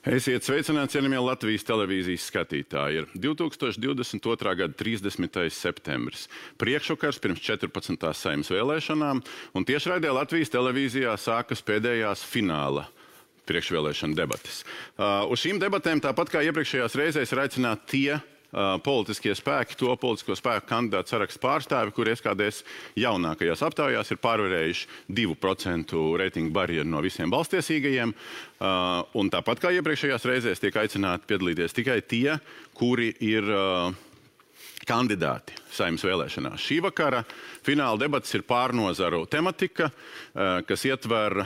Esiet sveicināti, cienījamie Latvijas televīzijas skatītāji. Ir 2022. gada 30. septembris. Priekšvakars pirms 14. Saeimas vēlēšanām, un tiešraidē Latvijas televīzijā sākas pēdējās fināla priekšvēlēšana debates. Uz šīm debatēm, tāpat kā iepriekšējās reizēs, ir aicināti tie politiskie spēki, to politisko spēku kandidātu sarakstu pārstāvi, kuri SKDS jaunākajās aptaujās ir pārvarējuši 2% reitingu barjeru no visiem balstiesīgajiem. Un tāpat kā iepriekšējās reizēs tiek aicināti piedalīties tikai tie, kuri ir kandidāti Saeimas vēlēšanās. Šī vakara fināla debates ir pārnozaru tematika, kas ietver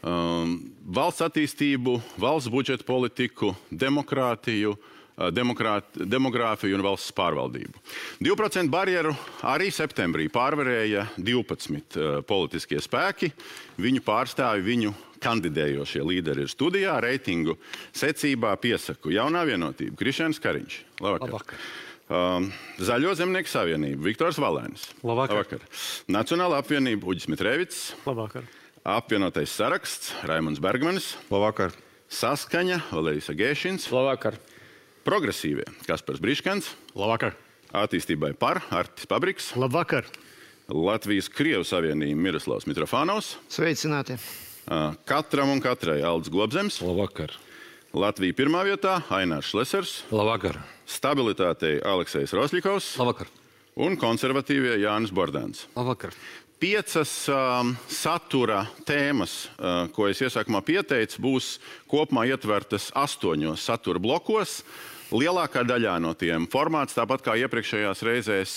valsts attīstību, valsts budžeta politiku, demokrātiju, demogrāfiju un valsts pārvaldību. 2% barjeru arī septembrī pārvarēja 12 politiskie spēki. Viņu pārstāvi, viņu kandidējošie līderi ir studijā. Reitingu secībā piesaku Jaunā vienotība Krišjāns Kariņš. Labvakar. Zaļo zemnieku savienība Viktors Valēnis. Labvakar. Nacionālā apvienība Uģis Mitrēvits. Labvakar. Apvienotais saraksts Raimonds Bergmanis. Labvakar. Saskaņa Valērijas Agēšins. Labvakar. Progresīvie Kaspars Briškans. Labvakar. Attīstībai par Artis Pabriks. Labvakar. Latvijas Krievu savienība Miroslavs Mitrofānovs. Sveicināti. Katram un katrai Aldis Globzems. Labvakar. Latvija pirmā vietā Ainārs Šlesers. Labvakar. Stabilitātei Aleksejs Rosļikovs. Labvakar. Un konservatīvie Jānis Bordāns. Labvakar. 5 satura tēmas, ko es iesākumā pieteicu, būs kopumā ietvertas 8 satura blokos. Lielākā daļā no tiem formāts, tāpat kā iepriekšējās reizēs,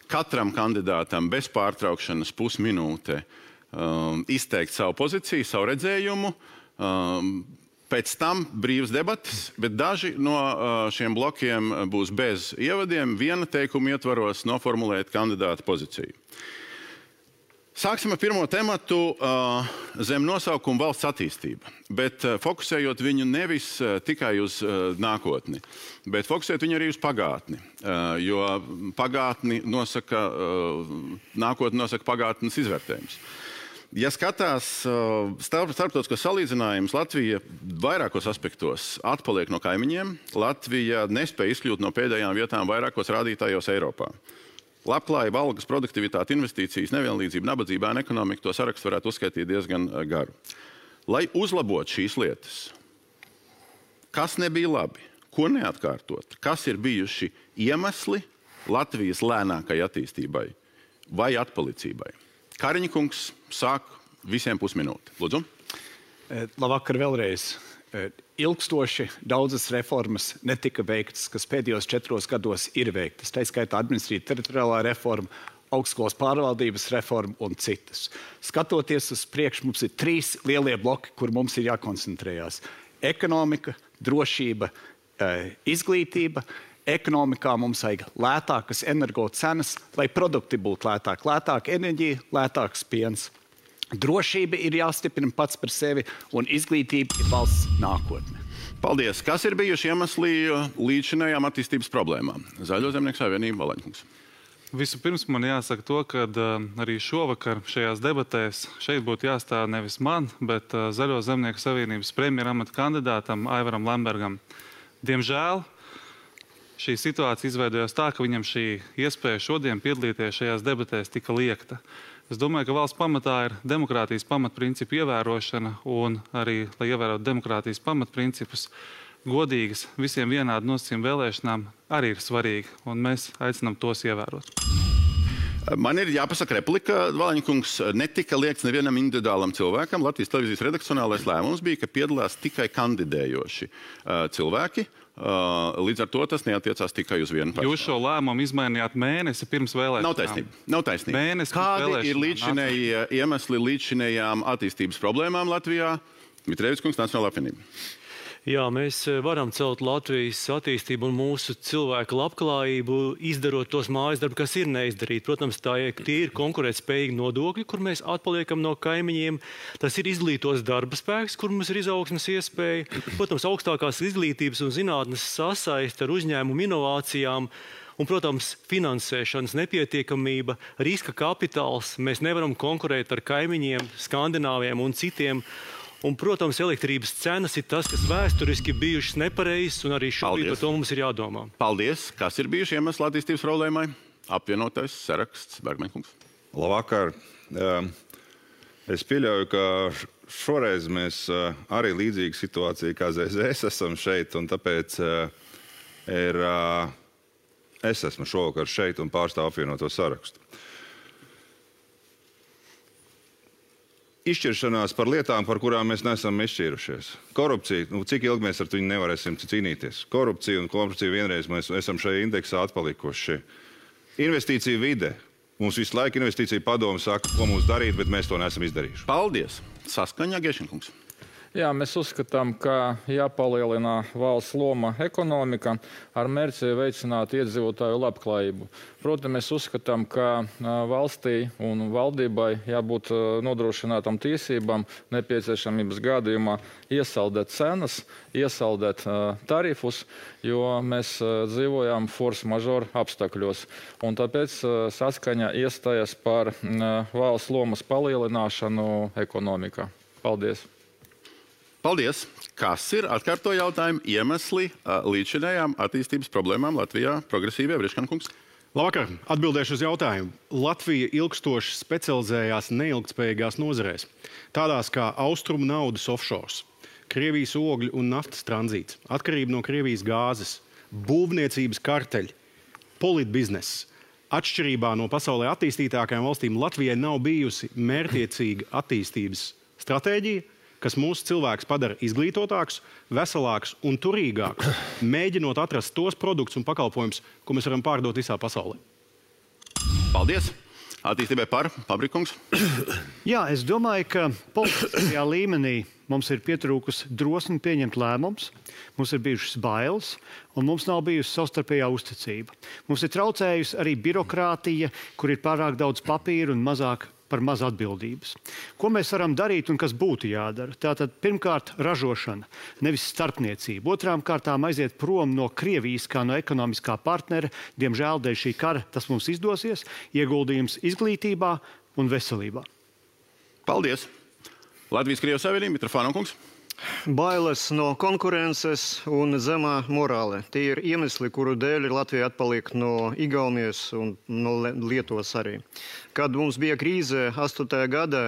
katram kandidātam bez pārtraukšanas pusminūte izteikt savu pozīciju, savu redzējumu. Pēc tam brīvas debatas, bet daži no šiem blokiem būs bez ievadiem, viena teikuma ietvaros noformulēt kandidāta pozīciju. Sāksim ar pirmo tematu zem nosaukumu valsts attīstība, bet fokusējot viņu nevis tikai uz nākotni, bet fokusēt viņu arī uz pagātni, jo pagātni nosaka, nākotni nosaka pagātnes izvērtējums. Ja skatās starptautiskos salīdzinājumus, Latvija vairākos aspektos atpaliek no kaimiņiem. Latvija nespēja izkļūt no pēdējām vietām vairākos rādītājos Eiropā. Labklājība, algas, produktivitāte, investīcijas, nevienlīdzība, nabadzība, ekonomika, to sarakstu varētu uzskaitīt diezgan garu. Lai uzlabotu šīs lietas, kas nebija labi, ko neatkārtot, kas ir bijuši iemesli Latvijas lēnākai attīstībai vai atpalicībai? Kariņa kungs sāk visiem pusminūti. Lūdzu. Labvakar vēlreiz. Ilgstoši daudzas reformas netika veiktas, kas pēdējos 4 gados ir veiktas. Tā skaitā administratīva teritoriālā reforma, augstskolas pārvaldības reforma un citas. Skatoties uz priekšu, mums ir 3 lielie bloki, kur mums ir jākoncentrējās. Ekonomika, drošība, izglītība. Ekonomikā mums vajag lētākas energo cenas, lai produkti būtu lētāki. Lētāka enerģija, lētāks piens. Drošība ir jāstiprina pats par sevi, un izglītība ir valsts nākotne. Paldies. Kas ir bijuši iemesli līdzšinējām attīstības problēmām? Zaļo zemnieku savienība Valēņkungs. Vispirms man jāsaka to, ka arī šovakar šajās debatēs šeit būtu jāstāv nevis man, bet Zaļo zemnieku savienības premjeramata kandidātam Aivaram Lembergam. Diemžēl šī situācija izveidojās tā, ka viņam šī iespēja šodien piedalīties šajās debatēs tika liekta. Es domāju, ka valsts pamatā ir demokrātijas pamatprincipu ievērošana, un arī, lai ievērotu demokrātijas pamatprincipus, godīgas, visiem vienādi nosacījumi vēlēšanām arī ir svarīgi, un mēs aicinām tos ievērot. Man ir jāpasaka replika, Valēņkungs, netika liekts nevienam individuālam cilvēkam. Latvijas televīzijas redakcionālais lēmums bija, ka piedalās tikai kandidējoši cilvēki. Līdz ar to tas neatiecās tikai uz vienu personu. Jūs šo lēmumu izmainījāt mēnesi pirms vēlēšanām. Nav taisnība. Kādi ir līdzšinējie iemesli līdzšinējām attīstības problēmām Latvijā? Mitrēvits kungs, Nacionālā apvienība. Jā, mēs varam celt Latvijas attīstību un mūsu cilvēku labklājību, izdarot tos mājas darbu, kas ir neizdarīti. Protams, tie ir konkurētspējīgi nodokļi, kur mēs atpaliekam no kaimiņiem. Tas ir izglītos darba spēks, kur mums ir izaugsmes iespēja. Protams, augstākās izglītības un zinātnes sasaiste ar uzņēmumu inovācijām. Un, protams, finansēšanas nepietiekamība, riska kapitāls. Mēs nevaram konkurēt ar kaimiņiem, Skandināviem un citiem. Un, protams, elektrības cenas ir tas, kas vēsturiski bijušas nepareizas, un arī šobrīd par to mums ir jādomā. Paldies. Kas ir bijuši iemesli attīstības problēmai? Apvienotais saraksts, Bergmaņkungs. Labvakar. Es pieļauju, ka šoreiz mēs arī līdzīga situācija kā ZZS esam šeit, un tāpēc es esmu šovakar šeit un pārstāvu apvienoto sarakstu. Izšķiršanās par lietām, par kurām mēs neesam izšķīrušies. Korupcija, cik ilgi mēs ar to nevarēsim cīnīties. Korupcija un korupcija vienreiz mēs esam šajā indeksā atpalikuši. Investīcija vide. Mums visu laiku investīcija padomu saka, ko mums darīt, bet mēs to neesam izdarījuši. Paldies. Saskaņa, Gešenkungs. Jā, mēs uzskatām, ka jāpalielina valsts loma ekonomika ar mērķi veicināt iedzīvotāju labklājību. Protams, mēs uzskatām, ka valstī un valdībai jābūt nodrošinātam tiesībām nepieciešamības gadījumā iesaldēt cenas, iesaldēt tarifus, jo mēs dzīvojam force majeure apstākļos. Un tāpēc saskaņa iestājas par valsts lomas palielināšanu ekonomikā. Paldies! Paldies! Kas ir, atkārto jautājumu, iemesli līdzšinējām attīstības problēmām Latvijā? Progresīvie, Briškankungs. Labvakar, atbildēšu uz jautājumu. Latvija ilgstoši specializējās neilgtspējīgās nozarēs, tādās kā austrumu naudas offshores, Krievijas ogļu un naftas tranzīts, atkarība no Krievijas gāzes, būvniecības karteļi, politbizness. Atšķirībā no pasaulē attīstītākajām valstīm Latvijai nav bijusi mērķiecīga attīstības stratēģija, kas mūsu cilvēkus padara izglītotākus, veselākus un turīgākus, mēģinot atrast tos produktus un pakalpojumus, ko mēs varam pārdot visā pasaulē. Paldies! Attīstībai par, Pabrikungs. Jā, es domāju, ka politiskajā līmenī mums ir pietrūkusi drosme pieņemt lēmumus, mums ir bijušas bailes, un mums nav bijusi savstarpējā uzticība. Mums ir traucējusi arī birokrātija, kur ir pārāk daudz papīra un mazāk par maz atbildības. Ko mēs varam darīt un kas būtu jādara? Tātad, pirmkārt, ražošana, nevis starpniecība. Otrām kārtām aiziet prom no Krievijas kā no ekonomiskā partnera. Diemžēl dēļ šī kara tas mums izdosies. Ieguldījums izglītībā un veselībā. Paldies! Latvijas-Krievijas Savienība, Mitrofānkungs. Bailes no konkurences un zemā morāle. Tie ir iemesli, kuru dēļ Latvija atpaliek no Igaunijas un no Lietuvas arī. Kad mums bija krīze 8. gadā,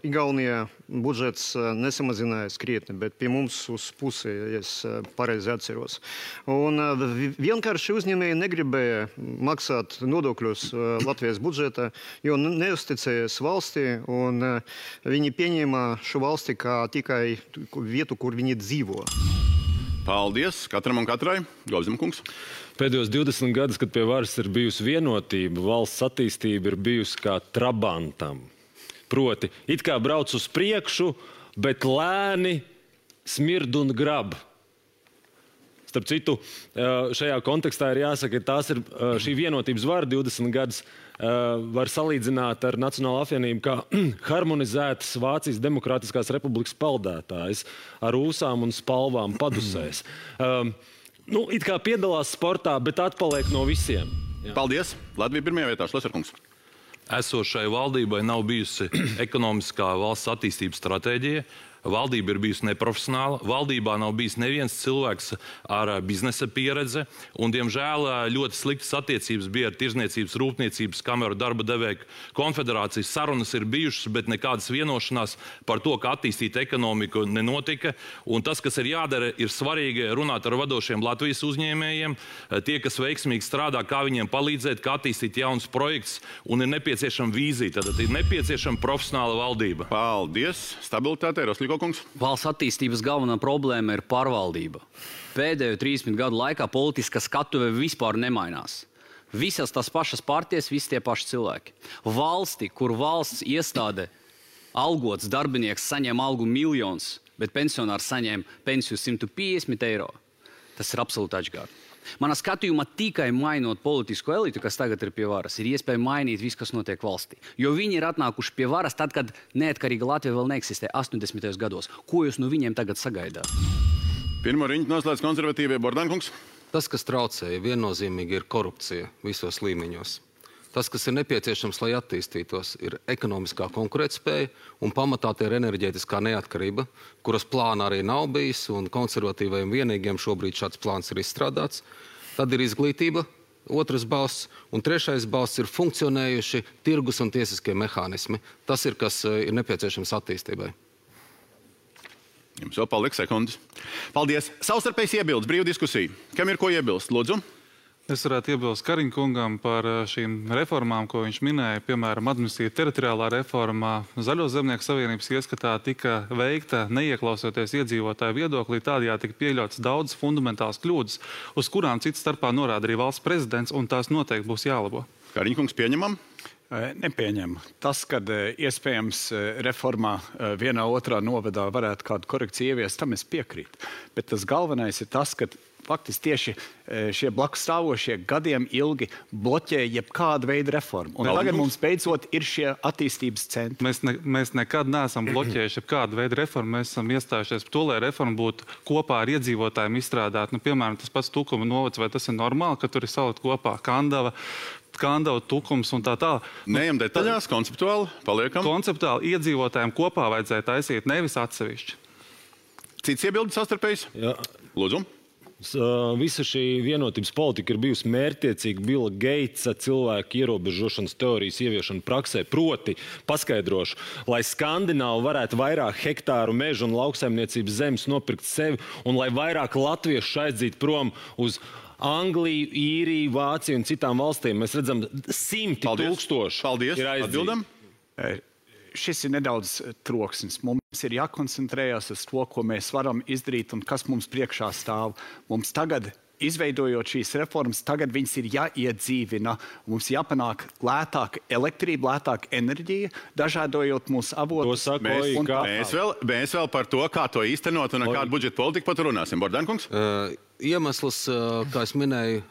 Igaunijā budžets nesamazinājās krietni, bet pie mums uz pusi, ja es pareizi atceros. Un vienkārši uzņēmēji negribēja maksāt nodokļus Latvijas budžetā, jo neuzticējas valstī, un viņi pieņēma šo valsti kā tikai vietu, kur viņi dzīvo. Paldies katram un katrai. Gobzemkungs. Pēdējos 20 gadus, kad pie varas ir bijusi vienotība, valsts attīstība ir bijusi kā trabantam. Proti, it kā brauc uz priekšu, bet lēni smird un grab. Starp citu, šajā kontekstā ir jāsaka, ka tās ir šī vienotības vara 20 gadus var salīdzināt ar Nacionālo apvienību kā harmonizētas Vācijas Demokrātiskās republikas peldētājs ar ūsām un spalvām padusēs. It kā piedalās sportā, bet atpaliek no visiem. Jā. Paldies! Latvija pirmajā vietā, Šleserkungs. Esošai valdībai nav bijusi ekonomiskā valsts attīstības stratēģija. Valdība ir bijusi neprofesionāla, valdībā nav bijis neviens cilvēks ar biznesa pieredze, un, diemžēl, ļoti sliktas attiecības bija ar Tirzniecības, Rūpniecības kameru darba devēju konfederācijas. Sarunas ir bijušas, bet nekādas vienošanās par to, kā attīstīt ekonomiku, nenotika. Un tas, kas ir jādara, ir svarīgi runāt ar vadošiem Latvijas uzņēmējiem, tie, kas veiksmīgi strādā, kā viņiem palīdzēt, kā attīstīt jaunus projektus, un ir nepieciešama vīzija, tad ir nepieciešama profesionāla valdība. Paldies! Stabilitāte, Roslīkokungs. Valsts attīstības galvenā problēma ir pārvaldība. Pēdējo 30 gadu laikā politiskā skatuve vispār nemainās. Visas tās pašas partijas, visi tie paši cilvēki. Valsti, kur valsts iestāde algots darbinieks saņem algu miljonus, bet pensionārs saņem pensiju 150 eiro, tas ir absolūti atšķirīgi. Manā skatījumā tikai mainot politisko elitu, kas tagad ir pie varas, ir iespēja mainīt visu, kas notiek valstī. Jo viņi ir atnākuši pie varas tad, kad neatkarīga Latvija vēl neeksistē 80. gados. Ko jūs no viņiem tagad sagaidāt? Pirmo riņķi noslēdz konservatīvie, Bordankungs. Tas, kas traucēja, viennozīmīgi ir korupcija visos līmeņos. Tas, kas ir nepieciešams, lai attīstītos, ir ekonomiskā konkurētspēja un pamatā tie ir enerģētiskā neatkarība, kuras plāna arī nav bijis, un konservatīvajiem vienīgiem šobrīd šāds plāns ir izstrādāts. Tad ir izglītība, otrs balsts, un trešais balsts ir funkcionējuši tirgus un tiesiskie mehānismi. Tas ir, kas ir nepieciešams attīstībai. Jums vēl paliek sekundes. Paldies. Savstarpējs iebildes, brīva diskusija. Kam ir ko iebilst? Lūdzu. Es varētu iebilst Kariņa kungam par šīm reformām, ko viņš minēja. Piemēram, administratīva teritoriālā reformā Zaļo zemnieku savienības ieskatā tika veikta neieklausoties iedzīvotāju viedoklī, tādējādi tika pieļauts daudz fundamentāls kļūdas, uz kurām cits starpā norāda arī valsts prezidents, un tās noteikti būs jālabo. Kariņa kungs, pieņemam? Nepieņem. Tas, kad iespējams reformā vienā otrā novadā varētu kādu korekciju ieviest, tam es piekrītu. Bet tas galvenais ir tas, ka faktiski tieši šie blakus stāvošie gadiem ilgi bloķē jebkādu veidu reformu. Un tagad mums beidzot ir šie attīstības centri. Mēs nekad neesam bloķējuši jebkādu veidu reformu. Mēs esam iestājušies par to, lai reforma būtu kopā ar iedzīvotājiem izstrādāta. Piemēram, tas pats Tukuma novads, vai tas ir normāli, ka tur ir salikt kopā Kandava, Tukums un tā tālāk. Neejam detaļās, konceptuāli paliekam. Konceptuāli iedzīvotājiem kopā vajadzēja taisīt, nevis atsevišķi. Cits iebildes savstarpējs? Jā. Lūdzu. Visa šī vienotības politika ir bijusi mērķtiecīga Billa Gatesa cilvēku ierobežošanas teorijas ieviešana praksē. Proti, paskaidrošu, lai Skandināvi varētu vairāk hektāru mežu un lauksaimniecības zemes nopirkt sevi un lai vairāk latviešu aizdzītu prom uz Angliju, Īriju, Vāciju un citām valstīm. Mēs redzam, simti tūkstoši ir aizdzīti. Šis ir nedaudz troksnis. Mums ir jākoncentrējas uz to, ko mēs varam izdarīt un kas mums priekšā stāv. Mums tagad, izveidojot šīs reformas, tagad viņas ir jāiedzīvina. Mums jāpanāk lētāka elektrība, lētāka enerģija, dažādojot mūsu avotus. Mēs vēl par to, kā to īstenot un kādu budžeta politiku pat runāsim. Bordankungs? Iemesls, kā es minēju,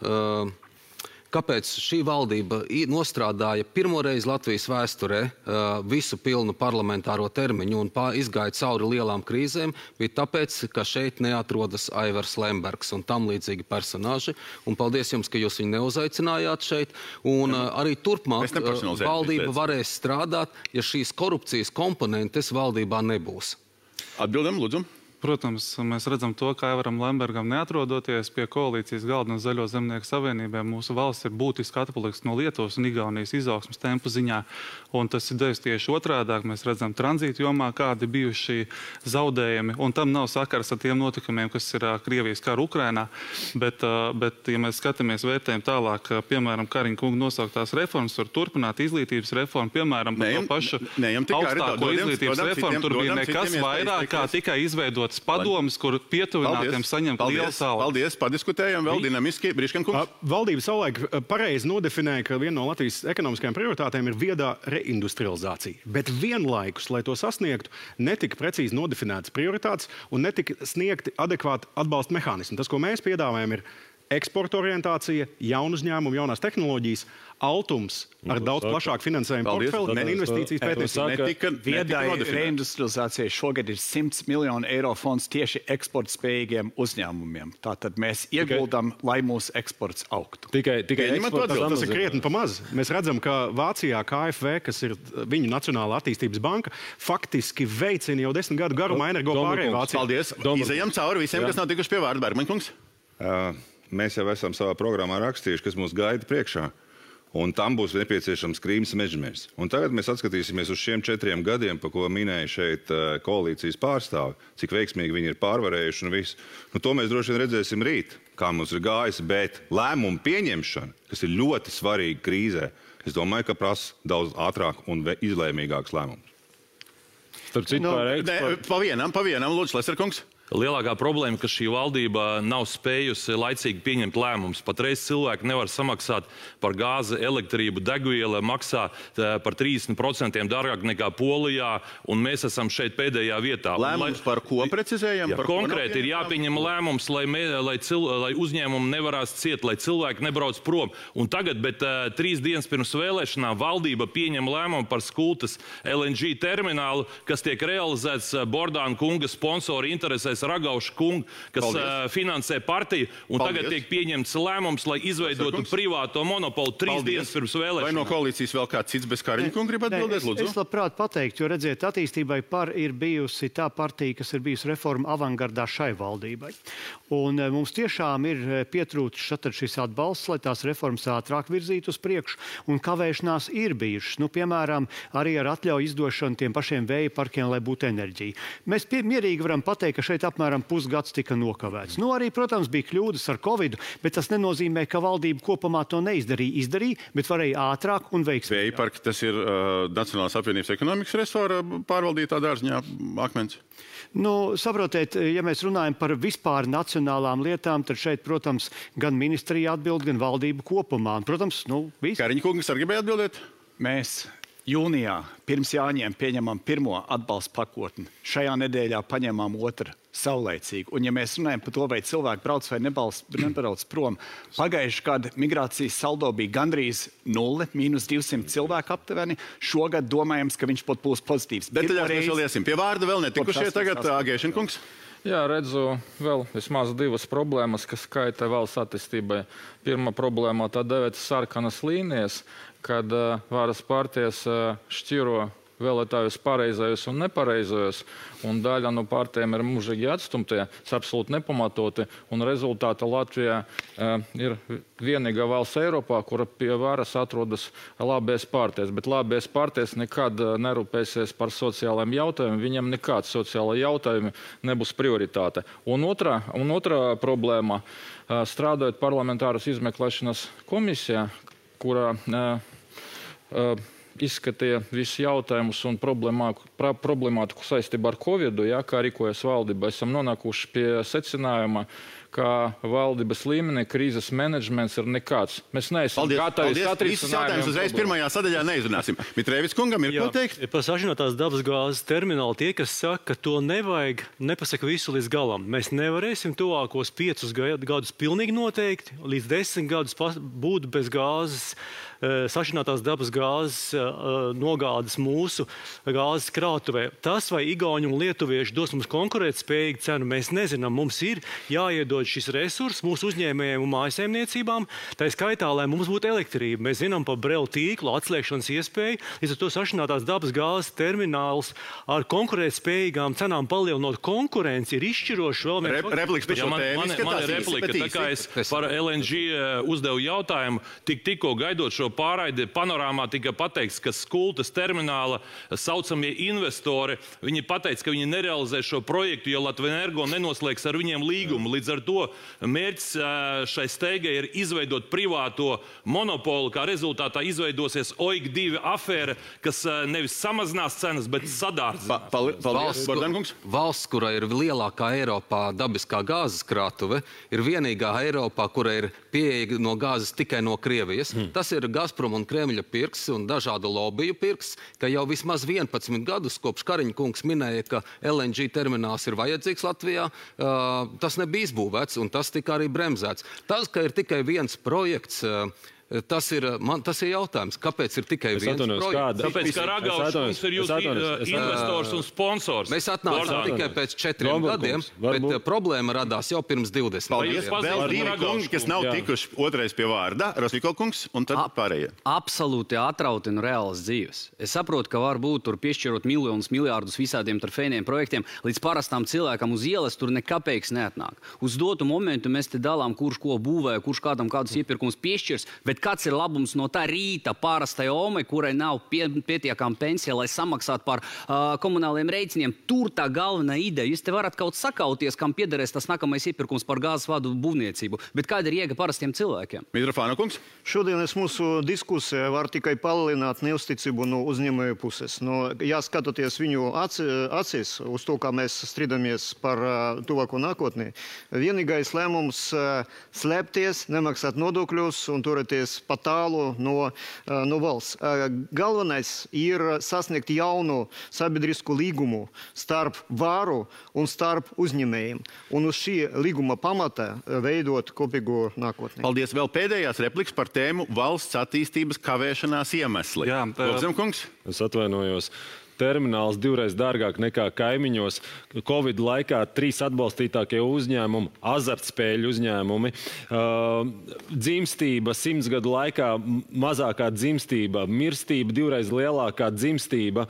kāpēc šī valdība nostrādāja pirmoreiz Latvijas vēsturē visu pilnu parlamentāro termiņu un izgāja cauri lielām krīzēm, bija tāpēc, ka šeit neatrodas Aivars Lembergs un tam līdzīgi personāži. Un paldies jums, ka jūs viņu neuzaicinājāt šeit. Un arī turpmāk valdība varēs strādāt, ja šīs korupcijas komponentes valdībā nebūs. Atbildam, lūdzu. Protams, mēs redzam to, ka Aivaram Lembergam neatrodoties pie koalīcijas galda un Zaļo zemnieku savienībā, mūsu valsts ir būtiski atpalikusi no Lietuvas un Igaunijas izaugsmes tempu ziņā. Un tas ir devis tieši otrādāk. Mēs redzam tranzītu jomā, kādi bijuši zaudējumi. Un tam nav sakars ar tiem notikumiem, kas ir Krievijas kara Ukrainā. Bet, ja mēs skatāmies vērtējumu tālāk, piemēram, Kariņa kunga nosauktās reformas, var turpināt izglītības reformu, piemēram, par to pašu augstāko izglītības reformu. Tur bija nekas vairāk, kā tikai izveidot padomus, kur pietuvinātiem saņemt lielu savu. Paldies, padiskutējam vēl dinamiski. Briškenkungs. Valdība savulaik pareizi nodefinēja, ka viena no Latvijas ekonomiskajām prioritātēm ir viedā reindustrializācija. Bet vienlaikus, lai to sasniegtu, netika precīzi nodefinētas prioritātes un netika sniegti adekvāti atbalsta mehānismi. Tas, ko mēs piedāvājam, ir eksporta orientācija, jaunu uzņēmumu, jaunās tehnoloģijas, altums ar daudz plašāku finansējumu portfeli, ne investīcijas pētniecību. Viedai reindustrializācijai šogad ir 100 miljonu eiro fonds tieši eksporta spējīgiem uzņēmumiem. Tātad mēs ieguldam, lai mūsu eksports augtu. Tikai tas ir krietni pa maz. Mēs redzam, ka Vācijā KfW, kas ir viņu Nacionālā attīstības banka, faktiski veicina jau 10 gadu garumā energo pārēju Vācijā. Paldies. Izejam cauri visiem, kas nav tikuši pie vārda. Bergmaņkungs. Mēs jau esam savā programmā rakstījuši, kas mūs gaida priekšā. Un tam būs nepieciešams Krīmas mežamērs. Un tagad mēs atskatīsimies uz šiem 4 gadiem, pa ko minēja šeit koalīcijas pārstāvi, cik veiksmīgi viņi ir pārvarējuši un visu. To mēs droši vien redzēsim rīt, kā mums ir gājis, bet lēmumu pieņemšana, kas ir ļoti svarīga krīzē, es domāju, ka prasa daudz ātrāk un izlēmīgāks lēmums. Pa vienam, lūdzu, Leserkungs. Lielākā problēma, ka šī valdība nav spējusi laicīgi pieņemt lēmumus. Patreiz cilvēki nevar samaksāt par gāzi, elektrību, degvielu, maksā par 30% dārgāk nekā Polijā, un mēs esam šeit pēdējā vietā. Lēmums par ko precizējam? Konkrēti ir jāpieņem lēmums, lai uzņēmumi nevarās ciet, lai cilvēki nebrauc prom. Un tagad, bet 3 dienas pirms vēlēšanām, valdība pieņem lēmumu par Skultas LNG terminālu, kas tiek realizēts Bordāna kunga sponsori interesēs Ragauskais Ragauša kungu, kas finansē partiju, un tagad tiek pieņemts lēmums, lai izveidotu privāto monopolu 3 dienas pirms vēlēšanām. Vai no koalīcijas vēl kāds cits bez Kariņa kunga grib atbildēt, lūdzu? Es labprāt pateiktu, jo redziet, attīstībai par ir bijusi tā partija, kas ir bijusi reforma avangardā šai valdībai. Un mums tiešām ir pietrūcis šis atbalsts, lai tās reformas ātrāk virzītu uz priekšu, un kavēšanās ir bijušas. Nu, piemēram, arī ar atļauju izdošanu tiem pašiem vēja parkiem, lai būtu enerģija. Mēs mierīgi varam pateikt, ka šeit apmēram pusgads tika nokavēts. Nu, arī, protams, bija kļūdas ar Covidu, bet tas nenozīmē, ka valdība kopumā to neizdarīja. Izdarīja, bet varēja ātrāk un veiksmīgāk. Vēja parki, tas ir Nacionālās apvienības ekonomikas resora pārvaldītā dārziņā akmens. Nu, saprotiet, ja mēs runājam par vispār nacionālām lietām, tad šeit, protams, gan ministrija atbild, gan valdība kopumā. Protams, viss. Kariņa kungs arī gribēja atbildēt? Mēs jūnijā pirms Jāņiem pieņemam pirmo atbalsta pakotni. Šajā nedēļā paņemam otru saulēcīgi. Un ja mēs runājam par to, vai cilvēki brauc vai nebrauc prom, pagājuši gadu migrācijas saldo bija gandrīz 0, -200 cilvēku aptuveni. Šogad domājams, ka viņš pat būs pozitīvs. Detaļās mēs vēl iesim. Pie vārda vēl netikušie tagad Agēšana kungs. Jā, redzu vēl vismaz 2 problēmas, kas skaita valsts attīstībai. Pirmā problēma tā dēvētas sarkanas līnijas, kad varas partijas šķiro vēlētājus pareizajus un nepareizajus, un daļa no partijiem ir mūžīgi atstumtie, tas absolūti nepamatoti, un rezultātā Latvijā ir vienīgā valsts Eiropā, kura pie varas atrodas labēs partijas, bet labēs partijas nekad nerūpēsies par sociālajiem jautājumiem, viņam nekāds sociālai jautājumi nebūs prioritāte. Un otrā problēma, strādājot parlamentāras izmeklēšanas komisijā, kurā izskatīja visus jautājumus un problemātiku saistībā ar Covidu, kā rīkojas valdība. Esam nonākuši pie secinājuma, ka valdības līmenī krīzes menedžments ir nekāds. Mēs neesam gatavi satrisinājumiem. Visus jautājumus uzreiz pirmajā sadaļā neizrunāsim. Mitrēvis kungam ir ko teikt? Par sašķinātās dabas gāzes terminālu tie, kas saka, ka to nevajag, nepasaka visu līdz galam. Mēs nevarēsim tuvākos 5 gadus pilnīgi noteikti, līdz 10 gadus būt bez gāzes, sašķinātās dabas gāzes nogādes mūsu gāzes krātuvē. Tas, vai igauņi un lietuvieši dos mums konkurētspējīgu cenu, mēs nezinām. Mums ir jāiedod šis resurs mūsu uzņēmējiem un mājasaimniecībām, tā skaitā, lai mums būtu elektrība. Mēs zinām par brelu tīklu atslēgšanas iespēju, līdz ar to sašķinātās dabas gāzes termināls ar konkurētspējīgām cenām palielinot konkurenci ir izšķiroši vēl. Repliks par šo tēmu. Man ir replika, tā kā es par LNG uzdevu jautājumu, tikko gaidot šo pārraidi panorāmā tika pateikts, ka Skultas termināla saucamie investori, viņi pateica, ka viņi nerealizē šo projektu, jo Latvenergo nenoslēgs ar viņiem līgumu. Līdz ar to mērķis šai steigai ir izveidot privāto monopolu, kā rezultātā izveidosies OIG-2 afēra, kas nevis samazinās cenas, bet sadārdzinās. Valsts, kura ir lielākā Eiropā dabiskā gāzes krātuve, ir vienīgā Eiropā, kura ir pieeja no gāzes tikai no Krievijas. Tas ir Gazprom un Kremļa pirks un dažādu lobiju pirks, ka jau vismaz 11 gadus, kopš Kariņa kungs minēja, ka LNG termināls ir vajadzīgs Latvijā, tas nebija izbūvēts un tas tika arī bremzēts. Tas, ka ir tikai viens projekts, tas ir jautājums, kāpēc ir tikai viens projekts? Tāpēc, ka Ragauskis ir jūsu investors un sponsors. Mēs atnācām tikai pēc 4 gadiem, bet problēma radās jau pirms 20. Paldies. Vēl 2 kungi, kas nav tikuši otrais pie vārda. Rosviko kungs un tad pārējie. Absolūti atrautina reālas dzīves. Es saprotu, ka var būt tur piešķirot miljonus, miljārdus visādiem trofejniem projektiem, līdz parastām cilvēkam uz ielas tur nekapeiks neatnāk. Uz dotu momentu mēs te dalām, kurš ko būvē, kurš kādam kādus iepirkums piešķirs, bet kāds ir labums no tā rīta pārastai omai, kurai nav pietiekama pensija, lai samaksātu par komunāliem rēķiniem? Tur tā galvenā ideja. Jūs te varat kaut sakauties, kam piederēs tas nākamais iepirkums par gāzes vadu būvniecību. Bet kāda ir jēga parastiem cilvēkiem? Mitrofāna kungs. Šodienas mūsu diskusija var tikai palielināt neusticību no uzņēmēju puses. Ja skatoties viņu acīs uz to, kā mēs strīdamies par tuvāko nākotni, vienīgais lēmums slēpties, nemaksāt nodokļus un turēties pa tālu no valsts. Galvenais ir sasniegt jaunu sabiedrisku līgumu starp varu un starp uzņēmējiem. Un uz šī līguma pamata veidot kopīgu nākotni. Paldies. Vēl pēdējās repliks par tēmu valsts attīstības kavēšanās iemesli. Jā, Lobzem kungs. Es atvainojos. termināls 2 dārgāk nekā kaimiņos. Covid laikā 3 atbalstītākie uzņēmumi, azartspēļu uzņēmumi, dzimstība 100 gadu laikā mazākā dzimstība, mirstība 2 lielākā dzimstība,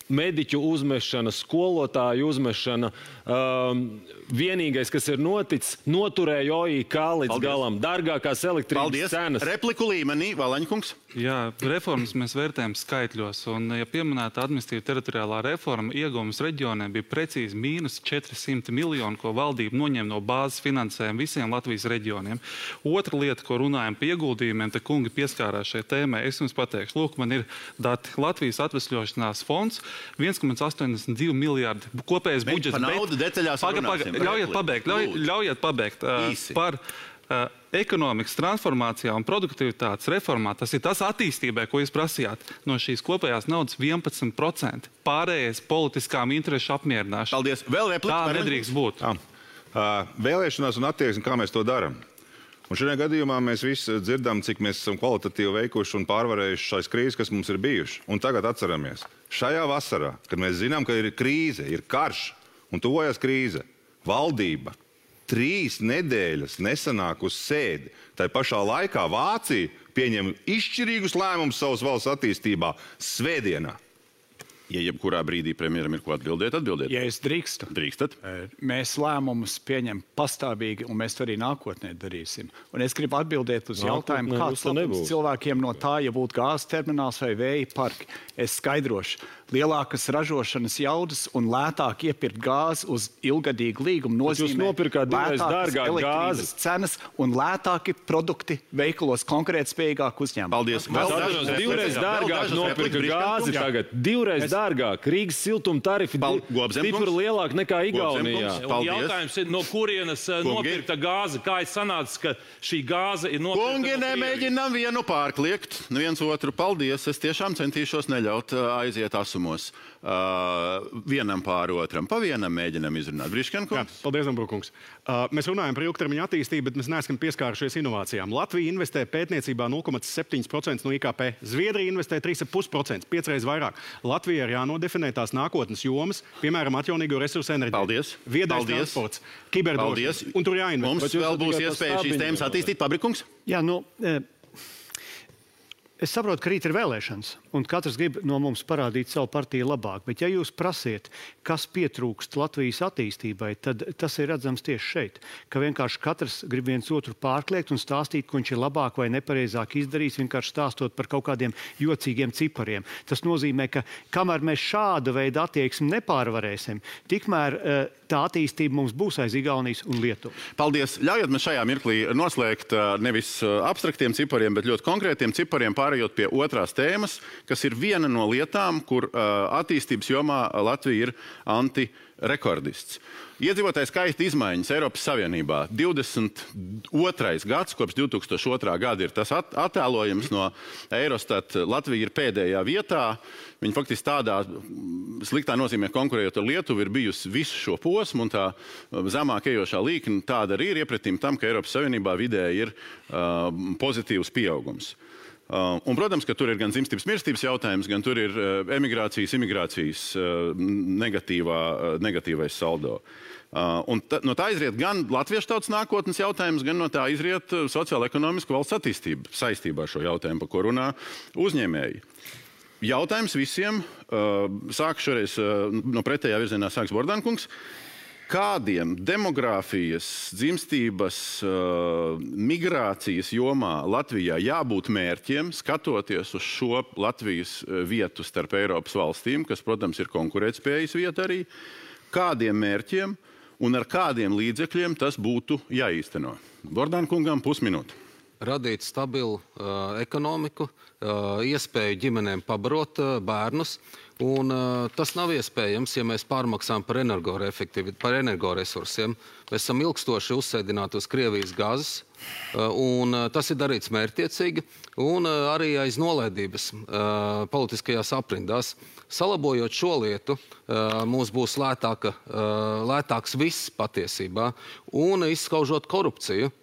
mediķu uzmešana, skolotāju uzmešana. Vienīgais, kas ir noticis, noturēja OIK līdz galam. Dārgākās elektrības cenas. Repliku līmenī, Valaņkungs. Jā, reformas mēs vērtējam skaitļos, un, ja pieminēta administratīva teritoriālā reforma, ieguvums reģioniem bija precīzi mīnus 400 miljoni, ko valdība noņem no bāzes finansējuma visiem Latvijas reģioniem. Otra lieta, ko runājam par ieguldījumiem, te kungi pieskārās šai tēmai, es jums pateikšu, lūk, man ir dati. Latvijas atvesļošanās fonds 1,82 miljārdi kopējais budžets. Ļaujiet pabeigt. Par ekonomikas transformācijā un produktivitātes reformā, tas ir tas attīstībai, ko jūs prasījāt. No šīs kopējās naudas 11%. Pārējais politiskām interešu apmierināšana. Paldies. Vēl replika. Tā nedrīkst būt. Vēlēšanās un attieksme, kā mēs to darām. Un šajā gadījumā mēs visi dzirdam, cik mēs esam kvalitatīvi veikuši un pārvarējuši šais krīzes, kas mums ir bijuši. Un tagad atceramies, šajā vasarā, kad mēs zinām, ka ir krīze, ir karš un tuvojas krīze, valdība 3 nedēļas nesanāk uz sēdi. Tā pašā laikā Vācija pieņem izšķirīgus lēmumus savas valsts attīstībā svētdienā. Ja jebkurā brīdī premjeram ir ko atbildēt, atbildiet. Ja es drīkstu. Drīkstat. Mēs lēmumus pieņem pastāvīgi, un mēs to arī nākotnē darīsim. Un es gribu atbildēt uz jautājumu, kāds labums cilvēkiem no tā, ja būtu gāzes termināls vai vēja parki. Es skaidrošu. Lielākas ražošanas jaudas un lētāk iepirkt gāzi uz ilgadīgu līgumu nozīmē jūs nopirkāt 2 dārgāk gāzi cenas un lētāki produkti veikalos konkurētspējīgāk uzņēmumi. Paldies. 2 dārgāk nopirka gāzi tagad. 2 dārgāk. Rīgas siltuma tarifi stipri lielāk nekā Igaunijā. Jautājums ir, no kurienes nopirkta gāze? Kā ir sanācis, ka šī gāze ir nopirkta? Kungi, nemēģinām vienu pārkliegt. Viens otru paldies. Es tiešām centīšos neļaut aiziet asumos. Vienam pāri otram. Pa vienam mēģinam izrunāt. Briškenkungs. Paldies, Dombrovkungs. Mēs runājam par ilgtermiņa attīstību, bet mēs neesam pieskārušies inovācijām. Latvija investē pētniecībā 0,7% no IKP. Zviedrija investē 3,5%, 5 reizes vairāk. Latvija ir jānodefinē tās nākotnes jomas, piemēram, atjaunīgo resursu enerģiju. Paldies. Viedais transports, kiberdrošība. Un tur jāinvestē. Mums vēl būs iespēja šīs tēmas attīstīt. Pabrikungs? Jā, es saprotu, ka rīt ir vēlēšanas, un katrs grib no mums parādīt savu partiju labāk. Bet ja jūs prasiet, kas pietrūkst Latvijas attīstībai, tad tas ir redzams tieši šeit. Ka vienkārši katrs grib viens otru pārkliegt un stāstīt, ko viņš ir labāk vai nepareizāk izdarījis, vienkārši stāstot par kaut kādiem jocīgiem cipariem. Tas nozīmē, ka kamēr mēs šāda veida attieksmi nepārvarēsim, tikmēr tā attīstība mums būs aiz Igaunijas un Lietuvas. Paldies. Ļaujiet man šajā mirklī noslēgt nevis abstraktiem cipariem, bet ļoti konkrētiem cipariem, pārējot pie otrās tēmas, kas ir viena no lietām, kur attīstības jomā Latvija ir antirekordists. Iedzīvotāju skaita izmaiņas Eiropas Savienībā 22. gads, kopš 2002. gada ir tas attēlojums no Eurostat. Latvija ir pēdējā vietā. Viņa faktiski tādā sliktā nozīmē konkurējot ar Lietuvu ir bijusi visu šo posmu, un tā zemāk ejošā līkne tāda arī ir iepretīm tam, ka Eiropas Savienībā vidēji ir pozitīvs pieaugums. Un, protams, ka tur ir gan dzimstības mirstības jautājums, gan tur ir emigrācijas, imigrācijas negatīvais saldo. Un no tā izriet gan latviešu tautas nākotnes jautājums, gan no tā izriet sociāla-ekonomiska valsts attīstība saistībā ar šo jautājumu, par ko runā uzņēmēji. Jautājums visiem, sāku šoreiz no pretējā virzienā sāks Bordankungs. Kādiem demogrāfijas, dzimstības, migrācijas jomā Latvijā jābūt mērķiem, skatoties uz šo Latvijas vietu starp Eiropas valstīm, kas, protams, ir konkurētspējas vieta arī, kādiem mērķiem un ar kādiem līdzekļiem tas būtu jāīsteno? Bordankungam pusminūte. Radīt stabilu ekonomiku, iespēju ģimenēm pabarot bērnus. Un tas nav iespējams, ja mēs pārmaksām par energoresursiem. Mēs esam ilgstoši uzsēdināti uz Krievijas gāzes, un tas ir darīts mērķtiecīgi, un arī aiz nolaidības politiskajās aprindās. Salabojot šo lietu, mums būs lētāks viss patiesībā, un izskaužot korupciju.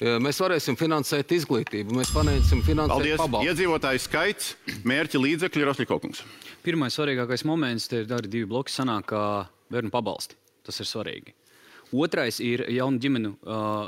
Mēs varēsim finansēt izglītību, mēs varēsim finansēt pabalstu. Iedzīvotāju skaits, mērķi, līdzekļi, Rosliko kungs. Pirmais svarīgākais moments, te ir arī 2 bloki sanāk, kā bērnu pabalsti. Tas ir svarīgi. Otrais ir jaunu ģimenu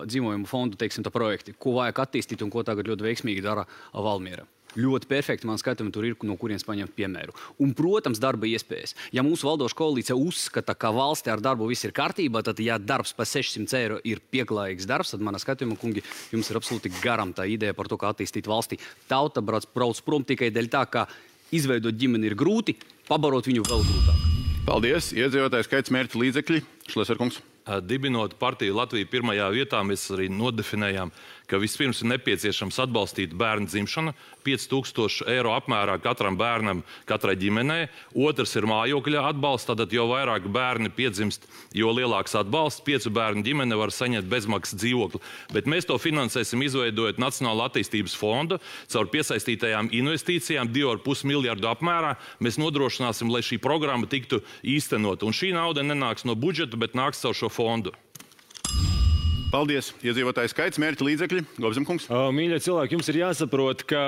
dzīvojumu fondu, teiksim, tā projekti, ko vajag attīstīt un ko tagad ļoti veiksmīgi dara Valmiera. Ļoti perfekti man skatījumi tur ir, no kurienes paņemt piemēru. Un, protams, darba iespējas. Ja mūsu valdoša koalīcija uzskata, ka valstī ar darbu viss ir kārtībā, tad, ja darbs pa 600 eiro ir pieklājīgs darbs, tad manā skatījumā, kungi, jums ir absolūti garam tā ideja par to, kā attīstīt valstī. Tauta brauc prom tikai dēļ tā, ka izveidot ģimeni ir grūti, pabarot viņu vēl grūtāk. Paldies. Iedzīvotāju skaits, mērķi, līdzekļi. Šleser kungs. Dibinot partiju Latviju pirmajā vietā, mēs arī nodefinējām, ka vispirms ir nepieciešams atbalstīt bērnu dzimšanu, 5000 eiro apmērā katram bērnam, katrai ģimenei. Otrs ir mājokļa atbalsts, tātad jo vairāk bērni piedzimst, jo lielāks atbalsts. 5 bērnu ģimene var saņemt bezmaksas dzīvokli. Bet mēs to finansēsim izveidojot Nacionālo attīstības fondu, caur piesaistītajām investīcijām 2,5 miljardu apmērā. Mēs nodrošināsim, lai šī programma tiktu īstenot. Un šī nauda nenāks no budžeta, bet nāks caur šo fondu. Paldies. Iedzīvotāju skaits, mērķi, līdzekļi. Gobzemkungs. Mīļie cilvēki, jums ir jāsaprot, ka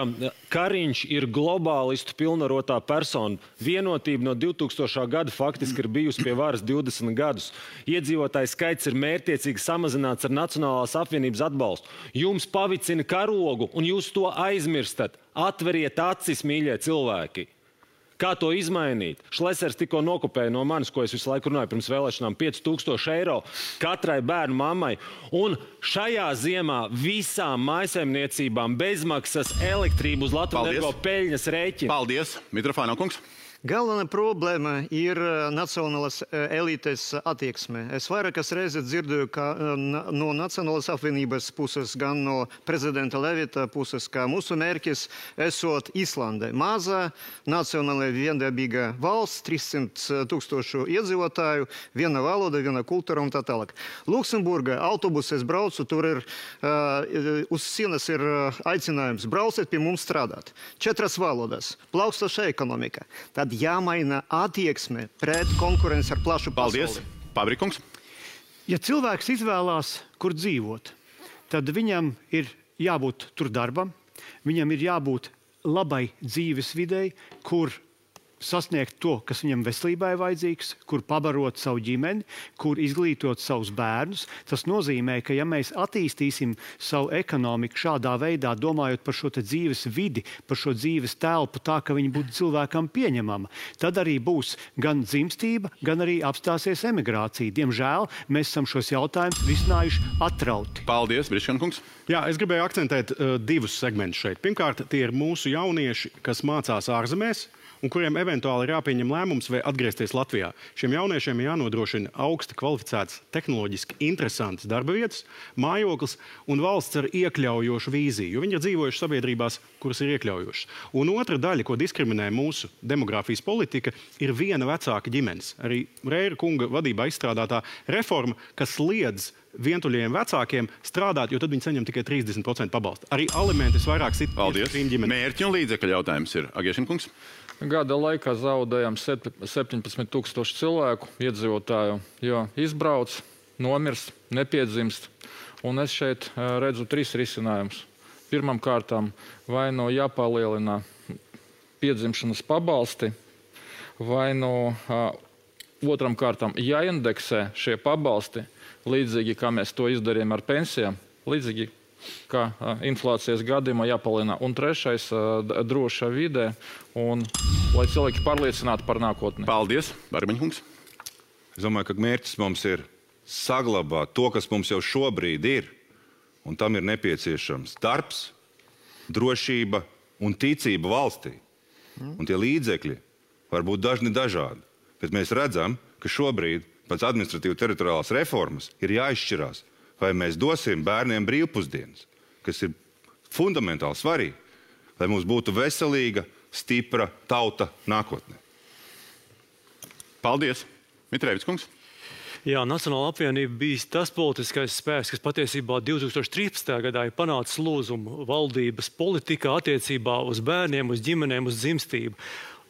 Kariņš ir globālistu pilnvarotā persona. Vienotība no 2000. gada faktiski ir bijusi pie varas 20 gadus. Iedzīvotāju skaits ir mērķtiecīgi samazināts ar Nacionālās apvienības atbalstu. Jums pavicina karogu, un jūs to aizmirstat. Atveriet acis, mīļie cilvēki. Kā to izmainīt? Šlesers tikko nokopēja no manis, ko es visu laiku runāju pirms vēlēšanām, 5000 eiro katrai bērnu mammai. Un šajā ziemā visām mājsaimniecībām bezmaksas elektrību uz Latvijas energo peļņas rēķina. Paldies. Mitrofāno kungs. Galvenā problēma ir nacionālās elites attieksme. Es vairākas reizes dzirdēju, ka no Nacionālās apvienības puses, gan no prezidenta Levita puses, ka mūsu mērķis esot Islande. Maza, nacionāla viendabīga valsts, 300 000 iedzīvotāju, viena valoda, viena kultūra un tā tālāk. Luksemburga autobuses braucu, tur ir uz sienas ir aicinājums brauciet pie mums strādāt. 4 valodas, plaukstoša ekonomika. Tad jāmaina attieksme pret konkurenci ar plašu pasauli. Paldies. Pabrikungs. Ja cilvēks izvēlās, kur dzīvot, tad viņam ir jābūt tur darbam, viņam ir jābūt labai dzīves videi, kur sasniegt to, kas viņam veselībai vajadzīgs, kur pabarot savu ģimeni, kur izglītot savus bērnus. Tas nozīmē, ka ja mēs attīstīsim savu ekonomiku šādā veidā, domājot par šo dzīves vidi, par šo dzīves telpu tā, ka viņi būtu cilvēkam pieņemama, tad arī būs gan dzimstība, gan arī apstāsies emigrācija. Diemžēl mēs esam šos jautājumus risinājuši atrauti. Paldies, Briškankungs. Jā, es gribēju akcentēt 2 segmentus šeit. Pirmkārt, tie ir mūsu jaunieši, kas mācās ārzemēs, un kuriem eventuāli ir jāpieņem lēmums vai atgriezties Latvijā. Šiem jauniešiem jānodrošina augsti kvalificēts, tehnoloģiski interesants darba vietas, mājoklis un valsts ar iekļaujošu vīziju, jo viņi ir dzīvojuši sabiedrībās, kuras ir iekļaujošas. Un otra daļa, ko diskriminē mūsu demogrāfijas politika, ir viena vecāka ģimenes. Arī Reira kunga vadībā izstrādātā reforma, kas liedz vientuļajiem vecākiem strādāt, jo tad viņi saņem tikai 30% pabalstu. Arī alimentis vairāk sit šīm ģimenēm. Mērķi un līdzekļu jautājums ir Agiešinkungs. Gada laikā zaudējām 17 000 cilvēku iedzīvotāju, jo izbrauc, nomirst, nepiedzimst. Un es šeit redzu 3 risinājumus. Pirmam kārtām vai no jāpalielina piedzimšanas pabalsti, vai no otram kārtām jāindeksē šie pabalsti, līdzīgi kā mēs to izdarījām ar pensijām, līdzīgi kā inflācijas gadījumā jāpalielina. Un trešais - droša vide, un lai cilvēki pārliecinātu par nākotni. Paldies, Barbiņkungs. Es domāju, ka mērķis mums ir saglabāt to, kas mums jau šobrīd ir, un tam ir nepieciešams darbs, drošība un ticība valstī. Un tie līdzekļi var būt dažādi, bet mēs redzam, ka šobrīd pēc administratīvu teritoriālās reformas ir jāizšķirās, vai mēs dosim bērniem brīvpusdienas, kas ir fundamentāli svarīgi, lai mums būtu veselīga, stipra tauta nākotnē. Paldies. Mitrēvics kungs. Jā, Nacionāla apvienība bija tas politiskais spēks, kas patiesībā 2013. gadā ir panācis lūzumu valdības politikā attiecībā uz bērniem, uz ģimenēm, uz dzimstību.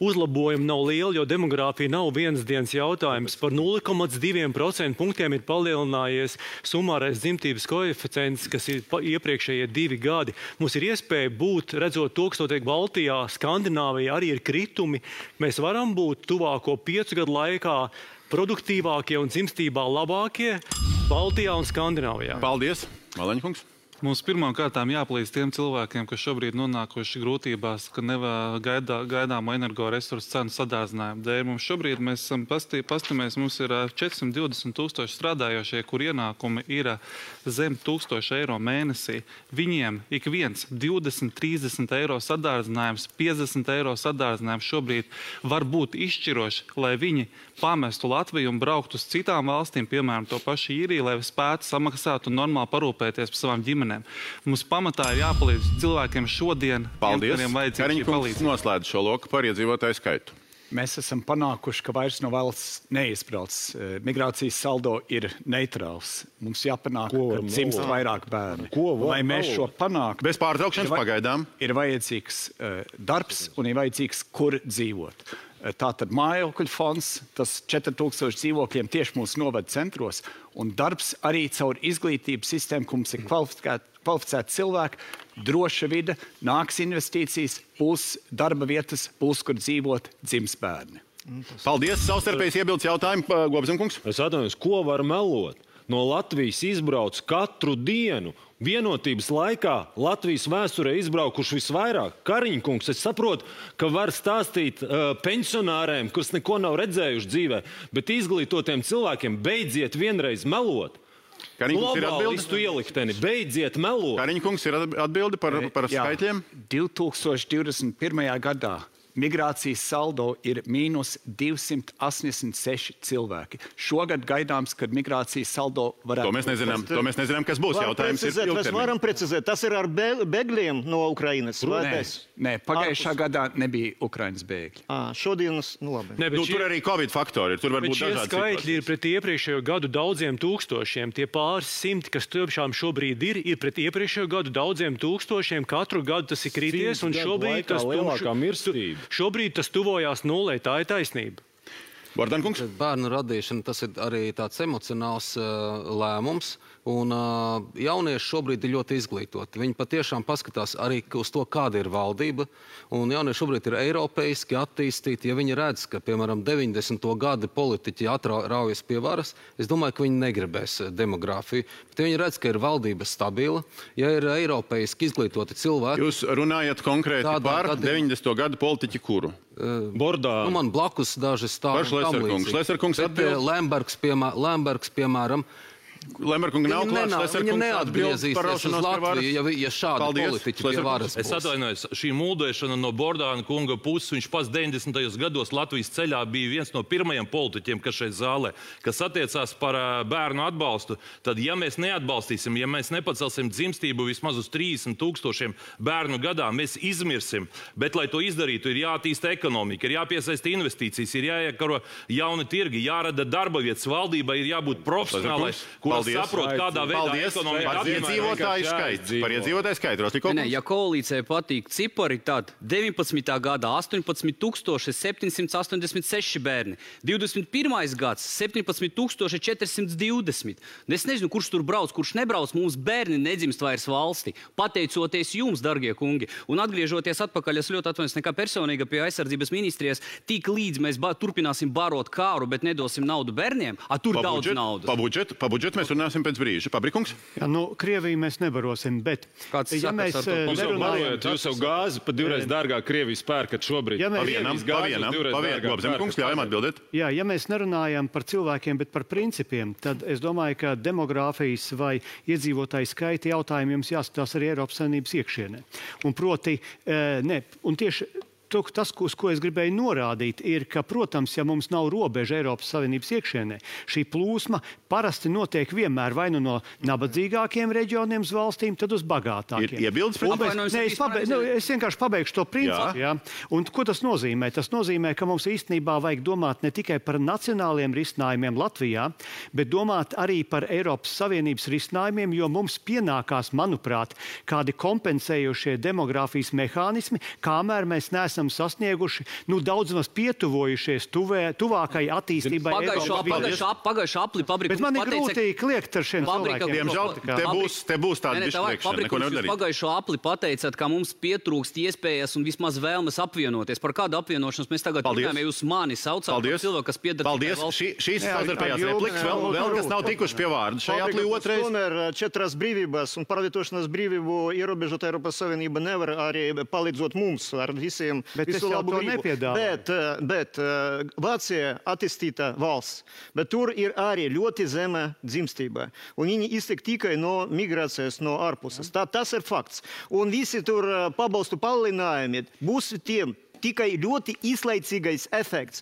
Uzlabojumi nav lieli, jo demogrāfija nav vienas dienas jautājums. Par 0,2% punktiem ir palielinājies summārais dzimtības koeficients, kas ir iepriekšējie 2 gadi. Mums ir iespēja būt, redzot to, kas notiek Baltijā, Skandināvijā, arī ir kritumi. Mēs varam būt tuvāko 5 gadu laikā produktīvākie un dzimstībā labākie Baltijā un Skandināvijā. Paldies, Maleņkungs. Mums pirmām kārtām jāpalīdz tiem cilvēkiem, kas šobrīd nonākuši grūtībās, ka gaidāmo energoresursu cenu sadārzinājumu dēļ. Mums šobrīd mēs esam pastamies, mums ir 420 000 strādājošie, kur ienākumi ir zem 1000 eiro mēnesī. Viņiem ik viens 20-30 eiro sadārdzinājums, 50 eiro sadārdzinājums šobrīd var būt izšķiroši, lai viņi pamestu Latviju un brauktu uz citām valstīm, piemēram, to pašu Īriju, lai spētu samaksāt un normāli parūpēties par savām ģimenēm. Mums pamatā ir jāpalīdz cilvēkiem šodien. Paldies. Kariņkungs noslēdz šo loku par iedzīvotāju skaitu. Mēs esam panākuši, ka vairs no valsts neizbrauc. Migrācijas saldo ir neitrāls. Mums jāpanāk, ka dzimst vairāk bērni. Lai mēs šo panāktu, bez pārtraukšanas pagaidām, ir vajadzīgs darbs un ir vajadzīgs, kur dzīvot. Tātad mājokļu fonds, tas 4000 dzīvokļiem tieši mūsu novada centros, un darbs arī caur izglītības sistēmu, ka mums ir kvalificēti cilvēki, droša vide, nāks investīcijas, būs darba vietas, būs, kur dzīvot, dzims bērni. Paldies, savstarpējs iebildes jautājumu, Gobzemkungs. Es atvainojos, ko var melot? No Latvijas izbrauc katru dienu. Vienotības laikā Latvijas vēsturē izbraukuši visvairāk. Kariņkungs, es saprotu, ka var stāstīt pensionāriem, kas neko nav redzējuši dzīvē, bet izglītotiem cilvēkiem beidziet vienreiz melot. Globālistu ielikteni, beidziet melot. Kariņkungs ir atbildi par skaitļiem? 2021. gadā migrācijas saldo ir mīnus 286 cilvēki. Šogad gaidāms, kad migrācijas saldo varētu... To mēs nezinām, kas būs. Jautājums ir ilgtermiņā. Mēs varam precizēt, tas ir ar bēgļiem no Ukrainas? Nē, pagājušā gadā nebija Ukrainas bēgļi. Šodienas, labi. Tur arī Covid faktori ir, tur var būt dažādi situācijas. Šie skaitļi ir pret iepriekšējo gadu daudziem tūkstošiem. Tie pāris simti, kas tiešām šobrīd ir pret iepriekšējo gadu daudziem tūkstošiem. Katru gadu tas ir krities, un šobrīd tas tuvojās nulē, tā ir taisnība. Bordankungs? Bērnu radīšana, tas ir arī tāds emocionāls lēmums. Un jaunieši šobrīd ir ļoti izglītoti. Viņi patiešām paskatās arī uz to, kāda ir valdība. Un jaunieši šobrīd ir eiropeiski attīstīti. Ja viņi redz, ka, piemēram, 90. gadi politiķi raujas pie varas, es domāju, ka viņi negribēs demogrāfiju. Bet viņi redz, ka ir valdība stabila, ja ir eiropeiski izglītoti cilvēki. Jūs runājat konkrēti par 90. gadu politiķi kuru? Bordā. Man blakus daži stāvi tam līdzīgi. Šleserkungs atbild. Lembergs, piemēram, Lemberkunga nav klāts, viņa neatgriezīsies uz Latviju, ja šādi politiķi pie varas būs. Es atvainojos, šī muldēšana no Bordāna kunga puses, viņš pats 90. gados Latvijas ceļā bija viens no pirmajiem politiķiem, kas šeit zālē, kas attiecās par bērnu atbalstu, tad ja mēs neatbalstīsim, ja mēs nepacelsim dzimstību vismaz uz 30 000 bērnu gadā, mēs izmirsim. Bet, lai to izdarītu, ir jātīsta ekonomika, ir jāpiesaista investīcijas, ir jāiekaro jauni tirgi, jārada darba vietas, valdībai ir jābūt profesionālai, saprot, kādā veidā ekonomika par iedzīvotāju skaitu. Ja koalīcijai patīk cipari, tad 19. gadā 18 786 bērni, 21. gads 17 420. Es nezinu, kurš tur brauc, kurš nebrauc, mums bērni nedzimst vairs valsti, pateicoties jums, dargie kungi. Un atgriežoties atpakaļ, es ļoti atvainojos nekā personīga pie aizsardzības ministrijas, tik līdz mēs turpināsim barot kāru, bet nedosim naudu bērniem, tur daudz naudas. Pa budžetu mēs runāsim pēc brīža. Pabrikungs? Jā, Krieviju mēs nebarosim, bet... Ja mēs nerunājam... Jūs jau gāzi pa divreiz dārgāk Krievijas pērkat šobrīd. Gobzemkungs, ļaujam atbildēt. Jā, ja mēs nerunājam par cilvēkiem, bet par principiem, tad es domāju, ka demogrāfijas vai iedzīvotāju skaita jautājumi jums jāskatās arī Eiropas Savienības iekšienē. Un proti, un tieši tas, uz ko es gribēju norādīt, ir, ka, protams, ja mums nav robeža Eiropas Savienības iekšienē, šī plūsma parasti notiek vienmēr vai nu no nabadzīgākiem reģioniem uz valstīm, tad uz bagātākiem. Ir iebildes pret es vienkārši pabeigšu to principu. Jā. Un ko tas nozīmē? Tas nozīmē, ka mums īstenībā vajag domāt ne tikai par nacionāliem risinājumiem Latvijā, bet domāt arī par Eiropas Savienības risinājumiem, jo mums pienākās, manuprāt, kādi kompensējošie demogrāfijas mehānismi, kamēr mēs neesam sasnieguši, daudz maz pietuvojušies tuvākai attīstībai. Pagājušā apli fabrika. Bet man ir grūti kliegt ar šiem cilvēkiem. Diemžēl te būs tāda izslēgšana, neko nedarīt. Pagājušo apli pateicāt, ka mums pietrūkst iespējas un vismaz vēlmes apvienoties. Par kādu apvienošanos mēs tagad runājam, ja jūs mani saucāt par cilvēku, kas piedara tikai valsts? Šīs savstarpējās replikas vēl kas nav tikuši pie vārda. Šajā aplī otrais. Četras brīvības un pārvietošanās brīvību ierobežot Eiropas Savienība nevar arī palīdzot mums ar visiem visu labu gribu. Bet Vācija attīstīta valsts, bet tur ir arī ļoti zema dzimstība. Un viņi iztiek tikai no migrācijas no ārpuses. Tas ir fakts. Un visi tur pabalstu palielinājumi būs tiem tikai ļoti īslaicīgais efekts.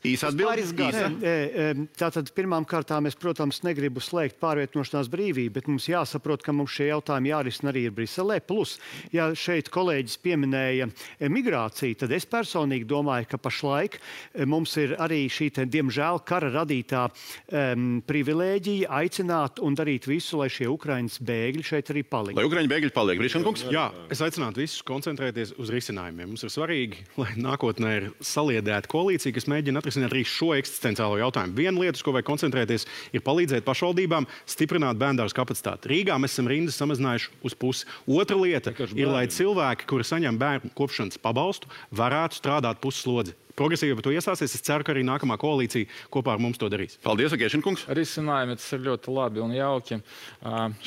Tātad pirmām kārtām es, protams, negribu slēgt pārvietošanās brīvību, bet mums jāsaprot, ka mums šie jautājumi jārisina arī ir Briselē. Plus, ja šeit kolēģis pieminēja migrāciju, tad es personīgi domāju, ka pašlaik mums ir arī šī, diemžēl, kara radītā privilēģija aicināt un darīt visu, lai šie Ukrainas bēgļi šeit arī paliek. Lai Ukraiņu bēgļi paliek, Grīšankungs? Jā, es aicinātu visus koncentrēties uz risinājumiem. Mums ir svarīgi, lai nākotnē ir saliedēta koalīcija, kas mēģina atrisināt arī šo eksistenciālo jautājumu. Viena lieta, uz ko vajag koncentrēties, ir palīdzēt pašvaldībām stiprināt bērndārzu kapacitāti. Rīgā mēs esam rindas samazinājuši uz pusi. Otra lieta ir, lai cilvēki, kuri saņem bērnu kopšanas pabalstu, varētu strādāt pusslodzi. Progresīvi par to iestāsies. Es ceru, ka arī nākamā koalīcija kopā ar mums to darīs. Paldies, Agēšinkungs. Risinājumi tas ir ļoti labi un jauki.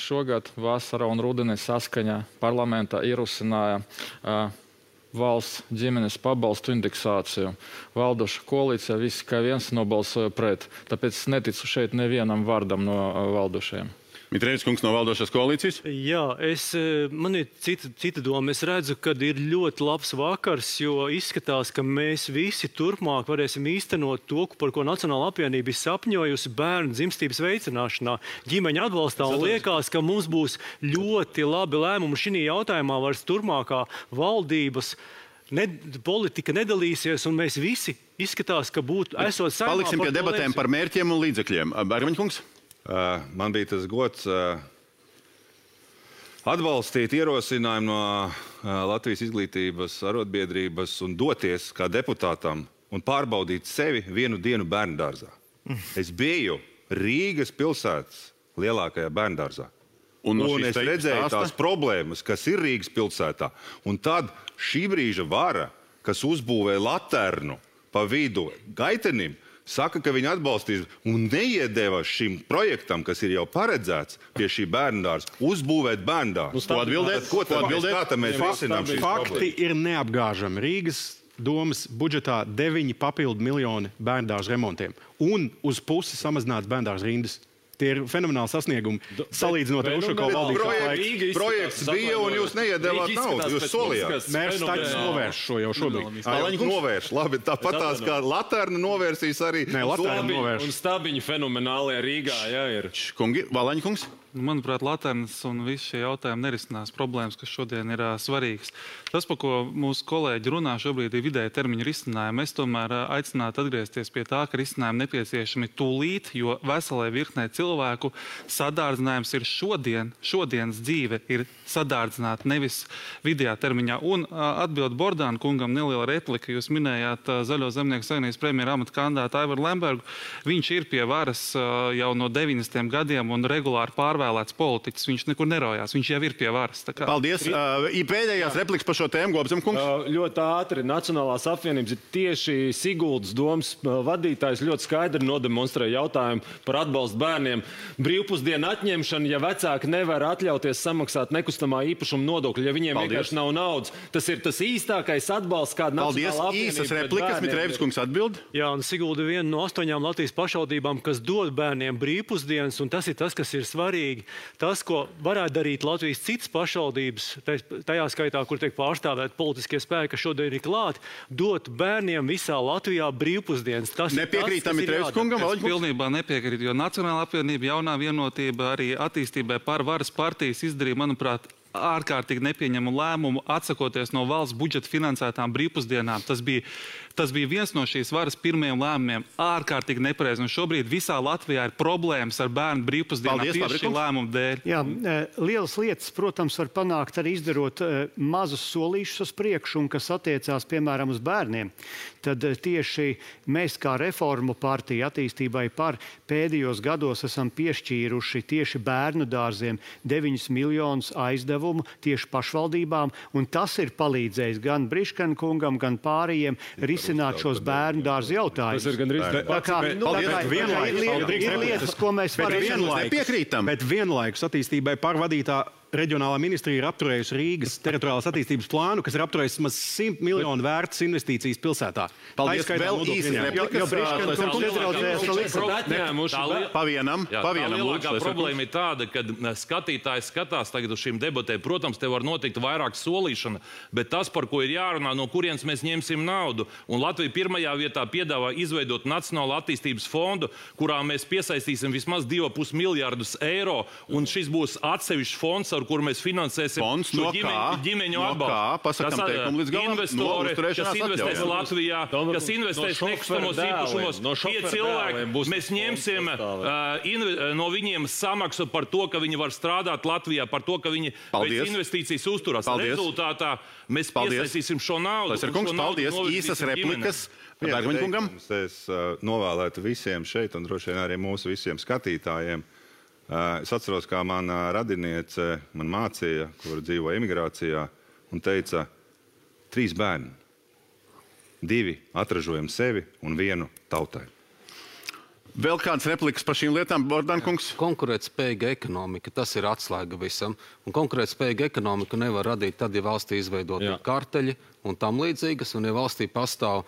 Šogad vasarā un rudenī saskaņā parlamentā ierosināja valsts ģimenes pabalstu indeksāciju. Valdoša koalīcija visi kā viens nobalsoja pret. Tāpēc es neticu šeit nevienam vārdam no valdošajiem. Mitrēvis kungs no valdošās koalīcijas? Jā, man ir cita doma. Es redzu, ka ir ļoti labs vakars, jo izskatās, ka mēs visi turpmāk varēsim īstenot to, par ko Nacionāla apvienība ir sapņojusi bērnu dzimstības veicināšanā, ģimeņa atbalstā. Un liekas, ka mums būs ļoti labi lēmumi šī jautājumā, vairs turpmākā valdības politika nedalīsies, un mēs visi izskatās, ka būtu esot saimā. Paliksim pie debatēm par mērķiem un līdzekļiem. Bērmaņkungs? Man bija tas gods atbalstīt ierosinājumu no Latvijas izglītības arotbiedrības un doties kā deputātam un pārbaudīt sevi vienu dienu bērndārzā. Es biju Rīgas pilsētas lielākajā bērndārzā. Un es redzēju tās problēmas, kas ir Rīgas pilsētā. Un tad šī brīža vara, kas uzbūvēja laternu pa vidu gaitenim, saka, ka viņi atbalstīs un neiedeva šim projektam, kas ir jau paredzēts pie šī bērndārza, uzbūvēt bērndārzu. Ko atbildēt? Kā tam mēs risinām šīs problēmas? Fakti ir neapgāžami. Rīgas domas budžetā 9 papildu miljoni bērndārzu remontiem un uz pusi samazināts bērndārzu rindas. Tie ir fenomenāli sasniegumi, salīdzinot ar Ušakovu valdības laiku. Projekts bija un jūs neiedevāt naudu, jūs solījāt. Mērs Taķis novērš šo jau šobrīd. Novērš, labi, tāpat tās kā laterna novērsīs arī. Nē, laterna novērš. Un stabiņi fenomenālajā Rīgā, jā, ir. Valaņkungs? Manuprāt, laternas un visi šie jautājumi nerisinās problēmas, kas šodien ir svarīgas. Tas, par ko mūsu kolēģi runā šobrīd, ir vidēja termiņa risinājumi. Es tomēr aicinātu atgriezties pie tā, ka risinājumi nepieciešami tūlīt, jo veselē virknē cilvēku sadārdzinājums ir šodienas dzīve ir sadārdzināt, nevis vidējā termiņā. Un atbild Bordāna kungam neliela replika. Jūs minējāt Zaļo zemnieku savienības premjera amata kandidātu Aivaru Lembergu. Viņš ir pie varas jau no 90. gadiem un regulāri pārvēlēts politiķis. Viņš nekur nerojās. Viņš jau ir pie varas. Paldies. Pēdējās replikas par šo tēmu, Gobzem kungs. Ļoti ātri. Nacionālās apvienības ir tieši Siguldas domas vadītājs ļoti skaidri nodemonstrēja jautājumu par atbalstu bērniem. Brīvpusdienu atņemšana, ja vecāki nevar atļauties samaksāt nekustamā īpašuma nodokļu, ja viņiem vienkārši nav naudas. Tas ir tas īstākais atbalsts, kāda Nacionālā apvienība. Īsas replikas, Mitrēvis kungs atbild. Jā, un Sigulda viena no 8 Latvijas pašvaldībām, kas dod bērniem brīvpusdienas, un tas ir tas, kas ir svarīgi. svarīgi. Tas, ko varētu darīt Latvijas citas pašvaldības, tajā skaitā, kur tiek pārstāvēt politiskie spēki, kas šodien ir klāti, dot bērniem visā Latvijā brīvpusdienas. Nepiekrītam Mitreevs kungam? Es pilnībā nepiekrītu, jo Nacionālā apvienība, Jaunā vienotība arī attīstībai par varas partijas izdarīja, manuprāt, ārkārtīgi nepieņemu lēmumu atsakoties no valsts budžeta finansētām brīvpusdienām. Tas bija viens no šīs varas pirmajiem lēmumiem, ārkārtīgi nepareizi. Un šobrīd visā Latvijā ir problēmas ar bērnu brīvpusdienām tieši šī lēmuma dēļ. Jā, lielas lietas, protams, var panākt arī izdarot mazus solīšus uz priekšu, un kas attiecās, piemēram, uz bērniem. Tad tieši mēs kā reformu partija attīstībai par pēdējos gados esam piešķīruši tieši bērnu dārziem 9 miljonus aizdevumu tieši pašvaldībām, un tas ir palīdzējis gan Briškana kungam, gan pārējiem risināt šos bērnu dārzu jautājumus. Tas ir gandrīz ir lietas, ko mēs varam bet vienlaikus attīstībai pārvadītā reģionālā ministrija ir apturējusi Rīgas teritoriālās attīstības plānu, kas ir apturējis maz 100 miljonu vērtas investīcijas pilsētā. Paldies, vēl īsi Pavienam. Lielākā problēma ir tāda, ka skatītājs skatās tagad uz šīm debatēm. Protams, te var notikt vairāk solīšana, bet tas, par ko ir jārunā, no kurienes mēs ņemsim naudu. Un Latvija pirmajā vietā piedāvā izveidot Nacionālo attīstības fondu, kurā mēs piesaistīsim vismaz 2,5 miljārdus eiro, un šis būs atsevišķs fonds, ar kuru mēs finansēsim ģimeņu atbalstu. Investori, kas investēs Latvijā, kas investēs nekustamos īpašumos, tie cilvēki, mēs ņemsim no viņiem samaksu par to, ka viņi var strādāt Latvijā, par to, ka viņi pēc investīcijas uzturās. Rezultātā mēs piesaistīsim šo naudu. Paldies, īsas replikas. Es novēlētu visiem šeit un droši vien arī mūsu visiem skatītājiem. Es atceros, kā mana radiniece man mācīja, kur dzīvo emigrācijā, un teica, 3 bērni, 2 atražojam sevi un 1 tautai. Vēl kāds replikas par šīm lietām, Bordankungs? Konkurētspējīga ekonomika, tas ir atslēga visam. Un konkurētspējīga ekonomika nevar radīt tad, ja valstī izveidot karteļi un tam līdzīgas, un ja valstī pastāv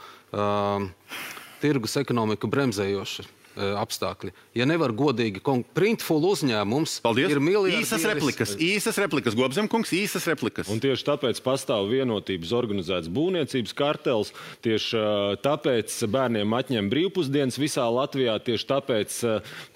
tirgus ekonomiku bremzējoši apstākļi. Ja nevar godīgi, printful uzņēmums ir miljardi. Īsas replikas, Gobzemkungs, īsas replikas. Un tieši tāpēc pastāv vienotības organizēts būvniecības kartels, tieši tāpēc bērniem atņem brīvpusdienas visā Latvijā, tieši tāpēc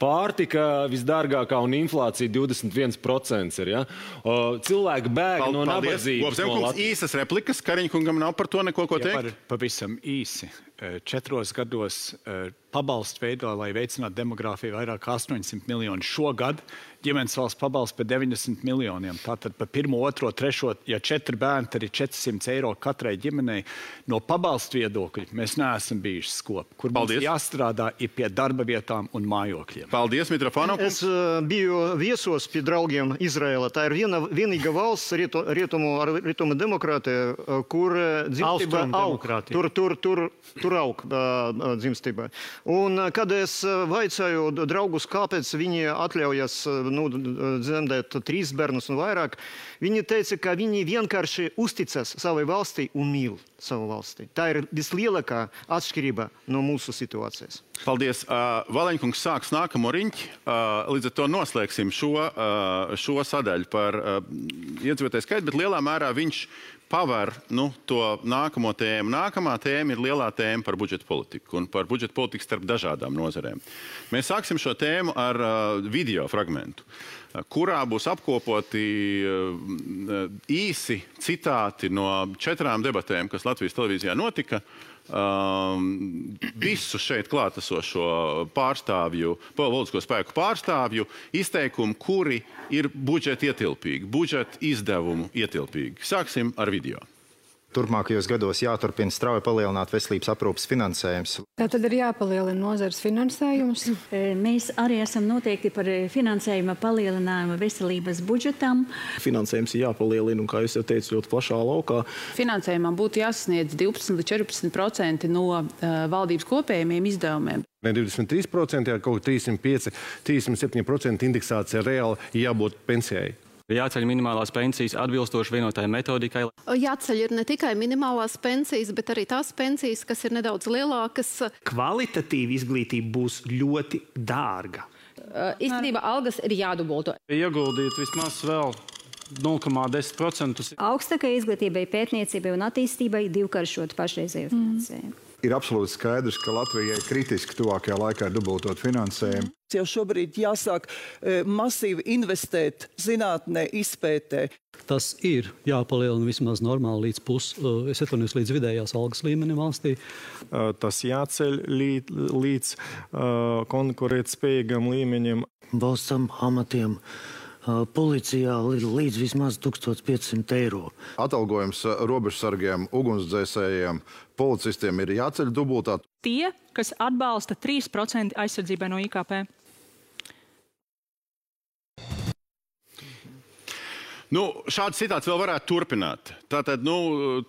pārtika visdārgākā un inflācija 21% ir. Ja? Cilvēki bēg no nabadzības. Gobzemkungs, īsas replikas, Kariņkungam nav par to neko ko teikt? Pavisam īsi. 4 gados pabalstu veido, lai veicinātu demogrāfiju, vairāk kā 800 miljoni. Šogad ģimenes valsts pabalsts par 90 miljoniem. Tātad par 1, 2, 3, ja 4 bērni, tad ir 400 eiro katrai ģimenei. No pabalstu viedokļa mēs neesam bijuši skopi. Kur mums jāstrādā ir pie darba vietām un mājokļiem. Paldies, Mitrofanov. Es biju viesos pie draugiem Izraela. Tā ir vienīga valsts rietumu demokrātija, kur dzimstība aug. Tur aug dzimstība. Un kad es vaicāju draugus, kāpēc viņi atļaujas dzemdēt 3 bērnus un vairāk, viņi teica, ka viņi vienkārši uzticas savai valstī un mīl savu valstī. Tā ir vislielākā atšķirība no mūsu situācijas. Paldies. Valeņkungs sāks nākamo riņķi. Līdz ar to noslēgsim šo sadaļu par iedzīvotāju skaitu, bet lielā mērā viņš paver to nākamo tēmu. Nākamā tēma ir lielā tēma par budžeta politiku un par budžeta politiku starp dažādām nozarēm. Mēs sāksim šo tēmu ar video fragmentu, kurā būs apkopoti īsi citāti no 4 debatēm, kas Latvijas televīzijā notika. Visu šeit klātesošo pārstāvju, politisko spēku pārstāvju izteikumu, kuri ir budžeta ietilpīgi, budžeta izdevumu ietilpīgi. Sāksim ar video. Turpmākajos gados jāturpina strauji palielināt veselības aprūpes finansējums. Tātad ir jāpalielina nozares finansējums. Mēs arī esam noteikti par finansējuma palielinājumu veselības budžetam. Finansējums ir jāpalielina, un, kā jūs jau teicu, ļoti plašā laukā. Finansējumam būtu jāsasniedz 12 līdz 14% no valdības kopējiem izdevumiem. Ne 23%, ja kaut 305, 307% indeksācija reāli jābūt pensijai. Jāceļ minimālās pensijas atbilstoši vienotai metodikai. Jāceļ ir ne tikai minimālās pensijas, bet arī tās pensijas, kas ir nedaudz lielākas. Kvalitatīva izglītība būs ļoti dārga. Īstenībā algas ir jādubulto. Ieguldīt vismaz vēl 0,10%. Augstākai izglītībai, pētniecībai un attīstībai divkāršot pašreizējo finansējumu. Ir absolūti skaidrs, ka Latvijai kritiski tuvākajā laikā ir dubultot finansējumu. Jau šobrīd jāsāk masīvi investēt zinātnē, izpētē. Tas ir jāpalielina vismaz normāli līdz vidējās algas līmenim valstī. Tas jāceļ līdz konkurētspējīgam līmenim. Valsts amatiem policijā līdz vismaz 1500 eiro. Atalgojums robežsargiem, ugunsdzēsējiem, policistiem ir jāceļ dubultā. Tie, kas atbalsta 3% aizsardzībai no IKP. Šāds citāts vēl varētu turpināt. Tātad,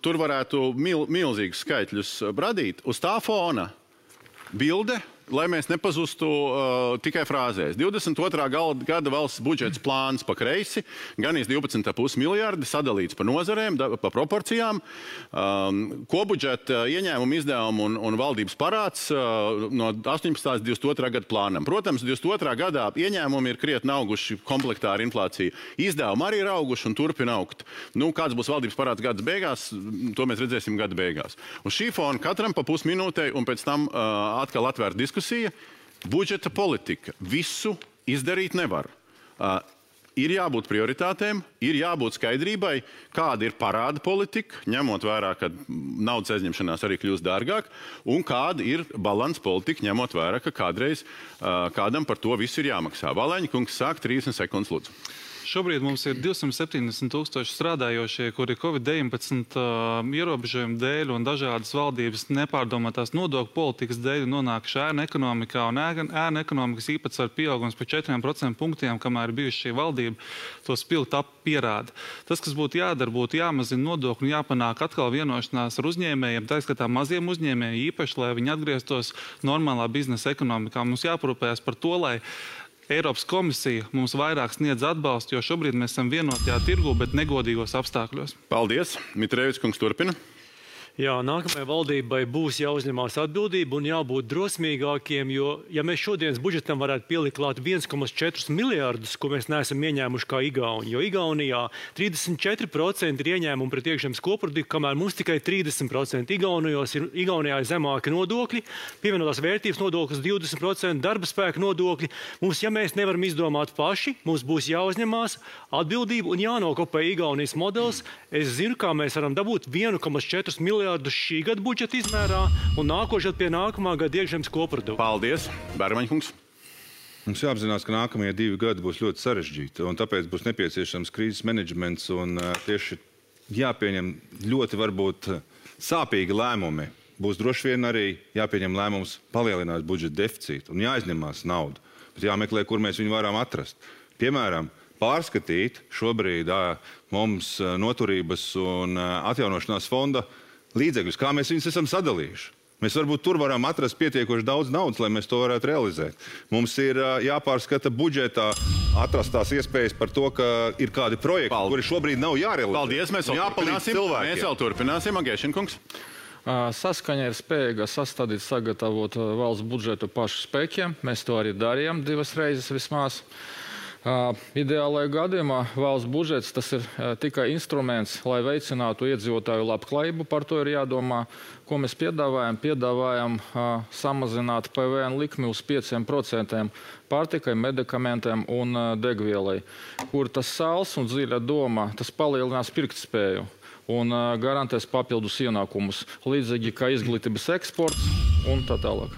tur varētu milzīgus skaitļus radīt. Uz tā fona bilde, lai mēs nepazustu tikai frāzēs. 22. gada valsts budžets plāns pa kreisi, gan 12,5 miljardi sadalīts pa nozarēm, pa proporcijām. Kobudžeta ieņēmumu izdevumu un valdības parāds no 18. 22. gada plānam. Protams, 22. gadā ieņēmumi ir krietni auguši komplektā ar inflāciju. Izdevumi arī ir auguši un turpina augt. Kāds būs valdības parāds gada beigās, to mēs redzēsim gada beigās. Uz šī fona katram pa pusminūtei un pēc tam atkal atvērt diskusiju. Budžeta politika. Visu izdarīt nevar. Ir jābūt prioritātēm, ir jābūt skaidrībai, kāda ir parāda politika, ņemot vērā, ka naudas aizņemšanās arī kļūst dārgāk, un kāda ir balanss politika, ņemot vērā, ka kādreiz kādam par to visu ir jāmaksā. Valēņa kungs sāk 30 sekundes, lūdzu. Šobrīd mums ir 270,000 strādājošie, kuri Covid-19 ierobežojumu dēļ un dažādas valdības nepārdomātās nodokļu politikas dēļ nonākuši ēnu ekonomikā, un ēnu ekonomikas īpatsvaru pieaugums par 4% punktiem, kamēr ir bijuši šī valdība, to spilgt pierāda. Tas, kas būtu jādara, būtu jāmazina nodokļu un jāpanāk atkal vienošanās ar uzņēmējiem, tā skatā maziem uzņēmējiem īpaši, lai viņi atgrieztos normālā biznesa ekonomikā. Mums jāparūpējas par to, lai Eiropas komisija mums vairāk sniedz atbalstu, jo šobrīd mēs esam vienotajā tirgu, bet negodīgos apstākļos. Paldies. Mitrēvičs kungs turpina. Jā, nākamajai valdībai būs jāuzņemās atbildība un jābūt drosmīgākiem, jo, ja mēs šodienas budžetam varētu pielikt klāt 1,4 miljārdus, ko mēs neesam ieņēmuši kā Igauni, jo Igaunijā 34% ir ieņēmumi pret iekšzemes koproduktu, kamēr mums tikai 30%. Igaunijā ir zemāki nodokļi, pievienotās vērtības nodoklis 20%, darba spēka nodokļi. Mums, ja mēs nevaram izdomāt paši, mums būs jāuzņemās atbildība un jānokopē Igaunijas modelis. Es zinu, kā mēs varam dabūt 1,4 miljārdus šī gada budžeta izmērā un nākošais pie nākamā gada iekšzemes koprodukta. Paldies, Bērmaņkungs. Mums jāapzinās, ka nākamie 2 gadi būs ļoti sarežģīti, un tāpēc būs nepieciešams krīzes menedžments un tieši jāpieņem ļoti varbūt sāpīgi lēmumi. Būs droši vien arī jāpieņem lēmums palielināt budžeta deficītu un jāizņemās naudu, bet jāmeklē, kur mēs viņu varam atrast. Piemēram, pārskatīt šobrīd mums noturības un atjaunošanās fonda līdzekļus, kā mēs viņus esam sadalījuši. Mēs varbūt tur varam atrast pietiekoši daudz naudas, lai mēs to varētu realizēt. Mums ir jāpārskata budžetā atrastās iespējas par to, ka ir kādi projekti, kuri šobrīd nav jārealizē. Paldies, mēs vēl turpināsim. Agēšinkungs. Saskaņa ir spējīga sastādīt, sagatavot valsts budžetu pašu spēkiem. Mēs to arī darījām 2 reizes vismaz. Ideālajā gadījumā valsts budžets tas ir tikai instruments, lai veicinātu iedzīvotāju labklājību. Par to ir jādomā, ko mēs piedāvājam. Piedāvājam samazināt PVN likmi uz 5% pārtikai, medikamentiem un degvielai, kur tas sāls un dziļa doma, tas palielinās pirktspēju un garantēs papildus ienākumus, līdzīgi kā izglītības eksports un tā tālāk.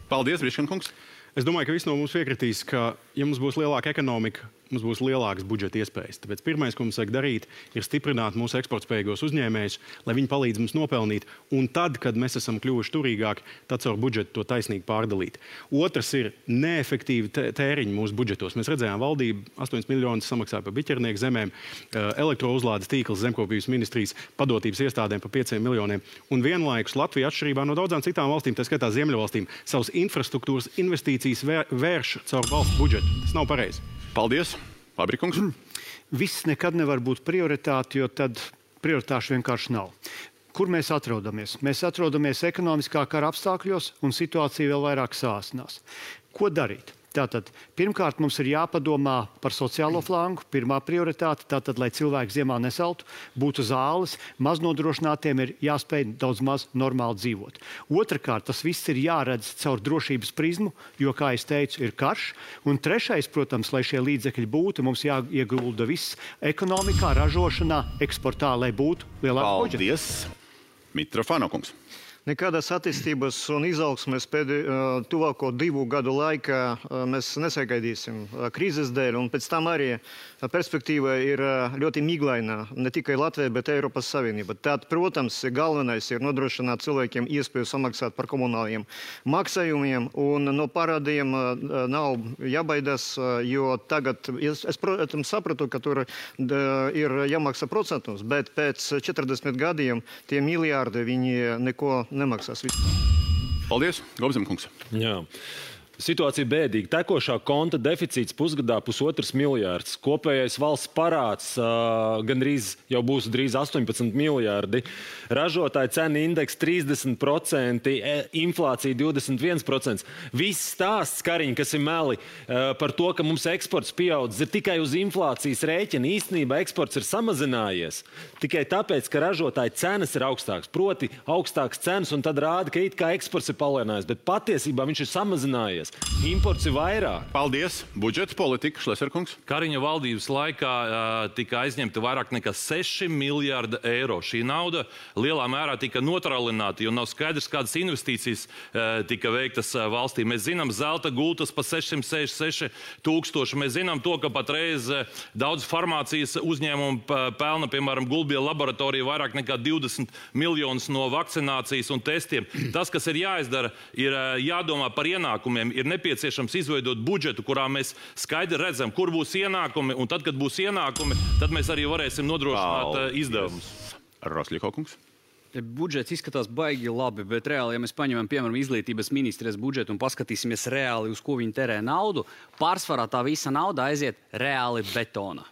Paldies, Briškankungs. Es domāju, ka visi no mums piekritīs, ka, ja mums būs lielāka ekonomika, mums būs lielākas budžeta iespējas. Tāpēc pirmais, ko mums vajag darīt, ir stiprināt mūsu eksportspējīgos uzņēmējus, lai viņi palīdz mums nopelnīt. Un tad, kad mēs esam kļuvuši turīgāki, tad caur budžetu to taisnīgi pārdalīt. Otrs ir neefektīvi tēriņi mūsu budžetos. Mēs redzējām, valdība 8 miljonus samaksāja par biķernieku zemēm, elektrouzlādes tīkls zemkopības ministrijas padotības iestādēm par 5 miljoniem. Un vienlaikus Latvija, atšķirībā no daudzām citām valstīm, tā skaitā Ziemeļvalstīm, savas infrastruktūras investīcijas vērš caur valsts budžetu. Tas nav pareizi. Paldies, Fabrikungs. Viss nekad nevar būt prioritāte, jo tad prioritāšu vienkārši nav. Kur mēs atrodamies? Mēs atrodamies ekonomiskā kara apstākļos un situācija vēl vairāk sāsinās. Ko darīt? Tātad, pirmkārt, mums ir jāpadomā par sociālo flangu. Pirmā prioritāte, tātad, lai cilvēki ziemā nesaltu, būtu zāles, maznodrošinātiem ir jāspēj daudz maz normāli dzīvot. Otrakārt, tas viss ir jāredz caur drošības prizmu, jo, kā es teicu, ir karš. Un trešais, protams, lai šie līdzekļi būtu, mums jāiegulda viss ekonomikā, ražošanā, eksportā, lai būtu lielāks budžets. Paldies! Mitrofāno kungs. Nekādas attīstības un izaugsmes tuvāko 2 gadu laikā mēs nesagaidīsim krīzes dēļ, un pēc tam arī perspektīva ir ļoti miglaina, ne tikai Latvijai, bet Eiropas Savienība. Tad, protams, galvenais ir nodrošināt cilvēkiem iespēju samaksāt par komunāliem maksājumiem, un no parādiem nav jābaidās, jo tagad, es protams, sapratu, ka tur ir jāmaksā procentus, bet pēc 40 gadiem tie miljārdi viņi neko nemaksās vispār. Paldies, Gobzem kungs. Jā. Situācija bēdīga. Tekošā konta deficīts pusgadā 1,5 miljārds. Kopējais valsts parāds jau būs drīz 18 miljārdi. Ražotāja cena indeks 30%, inflācija 21%. Viss stāsts, Kariņ, kas ir meli par to, ka mums eksports pieaudzis, ir tikai uz inflācijas rēķina. Īstenībā eksports ir samazinājies. Tikai tāpēc, ka ražotāja cenas ir augstākas. Proti augstākas cenas, un tad rāda, ka it kā eksports ir palielinājies, bet patiesībā viņš ir samazinājies. Imports ir vairāk. Paldies. Budžeta politika, Šleserkungs. Kariņa valdības laikā tika aizņemta vairāk nekā 6 miljārdi eiro. Šī nauda lielā mērā tika notralināta, jo nav skaidrs, kādas investīcijas tika veiktas valstī. Mēs zinām, zelta gultas pa 666 000. Mēs zinām to, ka patreiz daudz farmācijas uzņēmumu pelna, piemēram, Gulbija laboratorija vairāk nekā 20 miljonus no vakcinācijas un testiem. Tas, kas ir jāizdara, ir jādomā par ienākumiem. Ir nepieciešams izveidot budžetu, kurā mēs skaidri redzam, kur būs ienākumi, un tad, kad būs ienākumi, tad mēs arī varēsim nodrošināt izdevumus. Rosļiko kungs. Budžets izskatās baigi labi, bet reāli, ja mēs paņemam, piemēram, izglītības ministrijas budžetu un paskatīsimies reāli, uz ko viņi terē naudu, pārsvarā tā visa nauda aiziet reāli betona.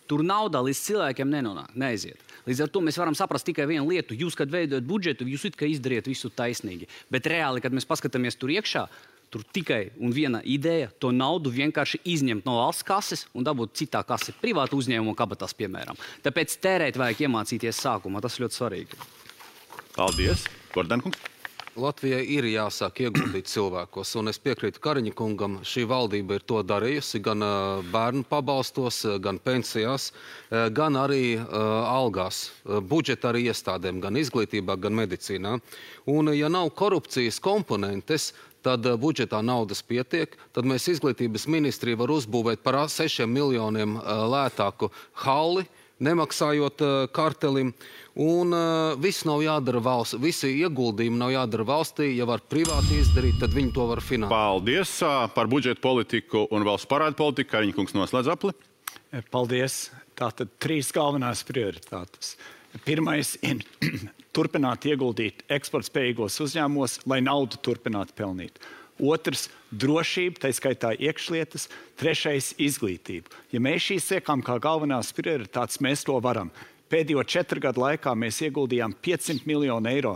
Tur nauda līdz cilvēkiem neaiziet. Līdz ar to mēs varam saprast tikai vienu lietu. Jūs, kad veidojat budžetu, jūs it kā izdariet visu taisnīgi. Bet reāli, kad mēs paskatāmies tur iekšā, tur tikai un viena ideja to naudu vienkārši izņemt no valsts kases un dabūt citā kase, privātu uzņēmumu kabatās, piemēram. Tāpēc tērēt vajag iemācīties sākumā. Tas ļoti svarīgi. Paldies. Gordankungs. Latvijai ir jāsāk ieguldīt cilvēkos, un es piekrītu Kariņa kungam, šī valdība ir to darījusi gan bērnu pabalstos, gan pensijās, gan arī algās, budžeta arī iestādēm, gan izglītībā, gan medicīnā. Un ja nav korupcijas komponentes, tad budžetā naudas pietiek, tad mēs izglītības ministriju var uzbūvēt par 6 miljoniem lētāku halli, nemaksājot kartelim. Un viss nav jādara valsts, visi ieguldījumi nav jādara valstī, ja var privāti izdarīt, tad viņi to var finansēt. Paldies par budžeta politiku un valsts parādu politiku. Kariņa kungs noslēdz apli. Paldies. Tātad 3 galvenās prioritātes. Pirmais ir turpināt ieguldīt eksportspējīgos uzņēmumos, lai naudu turpinātu pelnīt. Otrs – drošība, tā skaitā iekšlietas. Trešais – izglītība. Ja mēs šīs liekam kā galvenās prioritātes, mēs to varam. Pēdējo 4 gadu laikā mēs ieguldījām 500 miljonu eiro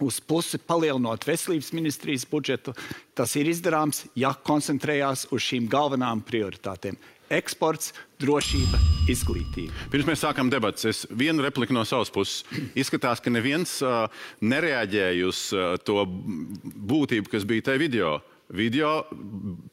uz pusi, palielinot veselības ministrijas budžetu. Tas ir izdarāms, ja koncentrējās uz šīm galvenām prioritātēm. Eksports, drošība, izglītība. Pirms mēs sākam debatas, es vienu repliku no savas puses. Izskatās, ka neviens nereaģēja uz to būtību, kas bija tajā video. Video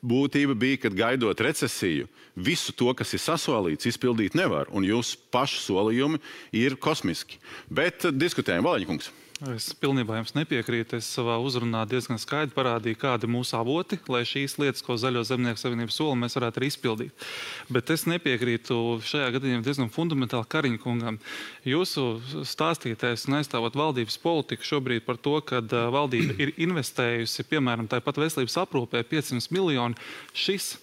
būtība bija, kad gaidot recesiju, visu to, kas ir sasolīts, izpildīt nevar. Un jūsu pašu solījumi ir kosmiski. Bet diskutējam, Valaņkungs. Es pilnībā jums nepiekrītu. Es savā uzrunā diezgan skaidri parādīju, kādi ir mūsu avoti, lai šīs lietas, ko Zaļo zemnieku savienību sola, mēs varētu arī izpildīt. Bet es nepiekrītu šajā gadījumā diezgan fundamentāli Kariņa kungam. Jūsu stāstītais un aizstāvot valdības politiku šobrīd par to, ka valdība ir investējusi, piemēram, tāpat veselības aprūpē 500 miljoni. Šis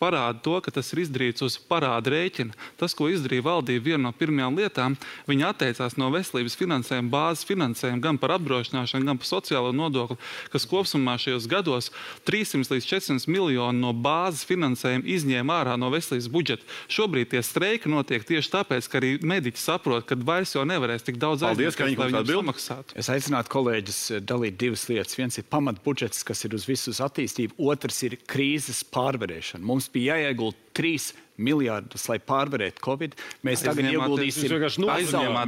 parāda to, ka tas ir izdarīts uz parāda rēķina. Tas, ko izdarīja valdība, viena no pirmajām lietām, viņi atteicās no veselības finansējuma, bāzes finansējuma, gan par apdrošināšanu, gan par sociālo nodokli, kas kopsumā šajos gados 300 līdz 400 miljonu no bāzes finansējuma izņēma ārā no veselības budžeta. Šobrīd tie streiki notiek tieši tāpēc, ka arī mediķi saprot, ka vairs jau nevarēs tik daudz aizņemt, lai viņiem samaksātu. Es aicinātu kolēģis dalīt divas lietas. Viens ir pamatbudžets, kas ir uz visu attīstību, otrs ir krīzes pārvarēšana. Mums bija jāiegulda 3 miljārdus, lai pārvarētu Covid. Mēs tagad ieguldīsim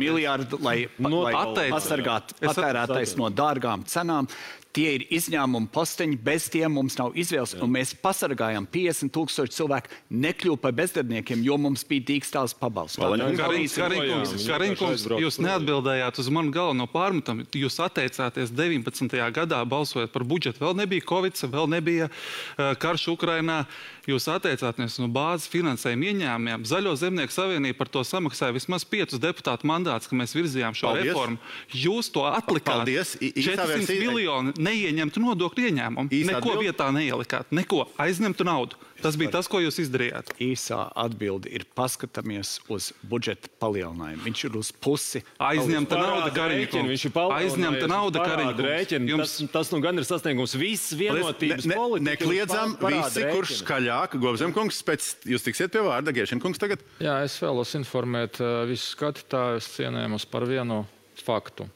miljārdu, lai pasargātu patērētājs no dārgām cenām. Tie ir izņēmumi posteņi, bez tiem mums nav izvēles, un mēs pasargājam 50 000 cilvēku nekļuvu par bezdarbniekiem, jo mums bija dīkstāls pabalsts. Kariņkungs, jūs neatbildējāt uz manu galveno pārmetumu. Jūs atteicāties 19. gadā balsojot par budžetu. Vēl nebija Covid, vēl nebija karš Ukrainā. Jūs atteicāties no bāzes finansējuma ieņēmumiem. Zaļo zemnieku savienība par to samaksāja vismaz 5 deputātu mandātus, ka mēs virzījām šo reformu. Jūs to atlikāt. 400 miljoni neieņemtu nodokļu ieņēmumu. Neko vietā neielikāt. Neko. Aizņemtu naudu. Tas bija tas, ko jūs izdarījāt. Īsā atbilde ir paskatāmies uz budžeta palielinājumu. Viņš ir uz pusi. Aizņemta nauda, Kariņkungs. Aizņemta nauda, Kariņkungs. Tas nu gan ir sasniegums viss vienotības politika. Nekliedzam visi, kurš skaļāk. Gobzemkungs, pēc jūs tiksiet pie vārda. Giešenkungs tagad. Jā, es vēlos informēt visus skatītājus cienējumus par vienu faktu.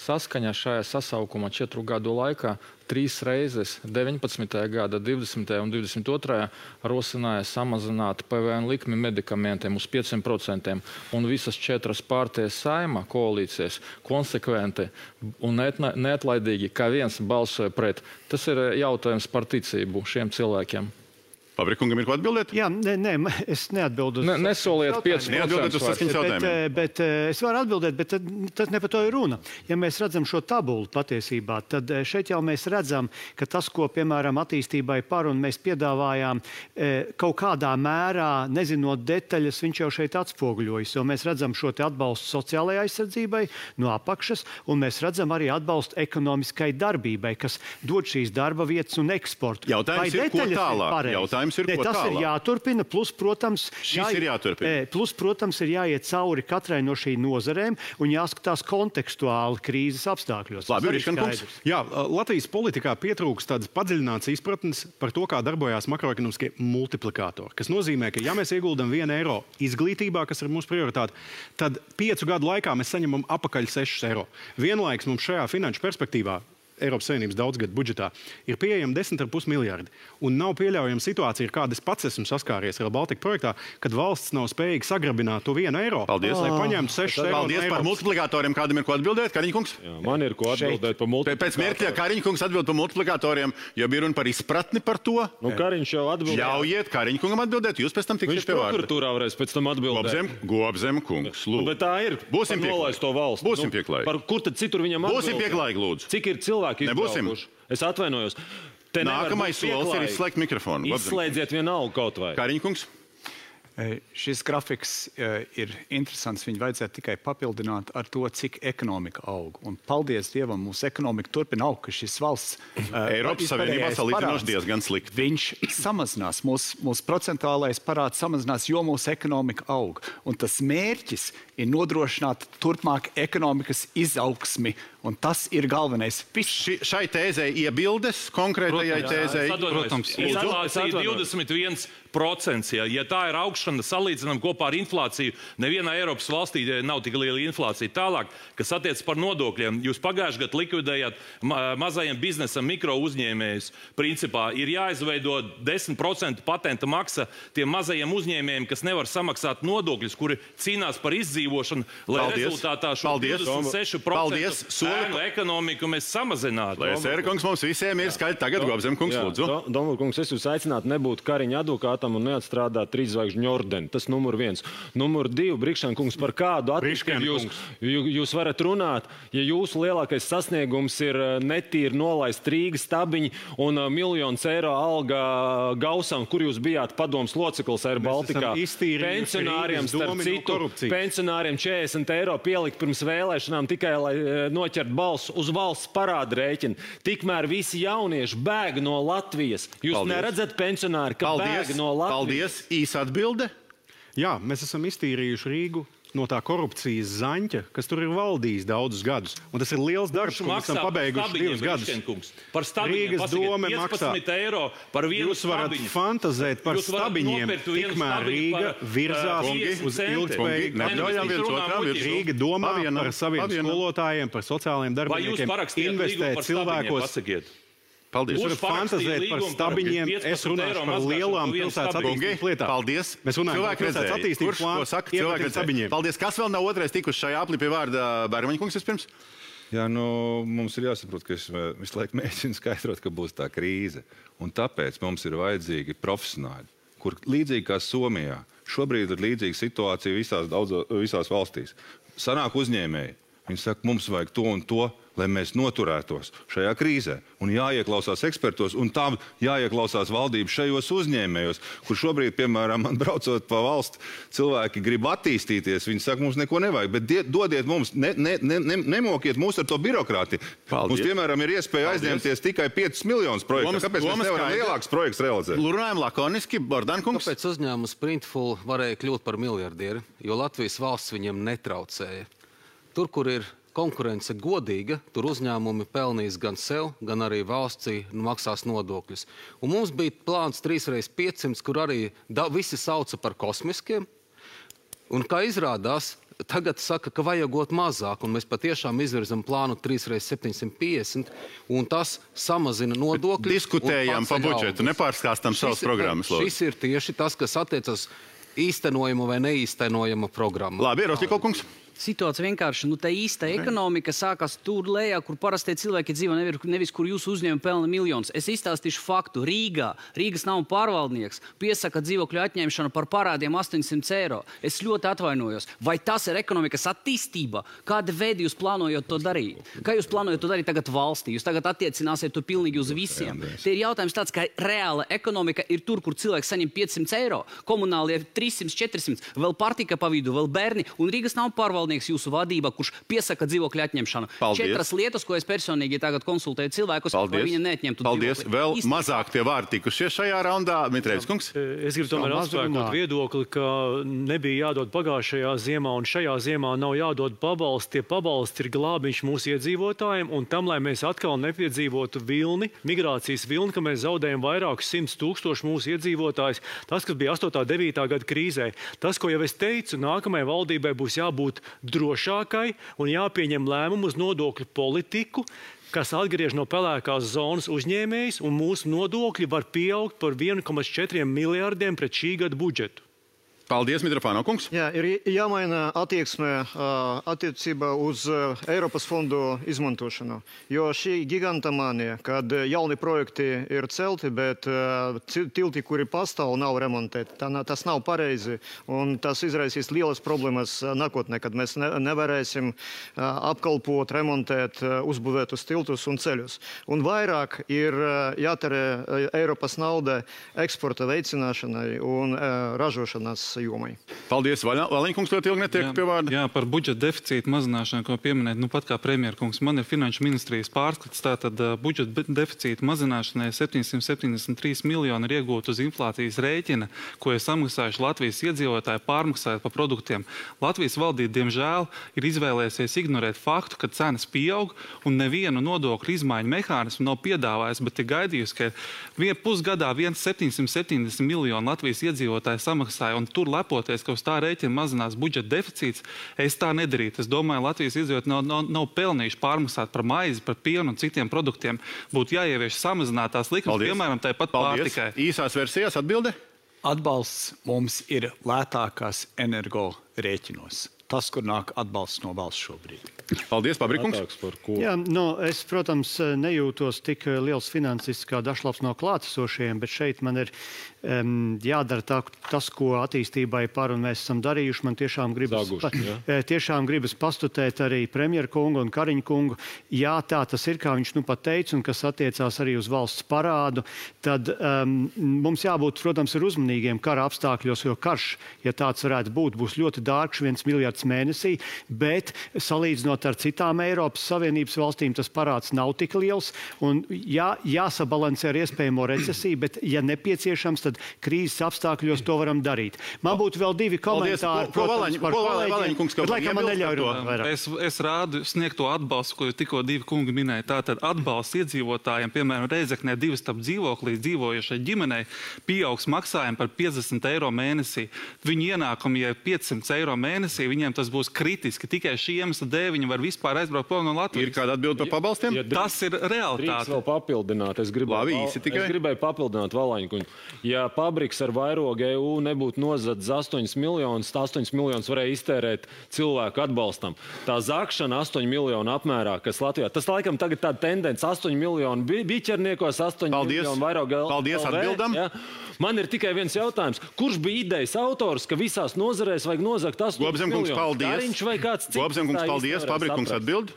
Saskaņā šajā sasaukuma 4 gadu laikā 3 reizes 19. gada, 20. un 22. rosināja samazināt PVN likmi medikamentiem uz 5%, un visas 4 partijas Saeima koalīcijas konsekventi un neatlaidīgi kā viens balsoja pret. Tas ir jautājums par ticību šiem cilvēkiem. Fabrikungam ir ko atbildēt? Jā, nē, es neatbildu. Nesoliet 5%. Neatbildiet uz saskaņas jautājumiem. Bet es varu atbildēt, bet tas ne par to ir runa. Ja mēs redzam šo tabulu patiesībā, tad šeit jau mēs redzam, ka tas, ko, piemēram, attīstībai par un mēs piedāvājām kaut kādā mērā, nezinot detaļas, viņš jau šeit atspoguļojas, jo mēs redzam šo te atbalstu sociālajai aizsardzībai no apakšas, un mēs redzam arī atbalstu ekonomiskai darbībai, kas dod šīs darba vietas un eksportu. Jautājums ir, ko tālāk? Tas ir jāturpina, plus, protams, ir jāiet cauri katrai no šī nozarēm un jāskatās kontekstuāli krīzes apstākļos. Jā, Latvijas politikā pietrūkst tādas padziļinātas izpratnes par to, kā darbojās makroekonomiskie multiplikātori, kas nozīmē, ka ja mēs ieguldam 1 eiro izglītībā, kas ir mūsu prioritāte, tad 5 gadu laikā mēs saņemam apakaļ 6 eiro. Vienlaiks mums šajā finanšu perspektīvā Eiropas Savienības daudzgadu budžetā ir pieejami 10,5 miljardi. Un nav pieļaujama situācija, ar kādu es pats esmu saskāries Rail Baltica projektā, kad valsts nav spējīga sagrabināt to 1 eiro. Paldies, lai paņemtu 6 eiro. Paldies par multiplikatoriem. Kādam ir ko atbildēt? Kariņkungs? Jā, man ir ko atbildēt par multiplikatoriem. Pēc mirkļa Kariņkungs atbild par multiplikatoriem, jo bija runa par izpratni par to. Nu, Kariņš jau atbildēja. Ļaujiet Kariņkungam atbildēt, jūs pēc tam tiksiet pie vārda. Viņš prokuratūrā varēs pēc tam atbildēt. Gobzemkungs, lūdzu. Bet tā ir. Būsim pieklājīgi. Būsim pieklājīgi. Par kur tad citur viņam atbildēt? Būsim pieklājīgi, lūdzu. Cik ir cilvēki izbraukuši? Es atvainojos. Nākamais solis ir izslēgt mikrofonu. Izslēdziet vienalga kaut vai. Kariņkungs. Šis grafiks ir interesants. Viņu vajadzētu tikai papildināt ar to, cik ekonomika aug. Un paldies Dievam, mūsu ekonomika turpina augt, ka šis valsts Eiropas Savienībā salīdzinoši diezgan slikti. Viņš samazinās, mūsu procentuālais parāds samazinās, jo mūsu ekonomika aug. Un tas mērķis ir nodrošināt turpmāk ekonomikas izaugsmi. Un tas ir galvenais. Šai tēzei iebildes konkrētajai tēzei? Protams. Inflācija 21%. Ja tā ir augšana, salīdzinām kopā ar inflāciju, nevienā Eiropas valstī nav tik liela inflācija. Tālāk, kas attiec par nodokļiem, jūs pagājušajā gadā likvidējāt mazajiem biznesam mikro uzņēmējus. Principā ir jāizveido 10% patenta maksa tiem mazajiem uzņēmējiem, kas nevar samaksāt nodokļus, kuri cīnās par izdzīvošanu, lai rezultātā šo 26% ēnu ekonomiku mēs samazinātu. Lai Sērkungs mums visiem ir skaļi tagad, Gobzemkungs, lūdzu. Domulkungs, es jūs aicinātu nebūt Kariņa advokātam un neatstrādāt 3 zvaigžņu ordeni. Tas numur 1. Numur 2, Brikšēna kungs, par kādu attīstību jūs varat runāt, ja jūsu lielākais sasniegums ir netīri nolaist Rīgas stabiņi un miljonus eiro alga Gausam, kur jūs bijāt padomas loceklis Air Baltikā. Pensionāriem, starp citu, pensionāriem 40 eiro pielikt pirms vēlēšanām tikai, lai noķert balsu uz valsts parāda rēķina. Tikmēr visi jaunieši bēg no Latvijas. Jūs neredzat pensionāri, ka bēg no Latvijas? Paldies. Īsa atbilde. Jā, mēs esam iztīrījuši Rīgu no tā korupcijas zaņķa, kas tur ir valdījis daudzus gadus. Un tas ir liels darbs, ko mēs esam pabeiguši 2 gadus. Par stabiņiem Rīgas dome 15 eiro par vienu Jūs varat fantazēt par stabiņiem, tikmēr Rīga virzās uz ilgspējīgu. Rīga domā par saviem skolotājiem, par sociālajiem darbiniekiem, investē cilvēkos. Paldies. Jūs varat fantazēt par stabiņiem, es runāšu par lielām pilsētas attīstības lietām. Paldies. Mēs runājam par pilsētas attīstības plānu. Paldies. Kas vēl nav otrais tikuši šajā aplī pie vārda Bērmaņa kungs vispirms? Jā, mums ir jāsaprot, ka es visu laiku mēģinu skaidrot, ka būs tā krīze. Un tāpēc mums ir vajadzīgi profesionāļi, kur līdzīgi kā Somijā, šobrīd ir līdzīga situācija visās valstīs. Sanāk uzņēmēji. Viņi saka, mums vajag to un to, lai mēs noturētos šajā krīzē. Un jāieklausās ekspertos, un tā jāieklausās valdības šajos uzņēmējos, kur šobrīd, piemēram, man braucot pa valsti, cilvēki grib attīstīties. Viņi saka, mums neko nevajag, bet dodiet mums, nemokiet mūs ar to birokrāti. Mums, piemēram, ir iespēja aizņemties tikai 5 miljonus projektu. Kāpēc mēs nevaram lielāks projekts realizēt? Runājam lakoniski, Bordankungs. Kāpēc uzņēmums Printful varēja kļūt par miljardieri? Jo Latvijas valsts viņiem netraucēja. Tur, kur ir konkurence godīga, tur uzņēmumi pelnīs gan sev, gan arī valstī maksās nodokļus. Un mums bija plāns 3x500, kur arī visi sauca par kosmiskiem. Un kā izrādās, tagad saka, ka vajagot mazāk, un mēs patiešām izvirzam plānu 3x750, un tas samazina nodokļus. Diskutējām pa budžetu, nepārskāstam savas programmas. Šis ir tieši tas, kas attiecas īstenojama vai neīstenojama programma. Labi, Rostikov kungs. Situācija vienkārši, tā īsta ekonomika sākās tur lejā, kur parastie cilvēki dzīvo, nevis kur jūsu uzņēmumi pelna miljonus. Es izstāstīšu faktu. Rīgas nav pārvaldnieks, piesaka dzīvokļu atņemšanu par parādiem 800 eiro. Es ļoti atvainojos. Vai tas ir ekonomikas attīstība? Kāda veida jūs plānojat to darīt? Kā jūs plānojat to darīt tagad valstī? Jūs tagad attiecināsiet to pilnīgi uz visiem. Te ir jautājums tāds, ka reāla ekonomika ir tur, kur cilvēks saņem 500 eiro, komunālie 300, 400, vēl partika pa vidu, vēl bērni, un Rīgas nav pārvaldnieks jūsu vadībā, kurš piesaka dzīvokļu atņemšanu. Paldies. 4 lietas, ko es personīgi tagad konsultēju cilvēkus, lai viņi neatņemtu dzīvokli. Vēl mazāk tie vārdi tikušies šajā raundā. Mitrēvis kungs. Es gribu tomēr atspēkot viedokli, ka nebija jādod pagājušajā ziemā, un šajā ziemā nav jādod pabalsti. Tie pabalsti ir glābiņš mūsu iedzīvotājiem, un tam, lai mēs atkal nepiedzīvotu migrācijas vilni, ka mēs zaudējam vairākus 100 000 mūsu iedzīvotājus. Tas, kas bija 8. 9. gada krīzē. Tas, ko jau es teicu, nākamajai valdībai būs jābūt drošākai un jāpieņem lēmumu uz nodokļu politiku, kas atgriež no pelēkās zonas uzņēmējus, un mūsu nodokļi var pieaugt par 1,4 miljārdiem pret šī gada budžetu. Paldies, Mitrofāno kungs. Jā, ir jāmaina attieksme attiecībā uz Eiropas fondu izmantošanu. Jo šī gigantomānija, kad jauni projekti ir celti, bet tilti, kuri pastāv, nav remontēti, tas nav pareizi. Un tas izraisīs lielas problēmas nākotnē, kad mēs nevarēsim apkalpot, remontēt uzbūvētus tiltus un ceļus. Un vairāk ir jātērē Eiropas nauda eksporta veicināšanai un ražošanas jomai. Paldies, Valiņkungs, ļoti ilgi netiek pie vārda. Jā, par budžeta deficītu mazināšanu, ko pieminēt, pat kā premjerkungs, man ir finanšu ministrijas pārskats, tātad budžeta deficīta mazināšanai 773 miljoni ir iegūt uz inflācijas rēķina, ko ir samaksājuši Latvijas iedzīvotāji pārmaksājot par produktiem. Latvijas valdība, diemžēl, ir izvēlējusies ignorēt faktu, ka cenas pieaug un nevienu nodokļu izmaiņu mehānismu nav piedāvājis, bet ir gaidījusi, ka pusgadā 770 miljoni Latvijas iedzīvotāji samaksāja, un tur lepoties, ka uz tā rēķina mazinās budžeta deficīts, es tā nedarītu. Es domāju, Latvijas iedzīvotāji nav pelnījuši pārmaksāt par maizi, par pienu un citiem produktiem. Būtu jāievieš samazinātās likmes, piemēram, tāpat pārtikai. Īsās versijās atbilde? Atbalsts mums ir lētākās energo rēķinos. Tas, kur nāk atbalsts no valsts šobrīd. Paldies, Pabrikungs. Jā, es, protams, nejūtos tik liels finansists kā Dašlavs no klātesošajiem, bet šeit man ir jādara tas, ko attīstībai par un mēs esam darījuši. Man tiešām gribas pastutēt arī premjeru kungu un Kariņu kungu. Jā, tā tas ir, kā viņš nu pat teica, un kas attiecās arī uz valsts parādu. Tad mums jābūt, protams, ir uzmanīgiem kara apstākļos, jo karš, ja tāds varētu būt, būs ļoti dārgs, 1 miljards mēnesī, bet salīdzinot ar citām Eiropas Savienības valstīm, tas parāds nav tik liels, un jāsabalansē ar iespējamo recesiju, bet, ja nepieciešams, tad krīzes apstākļos to varam darīt. Man būtu vēl 2 komentāri, protams, par kolēģiem, bet laikam man neļauj runāt vairāk. Es rādu sniegto atbalstu, ko tikko 2 kungi minēja. Tātad atbalsts iedzīvotājiem, piemēram, Reizeknē 2 stāv dzīvoklī dzīvojušai ģimenei, pieaugs maksājumi par 50 eiro mēnesī. Viņu ienākumi, ja 500 eiro mēnesī, viņiem tas būs kritiski. Tikai šī iemesla dēļ viņi var vispār aizbraukt prom no Latvijas. Ir kāda atbilde par pabalstiem? Tas ir realitāte. Drīkst vēl papildināt. Es gribēju papildināt Valaņkuņu. Ja Pabriks ar vairogu EU nebūtu nozadzis 8 miljonus, 8 miljonus varēja iztērēt cilvēku atbalstam. Tā zakšana 8 miljonu apmērā, kas Latvijā. Tas laikam tagad tāda tendence 8 miljonu biķerniekos, 8 miljonu vairogu LV. Paldies, atbildam. Ja? Man ir tikai viens jautājums. Kurš bija idejas autors, ka visās nozarēs vajag nozagt 8 miljonus? Kariņš vai kāds cits? Gobzenkungs, paldies. Pabrikungs atbild.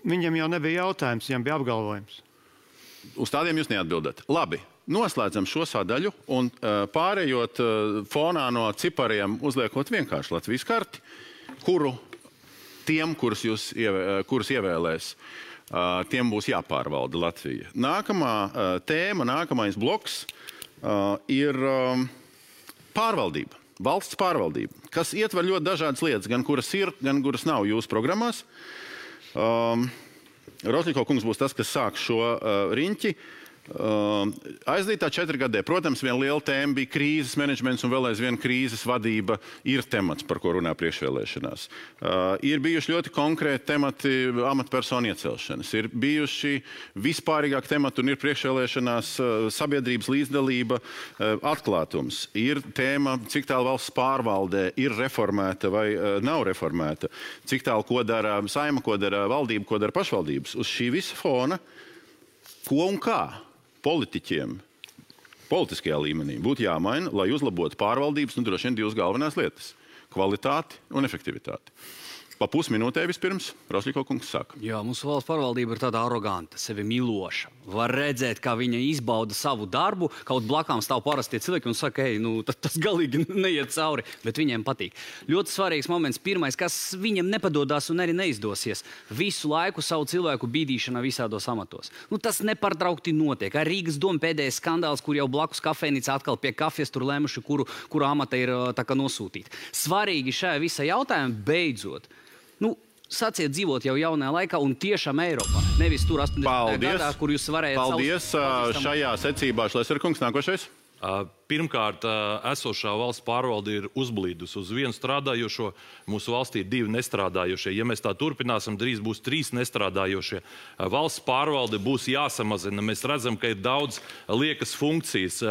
Viņam jau nebija jautājums, viņam bija apgalvojums. Uz tādiem jūs neatbildat. Labi. Noslēdzam šo sadaļu un pārējot fonā no cipariem, uzliekot vienkārši Latvijas karti, kuru tiem, kurus ievēlēs, tiem būs jāpārvalda Latvija. Nākamā tēma, nākamais bloks ir pārvaldība, valsts pārvaldība, kas ietver ļoti dažādas lietas, gan kuras ir, gan kuras nav jūsu programmās. Rosļiko kungs būs tas, kas sāk šo riņķi. Aizdītā 4 gadē, protams, viena liela tēma bija krīzes menedžments un vēl aizvien krīzes vadība ir temats, par ko runā priekšvēlēšanās. Ir bijuši ļoti konkrēti temati amatpersonu iecelšanas, ir bijuši vispārīgāk temati un ir priekšvēlēšanās sabiedrības līdzdalība, atklātums. Ir tēma, cik tālu valsts pārvaldē ir reformēta vai nav reformēta, cik tālu ko dara saima, ko dara valdība, ko dara pašvaldības. Uz šī visa fona, ko un kā politiķiem politiskajā līmenī būtu jāmaina, lai uzlabotu pārvaldības, droši vien 2 galvenās lietas – kvalitāti un efektivitāti. Pa pusminūtē vispirms Rosļiko kungs saka. Jā, mūsu valsts pārvaldība ir tāda aroganta, sevi miloša. Var redzēt, kā viņa izbauda savu darbu, kaut blakām stāv parastie cilvēki un saka, tas galīgi neiet cauri, bet viņiem patīk. Ļoti svarīgs moments, pirmais, kas viņam nepadodās un arī neizdosies. Visu laiku savu cilvēku bīdīšana visādos amatos. Tas nepārtraukti notiek. Ar Rīgas domu pēdējais skandāls, kur jau blakus kafejnīca atkal pie kafijas tur lēmuši, kuru amata ir tā kā nosūtīta. Svarīgi šajā visā jautājumā beidzot. Sāciet dzīvot jau jaunajā laikā un tiešām Eiropā. Nevis tur 80. gadā, kur jūs varējāt... Paldies. Šajā secībā Šleserkungs nākošais. Pirmkārt, esošā valsts pārvalde ir uzblīdus uz 1 strādājošo. Mūsu valstī ir 2 nestrādājošie. Ja mēs tā turpināsim, drīz būs 3 nestrādājošie. Valsts pārvalde būs jāsamazina. Mēs redzam, ka ir daudz liekas funkcijas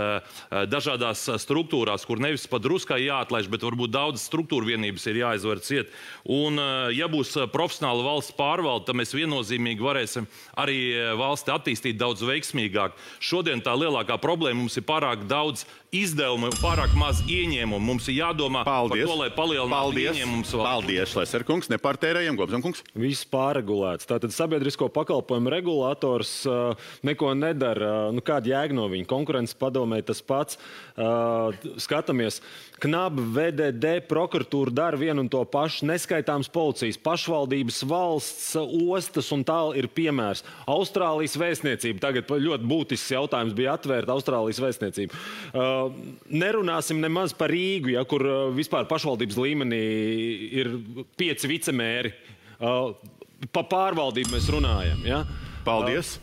dažādās struktūrās, kur nevis pat druskai jāatlaiž, bet varbūt daudz struktūra vienības ir jāizver ciet. Un, ja būs profesionāla valsts pārvalde, tad mēs viennozīmīgi varēsim arī valsti attīstīt daudz veiksmīgāk. Šodien tā lielākā problēma mums ir pārāk daudz izdevumu, pārāk maz ieņēmumu. Mums ir jādomā par to, lai palielinātu ieņēmumus. Paldies, Šleserkungs, nepārtērējam, Gobzenkungs. Viss pārregulēts. Tātad sabiedrisko pakalpojumu regulators neko nedara. Kāda jēga no viņa? Konkurences padomē tas pats. Skatāmies. KNAB, VDD, prokuratūra dara vienu un to pašu. Neskaitāms policijas, pašvaldības, valsts, ostas un tāl ir piemērs. Austrālijas vēstniecība. Tagad ļoti būtisks jautājums bija atvērta Austrālijas vēstniecība. Nerunāsim nemaz par Rīgu, kur vispār pašvaldības līmenī ir 5 vicemēri. Pa pārvaldību mēs runājam. Ja? Paldies.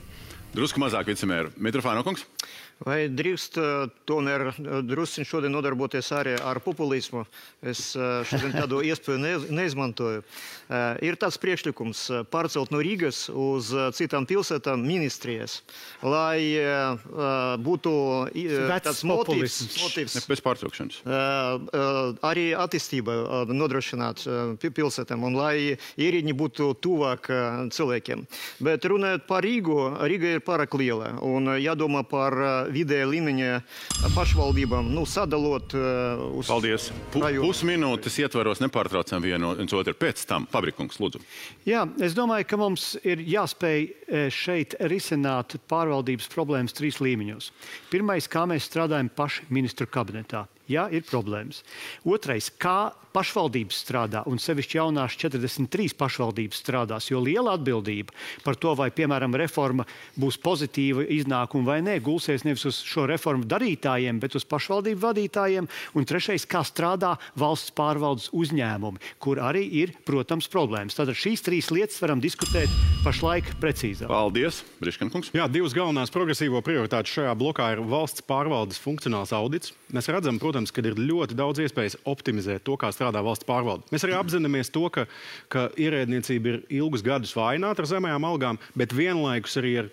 Drusku mazāk vicemēru. Mitrofāno kungs. Vai drīkst tomēr drusciņ šodien nodarboties arī ar populismu? Es šodien tādu iespēju neizmantoju. Ir tāds priekšlikums pārcelt no Rīgas uz citām pilsētām ministrijas, lai būtu tāds motīvs. Bez pārtraukšanas. Arī attīstība nodrošināt pilsētām un lai ierēdņi būtu tuvāk cilvēkiem. Bet runājot par Rīgu, Rīga ir pārāk liela un jādomā par vidēja līmeņa pašvaldībām, sadalot uz... Paldies. Pusminūtes ietvaros nepārtraucam viens otru. Pēc tam, Fabrikungs, lūdzu. Jā, es domāju, ka mums ir jāspēj šeit risināt pārvaldības problēmas 3 līmeņos. Pirmais, kā mēs strādājam paši ministru kabinetā. Jā, ir problēmas. Otrais, kā pašvaldības strādā, un sevišķi jaunās 43 pašvaldības strādās, jo liela atbildība par to, vai, piemēram, reforma būs pozitīva iznākuma vai nē, gulsies nevis uz šo reformu darītājiem, bet uz pašvaldību vadītājiem. Un trešais, kā strādā valsts pārvaldes uzņēmumi, kur arī ir, protams, problēmas. Tātad šīs 3 lietas varam diskutēt pašlaik precīzāk. Paldies, Briškankungs. Jā, 2 galvenās progresīvo prioritātes šajā blokā ir valsts pārvaldes funkcionāls audits. Mēs redzam, protams, ka ir ļoti daudz iespējas optimizēt to, kā strādā valsts pārvalde. Mēs arī apzināmies to, ka ierēdniecība ir ilgus gadus vājināta ar zemējām algām, bet vienlaikus arī ir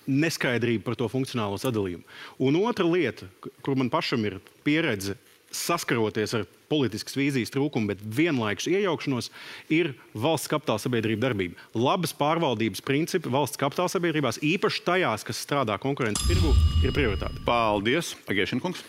neskaidrība par to funkcionālo sadalījumu. Un otra lieta, kur man pašam ir pieredze saskaroties ar politiskas vīzijas trūkumu, bet vienlaikus iejaukšanos, ir valsts kapitāla sabiedrība darbība. Labas pārvaldības principi valsts kapitāla sabiedrībās, īpaši tajās, kas strādā konkurences tirgu, ir prioritāte. Paldies, Agēšinkungs.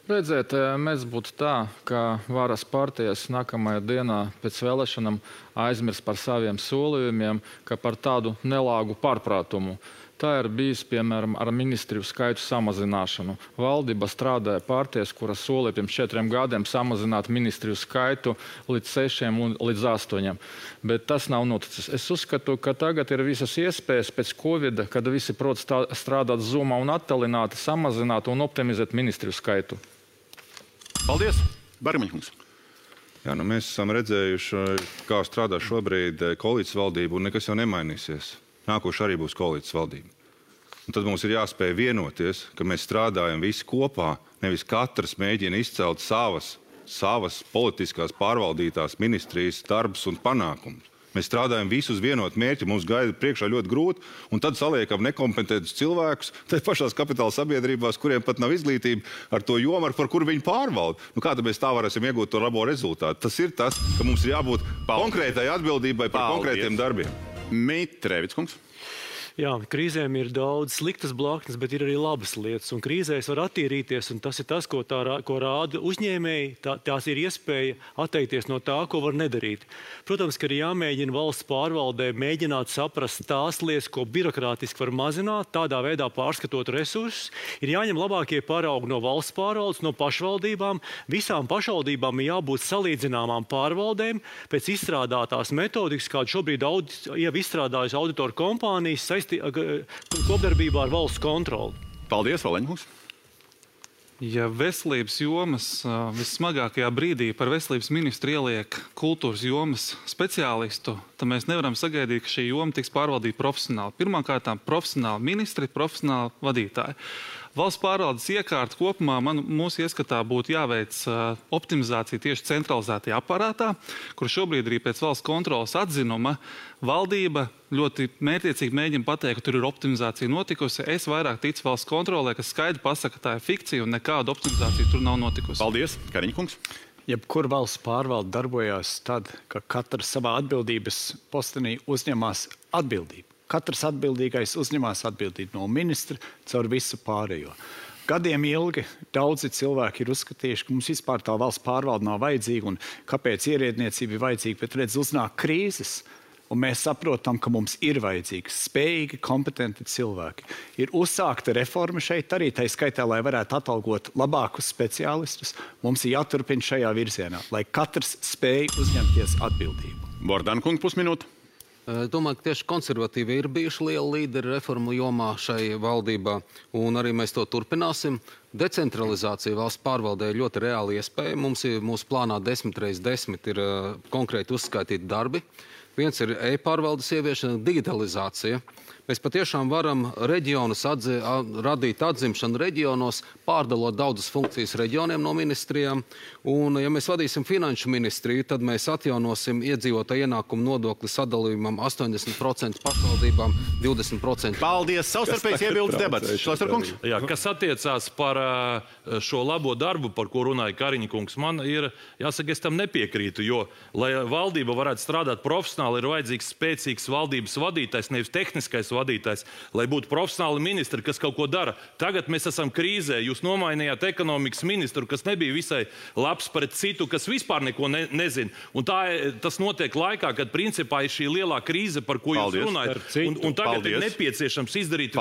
Redziet, mēs būtu tā, ka varas partijas nākamajā dienā pēc vēlēšanām aizmirs par saviem solījumiem, ka par tādu nelāgu pārprātumu. Tā ir bijis, piemēram, ar ministriju skaitu samazināšanu. Valdība strādāja partijas, kuras solīja pirms 4 gadiem samazināt ministriju skaitu līdz 6 un līdz 8. Bet tas nav noticis. Es uzskatu, ka tagad ir visas iespējas pēc Covid, kad visi prot strādāt Zoomā un attālināti, samazināt un optimizēt ministriju skaitu. Paldies, Barmiņkungs. Jā, mēs esam redzējuši, kā strādā šobrīd koalīcijas valdība, un nekas jau nemainīsies. Nākoši arī būs koalīcijas valdība. Un tad mums ir jāspēj vienoties, ka mēs strādājam visi kopā, nevis katrs mēģina izcelt savas politiskās pārvaldītās ministrijas darbus un panākumus. Mēs strādājam visus vienot mērķi, mums gaida priekšā ļoti grūti, un tad saliekam nekompetentus cilvēkus, tad pašās kapitāla sabiedrībās, kuriem pat nav izglītība ar to jomu, par kuru viņi pārvalda. Kā tad mēs tā varēsim iegūt to labo rezultātu? Tas ir tas, ka mums ir jābūt konkrētai atbildībai par konkrētiem darbiem. Mitrēvickungs. Jā, krīzēm ir daudz sliktas blaknes, bet ir arī labas lietas. Un krīzēs var attīrīties, un tas ir tas, ko rāda uzņēmēji. Tās ir iespēja atteikties no tā, ko var nedarīt. Protams, ka ir jāmēģina valsts pārvaldē mēģināt saprast tās lietas, ko birokrātiski var mazināt, tādā veidā pārskatot resursus. Ir jāņem labākie paraugi no valsts pārvaldes, no pašvaldībām. Visām pašvaldībām ir jābūt salīdzināmām pārvaldēm pēc izstrādātās metodikas, kādu šobrīd jau izstrādājas auditoru kompānijas kopdarbībā ar valsts kontroli. Paldies, Valeņkungs. Ja veselības jomas vissmagākajā brīdī par veselības ministru ieliek kultūras jomas speciālistu, tad mēs nevaram sagaidīt, ka šī joma tiks pārvaldīta profesionāli. Pirmkārt, profesionāli ministri, profesionāli vadītāji. Valsts pārvaldes iekārta kopumā mūsu ieskatā būtu jāveic optimizācija tieši centralizētajā aparātā, kur šobrīd arī pēc valsts kontrolas atzinuma valdība ļoti mērķiecīgi mēģina pateikt, ka tur ir optimizācija notikusi. Es vairāk ticu valsts kontrolē, kas skaidri pasaka, ka tā ir fikcija un nekāda optimizācija tur nav notikusi. Paldies, Kariņkungs. Jebkur valsts pārvalde darbojās tad, ka katrs savā atbildības postenī uzņemās atbildību. Katrs atbildīgais uzņemās atbildību no ministra caur visu pārējo. Gadiem ilgi daudzi cilvēki ir uzskatījuši, ka mums vispār tā valsts pārvalde nav vajadzīga un kāpēc ierēdniecība ir vajadzīga, bet redz, uznāk krīzes. Un mēs saprotam, ka mums ir vajadzīgi spējīgi, kompetenti cilvēki. Ir uzsākta reforma šeit arī, tai skaitā, lai varētu atalgot labākus speciālistus. Mums ir jāturpina šajā virzienā, lai katrs spēj uzņemties atbildību. Bordankungs, pusminūte. Domāju, ka tieši konservatīvi ir bijuši lieli līderi reformu jomā šai valdībā, un arī mēs to turpināsim. Decentralizācija valsts pārvaldē ir ļoti reāli iespēja. Mums ir mūsu plānā 10x10 ir konkrēti uzskaitīti darbi. Viens ir e-pārvaldes ieviešana, digitalizācija. mēs patiešām varam reģionus radīt atzimšanu reģionos, pārdalot daudzas funkcijas reģioniem no ministrijām. Un, ja mēs vadīsim finanšu ministriju, tad mēs atjaunosim iedzīvotāju ienākumu nodokli sadalījumam 80% pašvaldībām, 20%. Paldies! Savstarpējs iebildes debats. Šlesnerkungs? Jā, kas attiecās par šo labo darbu, par ko runāja Kariņa kungs, man ir, jāsaka, es tam nepiekrītu, jo, lai valdība varētu strādāt profesionāli, ir vajadzīgs spēcīgs valdības vadītājs, nevis tehniskais vadītājs, lai būtu profesionāli ministri, kas kaut ko dara. Tagad mēs esam krīzē, jūs nomainījāt ekonomikas ministru, kas nebija visai labs pret citu, kas vispār neko nezina. Un tas notiek laikā, kad principā ir šī lielā krīze, par ko jūs runājat. Un tagad ir nepieciešams izdarīt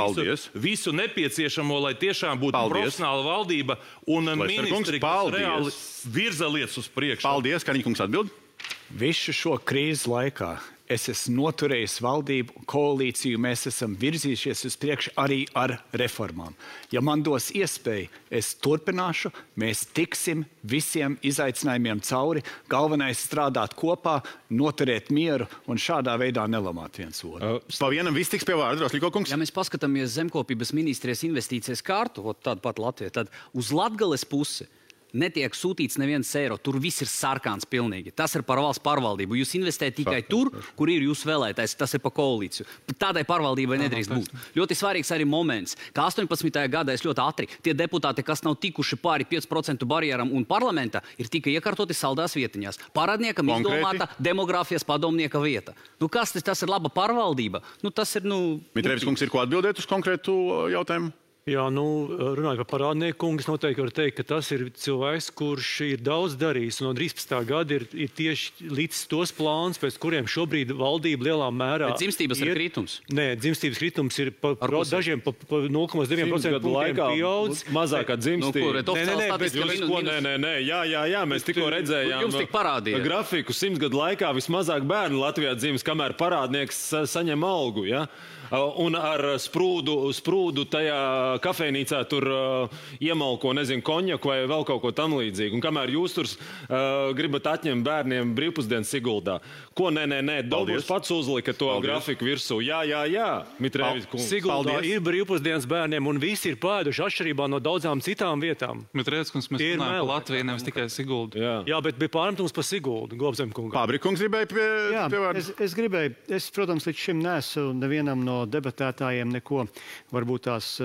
visu nepieciešamo, lai tiešām būtu profesionāla valdība un ministri, kas reāli virza lietas uz priekšu. Paldies, Kariņa kungs atbild. Visu šo krīzes laikā es esmu noturējis valdību koalīciju, mēs esam virzījušies uz priekšu arī ar reformām. Ja man dos iespēju, es turpināšu, mēs tiksim visiem izaicinājumiem cauri, galvenais strādāt kopā, noturēt mieru un šādā veidā nelamāt viens otru. Pa vienam viss tiks pie vārda, Rosļiko kungs. Ja mēs paskatāmies zemkopības ministrijas investīcijas kārtu, tādu pat Latviju, tad uz Latgales pusi netiek sūtīts neviens eiro. Tur viss ir sarkāns pilnīgi. Tas ir par valsts pārvaldību. Jūs investējat tikai tur, kur ir jūsu vēlētājs. Tas ir pa koalīciju. Tādai pārvaldībai nedrīkst būt. Ļoti svarīgs arī moments, ka 18. gadā es ļoti ātri tie deputāti, kas nav tikuši pāri 5% barjeram un parlamentā, ir tikai iekārtoti saldās vietiņās. Parādniekam izdomāta demogrāfijas padomnieka vieta. Kas tas ir laba pārvaldība? Tas ir, Mitrēvis kungs, ir ko atbildēt uz konkrētu jautājumu? Jā, runājot par parādnieku kungu, es noteikti varu teikt, ka tas ir cilvēks, kurš ir daudz darījis. No 13. gada ir tieši līdz tos plāns, pēc kuriem šobrīd valdība lielā mērā... Bet dzimstības ir kritums? Nē, dzimstības kritums ir dažiem pa 0,9% punktiem pieaudz. Mazākā dzimstība. Nē, jā, mēs tikko redzējām grafiku 100 gadu laikā vismazāk bērnu Latvijā dzimis, kamēr parādnieks saņem algu, ja? Un ar sprūdu tajā kafejnīcā tur iemalko, konjaku vai vēl kaut ko tam līdzīgu. Un kamēr jūs tur gribat atņemt bērniem brīvpusdienas Siguldā. Ko nē, Dobūs pats uzlika to grafiku virsū. Jā, Mitrēvis kungs. Siguldā ir brīvpusdienas bērniem un visi ir pēduši atšķirībā no daudzām citām vietām. Mitrēvis kungs, mēs runājam par Latviju, nevis tikai Siguldu. Jā, bet bija pārmetums par Siguldu, Globzem kungam. Pabrikungs gribēja pie vārdu. Es gribēju, protams, līdz šim neesmu nevienam no debatētājiem neko varbūt tās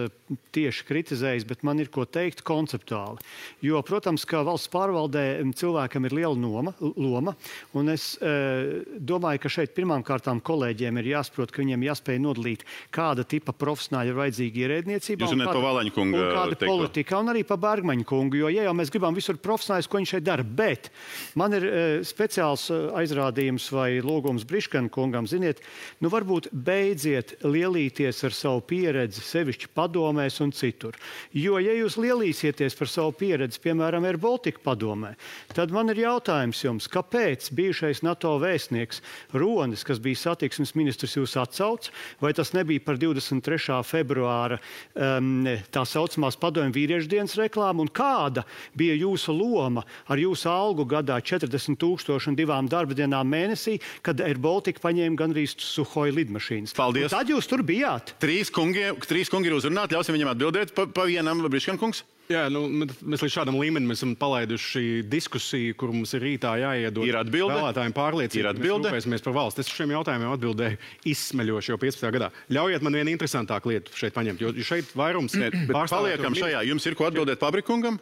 tieši kritizējis, bet man ir ko teikt konceptuāli. Jo, protams, ka valsts pārvaldē cilvēkam ir liela loma, un es domāju, ka šeit pirmām kārtām kolēģiem ir jāsaprot, ka viņiem jāspēj nodalīt, kāda tipa profesionāļi ir vajadzīgi ierēdniecībā, un kāda politika, un arī pa Bergmaņa kungu, jo, ja jau mēs gribam visur profesionāļus, ko viņš šeit dara, bet man ir speciāls aizrādījums vai lūgums Briškana kungam, ziniet, varbūt beidziet lielīties ar savu pieredzi, sevišķi padomēs un citur. Jo, ja jūs lielīsieties par savu pieredzi, piemēram, Air Baltica padomē, tad man ir jautājums jums, kāpēc bijušais NATO vēstnieks Ronis, kas bija satiksmes ministrs, jūs atsauc, vai tas nebija par 23. februāra tā saucamās padomju vīriešu dienas reklāmu, un kāda bija jūsu loma ar jūsu algu gadā 40,000 un 2 darba dienām mēnesī, kad Air Baltica paņēma gandrīz Suhoi lidmašīnas. Paldies! Tad jūs tur bijāt. Trīs kungi ir uzrunāti, ļausim viņam atbildēt pa vienam, Briškana kungs. Jā, mēs līdz šādam līmenim esam palaiduši diskusiju, kur mums ir rītā jāiedod vēlētājiem pārliecība. Mēs rūpēsimies par valsts. Es šiem jautājumiem atbildēju izsmeļoši jau 15. gadā. Ļaujiet man vienu interesantāku lietu šeit paņemt, jo šeit vairums... Paliekam šajā. Jums ir ko atbildēt Pabrikungam?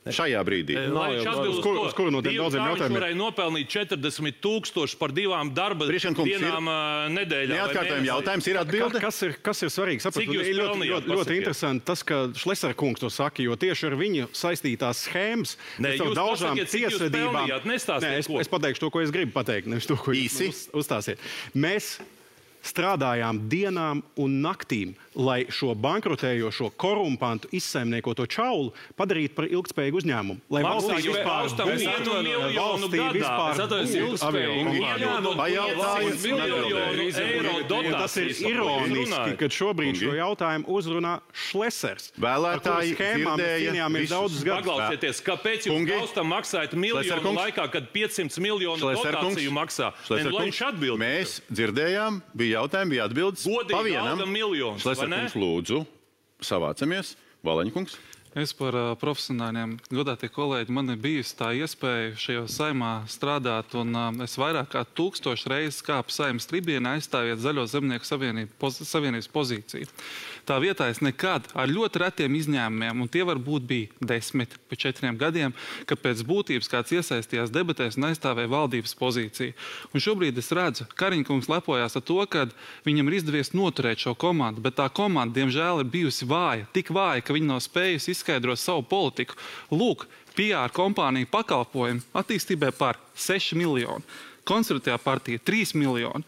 Šajā brīdī. Uz kuru no tiem daudziem jautājumiem? Viņš varēja nopelnīt 40,000 par 2 darba dienām nedēļā. Neatkārtojam jautājums, ir atbilde? Kas ir svarīgi? Saprat, ļoti interesanti tas, ka Šlesner kungs to saka, jo tieši ar viņu saistītās schēmas, jūs pasakiet, cik jūs pelnījāt, nestāstiet ko. Es pateikšu to, ko es gribu pateikt, nevis to, ko jūs uzstāsiet. Mēs strādājām dienām un naktīm, lai šo bankrotējošo, korumpantu, izsaimniekoto čaulu padarītu par ilgtspējīgu uzņēmumu. Lai valstī vispār tas ir ironiski, kad šobrīd šo jautājumu uzrunā Šlesers. Vēlētāji dzirdēja daudzus gadus. Paklausieties, kāpēc jūs Kaustam maksājat miljonu laikā, kad 500 miljonu dotāciju maksā? Mēs dzirdējām, bija bija jautājumi, bija atbildes. Godīgi Pa vienam. alga miljonus, vai Šlesner ne? kungs, lūdzu, savācamies. Valaņkungs. Es par profesionāļiem, godātie kolēģi, man ir bijusi tā iespēja šajā saimā strādāt, un es vairāk kā 1000 reizes kāpu saimas tribienā aizstāviet Zaļo zemnieku savienības pozīciju. Tā vietā es nekad ar ļoti retiem izņēmumiem, un tie varbūt bija 10 pa 4 gadiem, kad pēc būtības kāds iesaistījās debatēs un aizstāvēja valdības pozīciju. Un šobrīd es redzu, Kariņkungs lepojās ar to, ka viņam ir izdevies noturēt šo komandu, bet tā komanda, diemžēl, ir bijusi vāja, tik vāja, ka viņi nav spējusi izskaidrot savu politiku. Lūk, PR kompānija pakalpojumi attīstībai par 6 miljoni, Konservatīvā partija 3 miljoni.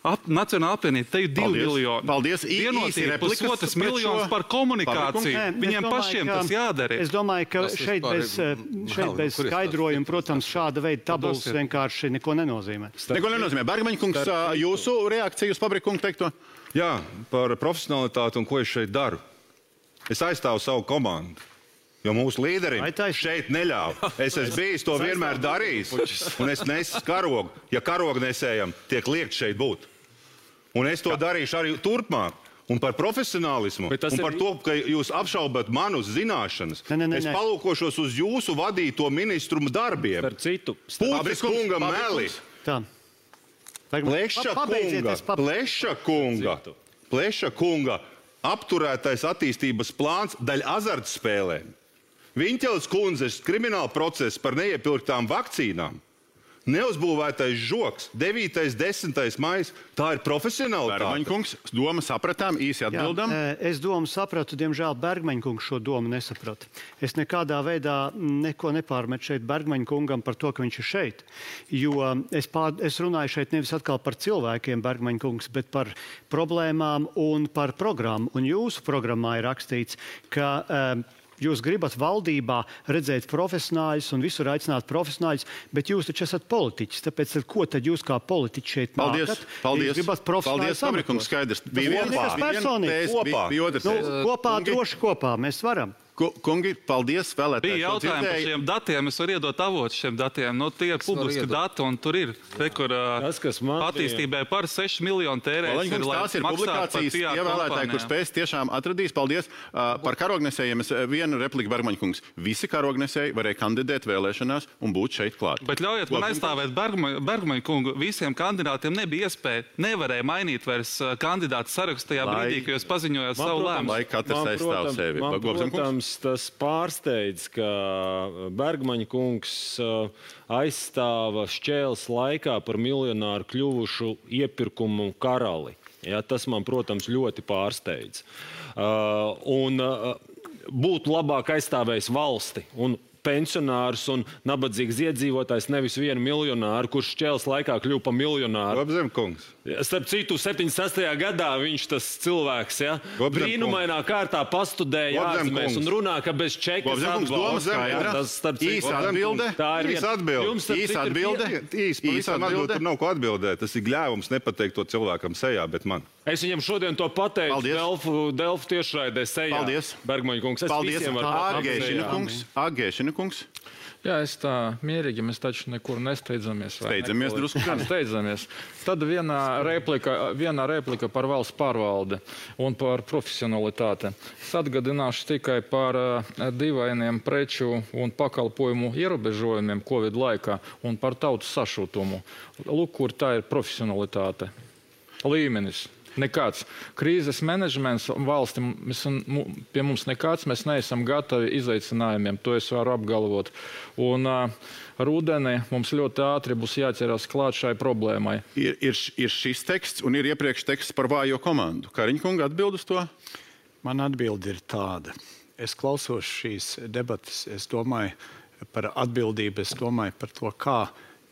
Nacionāla apvienība, te ir 2 miljoni. Paldies. Vienotība pusotras miljonus par komunikāciju. Viņiem pašiem tas jādara. Es domāju, ka šeit bez skaidrojuma, protams, šāda veida tabulas vienkārši neko nenozīmē. Neko nenozīmē. Bergmaņkungs, jūsu reakcija uz Pabrikungu teikto? Jā, par profesionalitāti un ko es šeit daru. Es aizstāvu savu komandu. Jo mūsu līderim šeit neļauj. Es esmu bijis to vienmēr darījis, un es nesu karogu. Ja karogu nesējam, tiek liekt šeit būt. Un es to darīšu arī turpmāk. Un par profesionālismu, un par to, ka jūs apšaubat manus zināšanas. Es palūkošos uz jūsu vadīto ministru darbiem. Par citu. Pūcis kungam meli. Pleša kunga apturētais attīstības plāns daļ azartspēlēm. Viņķeles kundzes krimināla process par neiepirktām vakcīnām. Neuzbūvētais žoks, 9. 10. maijs, tā ir profesionālitāte. Bergmaņkungs, domu sapratām, īsi atbildam. Es domu sapratu, diemžēl Bergmaņkungs šo domu nesaprata. Es nekādā veidā neko nepārmetu šeit Bergmaņkungam par to, ka viņš ir šeit. Jo es runāju šeit nevis atkal par cilvēkiem, Bergmaņkungs, bet par problēmām un par programmu. Un jūsu programmā ir rakstīts, ka jūs gribat valdībā redzēt profesionāļus un visur aicināt profesionāļus, bet jūs taču esat politiķis. Tāpēc ko tad jūs kā politiķi šeit nākat? Paldies. Jūs gribat profesionāļus Pabrikungs, skaidrs. Bija kopā, droši kopā. Mēs varam. Kungi, paldies, vēlētāji. Bija jautājumi par šiem datiem. Es varu iedot avotu šiem datiem. No tie ir publiski dati, un tur ir attīstībai par 6 miljonu tērēs. Tās ir publikācijas, ievēlētāji, kur spēs tiešām atradīs. Paldies. Par karognesējiem es vienu repliku Bergmaņkungs. Visi karognesēji varēja kandidēt vēlēšanās un būt šeit klāt. Bet ļaujiet man aizstāvēt Bergmaņkungu. Visiem kandidātiem nebija iespēja, nevarēja mainīt vairs kandidātu sarakstu tajā brīdī, kad jūs paziņojāt savu lēmumu. Lai katrs aizstāv sevi. Tas pārsteidz, ka Bergmaņkungs aizstāva šķēles laikā par miljonāru kļuvušu iepirkumu karali. Ja, tas man, protams, ļoti pārsteidz. Un būtu labāk aizstāvējis valsti un pensionārs un nabadzīgs iedzīvotājs, nevis vienu miljonāru, kurš šķēles laikā kļuva par miljonāru. Gobzemkungs. Starp citu, 76. gadā viņš tas cilvēks, ja, brīnumainā kārtā pastudēja ārzemēs un runā, ka bez čekas atbalsta. Īsa atbilde. Īsa atbilde. Tur nav ko atbildēt. Tas ir gļēvums nepateikt to cilvēkam sejā, bet man. Es viņam šodien to pateicu Delfu tiešraidē sejā. Paldies. Bergmaņkungs. Paldies. Agēšina kungs. Jā, es tā mierīgi, mēs taču nekur nesteidzamies. Steidzamies drusku. Steidzamies. Tad viena replika par valsts pārvaldi un par profesionalitāti. Es atgādināšu tikai par dīvainiem preču un pakalpojumu ierobežojumiem Covid laikā un par tautas sašutumu. Lūk, kur tā ir profesionalitāte. Līmenis. Nekāds. Krīzes menedžments valsti pie mums nekāds. Mēs neesam gatavi izaicinājumiem. To es varu apgalvot. Un rudenī mums ļoti ātri būs jāķerās klāt šai problēmai. Ir šis teksts un ir iepriekš teksts par vājo komandu. Kariņkunga atbild uz to? Man atbildi ir tāda. Es klausos šīs debatas. Es domāju par atbildību. Es domāju par to, kā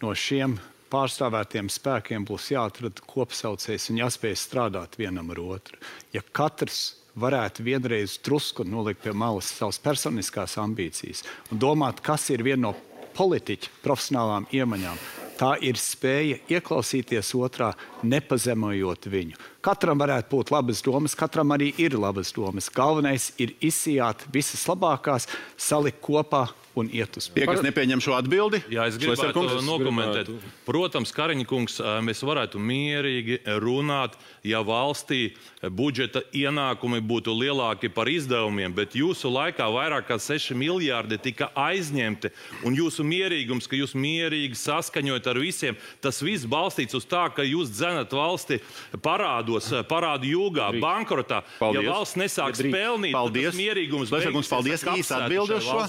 no šiem pārstāvētiem spēkiem būs jāatrada kopsaucējs un jāspēj strādāt vienam ar otru. Ja katrs varētu vienreiz drusku nolikt pie malas savas personiskās ambīcijas un domāt, kas ir viena no politiķa profesionālām iemaņām, tā ir spēja ieklausīties otrā, nepazemojot viņu. Katram varētu būt labas domas, katram arī ir labas domas. Galvenais ir izsijāt visas labākās, salikt kopā un iet uz Tie, kas nepieņem šo atbildi? Jā, es gribētu nokomentēt. Protams, Kariņkungs, mēs varētu mierīgi runāt, ja valstī budžeta ienākumi būtu lielāki par izdevumiem, bet jūsu laikā vairāk kā 6 miljārdi tika aizņemti, un jūsu mierīgums, ka jūs mierīgi saskaņojat ar visiem, tas viss balstīts uz tā, ka jūs dzenat valsti parādu jūgā, bankrotā. Ja valsts nesāks pelnīt, tad tas mierīgums paldies, īsti atbildi uz šo.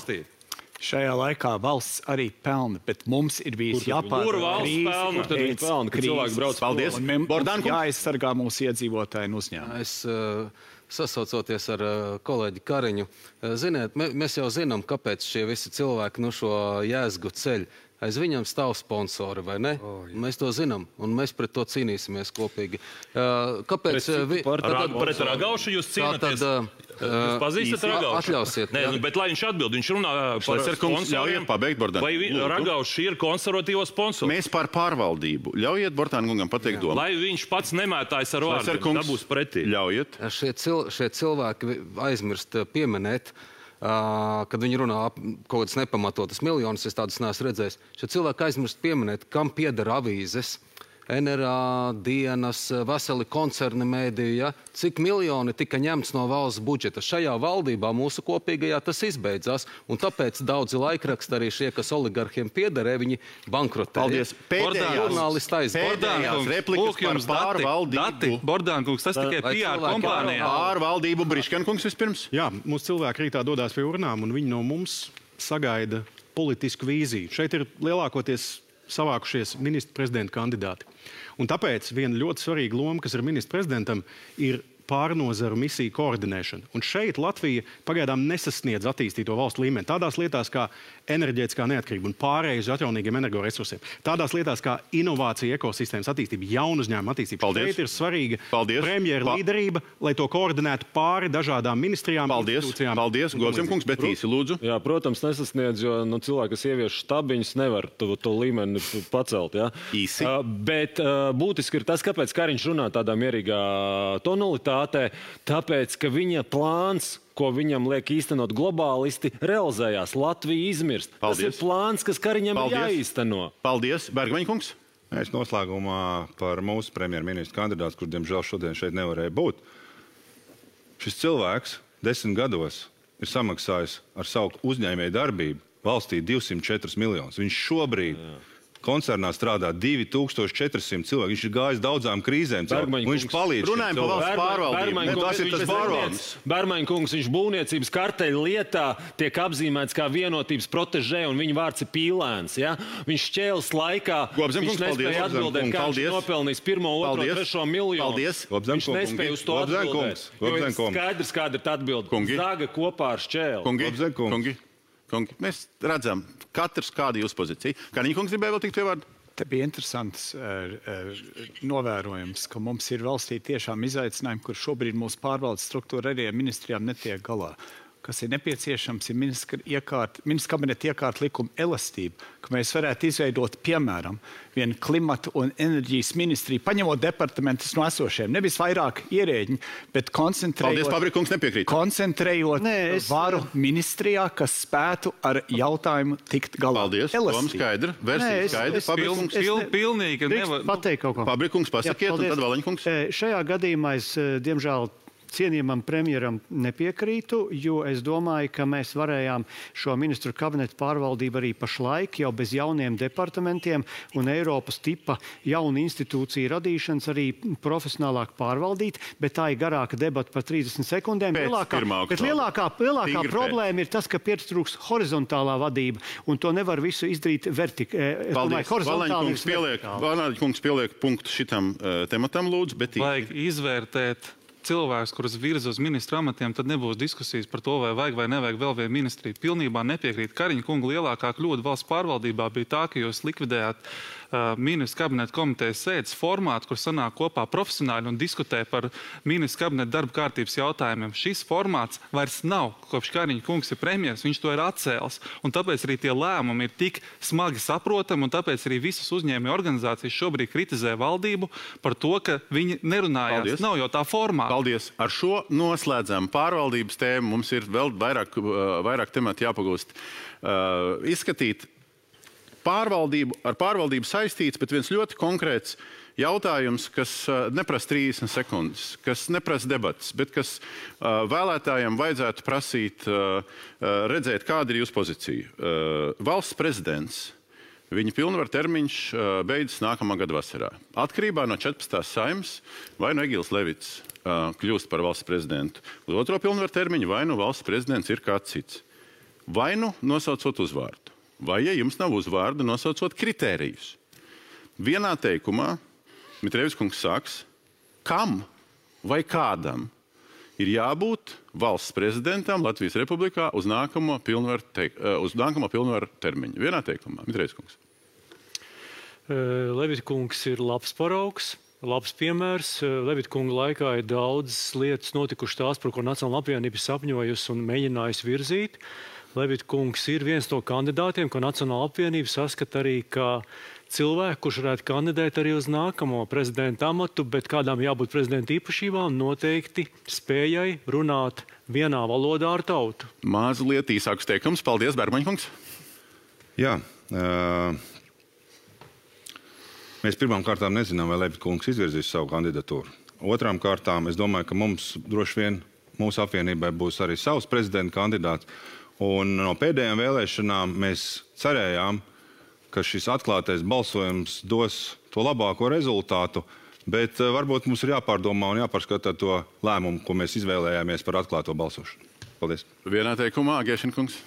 Šajā laikā valsts arī pelna, bet mums ir bijis jāpārvar krīzes. Paldies. Mums jāaizsargā mūsu iedzīvotāji un uzņēmumi. Es sasaucoties ar kolēģi Kariņu, ziniet, mēs jau zinām, kāpēc šie visi cilvēki no šo jēzgu ceļ. Aiz viņam stāv sponsori, vai ne? Mēs to zinām, un mēs pret to cīnīsimies kopīgi. Kāpēc? Pret Ragaušu jūs cīnāties? Jūs pazīstat Ragaušu? Atļausiet. Nē, bet lai viņš atbild, viņš runā par sponsoriem. Vai Ragauši ir konservatīvo sponsori? Mēs par pārvaldību. Ļaujiet Bortāna kungam pateikt domu. Lai viņš pats nemētājas ar vārdiem, dabūs pretī. Ļaujiet. Šie cilvēki aizmirst pieminēt, kad viņi runā kaut kādas nepamatotas miljonus, es tādas neesmu redzējis. Šie cilvēki aizmirst pieminēt, kam pieder avīzes, NRA, dienas, veseli koncerni mēdīju, ja? Cik miljoni tika ņemts no valsts budžeta. Šajā valdībā mūsu kopīgajā tas izbeidzās, un tāpēc daudzi laikraksti arī šie, kas oligarhiem piederē, viņi bankrotēja. Paldies. Pēdējās replikas par pārvaldību. Bordānkungs, tas tikai PR kompānijā. Pārvaldību Briškankungs vispirms. Jā, mūsu cilvēki rītā dodās pie urnām, un viņi no mums sagaida politisku vīziju. Šeit ir lielākoties savākušies ministra prezidenta kandidāti. Un tāpēc viena ļoti svarīga loma, kas ir ministra prezidentam, ir pārnozaru misiju koordinēšana. Un šeit Latvija pagaidām nesasniedz attīstīto valstu līmeni. Tādās lietās kā enerģētiskā neatkarība un pārēja uz atjaunīgiem energoresursiem. Tādās lietās kā inovācija ekosistēmas attīstība, jaunu uzņēmumu attīstība. Paldies. Šeit ir svarīga premjera līderība, lai to koordinētu pāri dažādām ministrijām. Paldies, Gozemkungs, bet īsi lūdzu. Jā, protams, nesasniedz, jo cilvēki, kas ievieš štabiņus, nevar to līmeni pacelt. Ja? Īsi. Bet būtiski ir tas, kāpēc Kariņš runā tādā mierīgā tonalitātē. Tāpēc, ka viņa plāns, ko viņam liek īstenot globālisti, realizējās. Latvija izmirst. Paldies. Tas ir plāns, kas Kariņam ir jāīsteno. Paldies. Bergmaņkungs. Es noslēgumā par mūsu premjerministru kandidātu, kurš, diemžēl, šodien šeit nevarēja būt. Šis cilvēks 10 gados ir samaksājis ar savu uzņēmēju darbību valstī 204 miljonus. Viņš šobrīd koncernā strādā 2400 cilvēki. Viņš ir gājis daudzām krīzēm. Viņš palīdz. Runājam par valsts pārvaldību. Tas ir tas barons. Bermaņkungs, viņš būvniecības karteļa lietā tiek apzīmēts kā vienotības protežē, un viņa vārds ir Pīlēns. Ja? Viņš šķēles laikā, viņš nespēja atbildēt, kā viņš nopelnījis 1., 2., 3. miljonu. Paldies. Viņš nespēja uz to atbildēt. Jo ir skaidrs, kāda ir atbilde. Zaga kopā ar šķēli. Kungi, mēs redzam, katrs kāda jūsu pozīcija. Kariņkungs gribēja vēl tikt pie vārda? Te bija interesants novērojums, ka mums ir valstī tiešām izaicinājumi, kur šobrīd mūsu pārvaldes struktūra arī ministrijām netiek galā. Kas ir nepieciešams, ir ministra kabineta iekārta likuma elastība, ka mēs varētu izveidot, piemēram, vienu klimatu un enerģijas ministriju, paņemot departamentus no esošiem, nevis vairāk ierēģiņi, bet koncentrējot varu ministrijā, kas spētu ar jautājumu tikt galā. Paldies, Tom skaidri, versija skaidri. Pilnīgi nevar pateikt kaut ko. Fabrikungs pasakiet, un tad Valiņkungs. Šajā gadījumā es, diemžēl, cienījamam premjeram nepiekrītu, jo es domāju, ka mēs varējām šo ministru kabinetu pārvaldību arī pašlaik jau bez jauniem departamentiem un Eiropas tipa jaunu institūciju radīšanas arī profesionālāk pārvaldīt, bet tā ir garāka debata par 30 sekundēm. Lielākā problēma ir tas, ka pietrūks horizontālā vadība, un to nevar visu izdarīt Paldies. Valaņkungs pieliek punktu šitam tematam, lūdzu, bet vajag izvērtēt cilvēks, kurus virza uz ministru amatiem, tad nebūs diskusijas par to, vai vajag vai nevajag vēl vienu ministriju. Pilnībā nepiekrīt. Kariņa kunga lielākā kļūda valsts pārvaldībā bija tā, ka jūs likvidējāt ministru kabineta komitejas sēdes formātu, kur sanāk kopā profesionāļi un diskutē par ministru kabineta darba kārtības jautājumiem. Šis formāts vairs nav. Kopš Kariņa kungs ir premjeras, viņš to ir atcēlis. Un tāpēc arī tie lēmumi ir tik smagi saprotami, un tāpēc arī visas uzņēmēju organizācijas šobrīd kritizē valdību par to, ka viņi nerunājās. Paldies. Nav jau tā formāta. Paldies. Ar šo noslēdzam pārvaldības tēmu. Mums ir vēl vairāk temati jāpagūst. Izskatīt ar pārvaldību saistīts, bet viens ļoti konkrēts jautājums, kas neprasa 30 sekundes, kas neprasa debatas, bet kas vēlētājiem vajadzētu prasīt, redzēt, kāda ir jūsu pozīcija. Valsts prezidents, viņa pilnvaru termiņš beidzas nākamā gada vasarā. Atkarībā no 14. Saeimas vai no Egils Levits kļūst par valsts prezidentu. Uz otro pilnvaru termiņu vai nu valsts prezidents ir kāds cits. Vai nu nosaucot uzvārdu, vai, ja jums nav uzvārda, nosaucot kritērijus. Vienā teikumā Mitrēvis kungs sāks, kam vai kādam ir jābūt valsts prezidentam Latvijas Republikā uz nākamo pilnvaru termiņu. Vienā teikumā, Mitrēvis kungs. Levita kungs ir labs paraugs. Labs piemērs. Levita kunga laikā ir daudzas lietas notikušas tās, par ko Nacionālā apvienība sapņojusi un mēģinājusi virzīt. Levita kungs ir viens no kandidātiem, ko Nacionālā apvienība saskata arī kā cilvēku, kurš varētu kandidēt arī uz nākamo prezidenta amatu, bet kādām jābūt prezidenta īpašībām noteikti spējai runāt vienā valodā ar tautu. Mazliet īsāks teikums. Paldies, Bergmaņa kungs. Jā. Mēs pirmām kārtām nezinām, vai Levita kungs izvirzīs savu kandidatūru. Otrām kārtām, es domāju, ka mums droši vien mūsu apvienībai būs arī savs prezidenta kandidāts. Un no pēdējām vēlēšanām mēs cerējām, ka šis atklātais balsojums dos to labāko rezultātu, bet varbūt mums ir jāpārdomā un jāpārskatā to lēmumu, ko mēs izvēlējāmies par atklāto balsošanu. Paldies. Vienā teikumā, Gēšina kungs.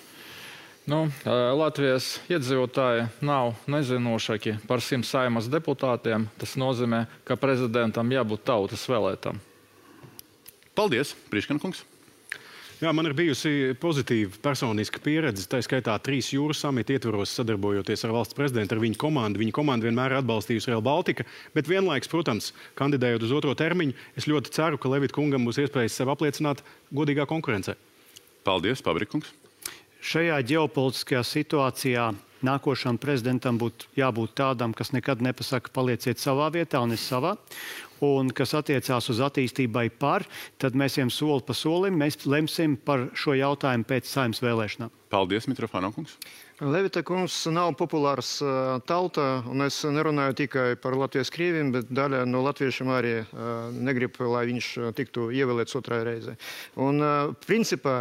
Latvijas iedzīvotāji nav nezinošāki par 100 Saeimas deputātiem. Tas nozīmē, ka prezidentam jābūt tautas vēlētam. Paldies, Priškana kungs. Jā, man ir bijusi pozitīva personiska pieredze, tā skaitā 3 jūras samita ietvaros sadarbojoties ar valsts prezidentu, ar viņu komandu. Viņa komanda vienmēr ir atbalstījusi Rail Baltica, bet vienlaiks, protams, kandidējot uz otro termiņu, es ļoti ceru, ka Levita kungam būs iespējas sev apliecināt godīgā konkurencē. Paldies, Pabrikungs. Šajā ģeopolitiskajā situācijā nākošam prezidentam būtu jābūt tādam, kas nekad nepasaka palieciet savā vietā un es savā, un kas attiecās uz attīstībai tad mēs ejam soli pa solim, mēs lemsim par šo jautājumu pēc Saeimas vēlēšanām. Paldies, Mitrofānov kungs. Levita kungs nav populārs tautā, un es nerunāju tikai par Latvijas krieviem, bet daļa no latviešiem arī negrib, lai viņš tiktu ievēlēts otrai reizei. Un principā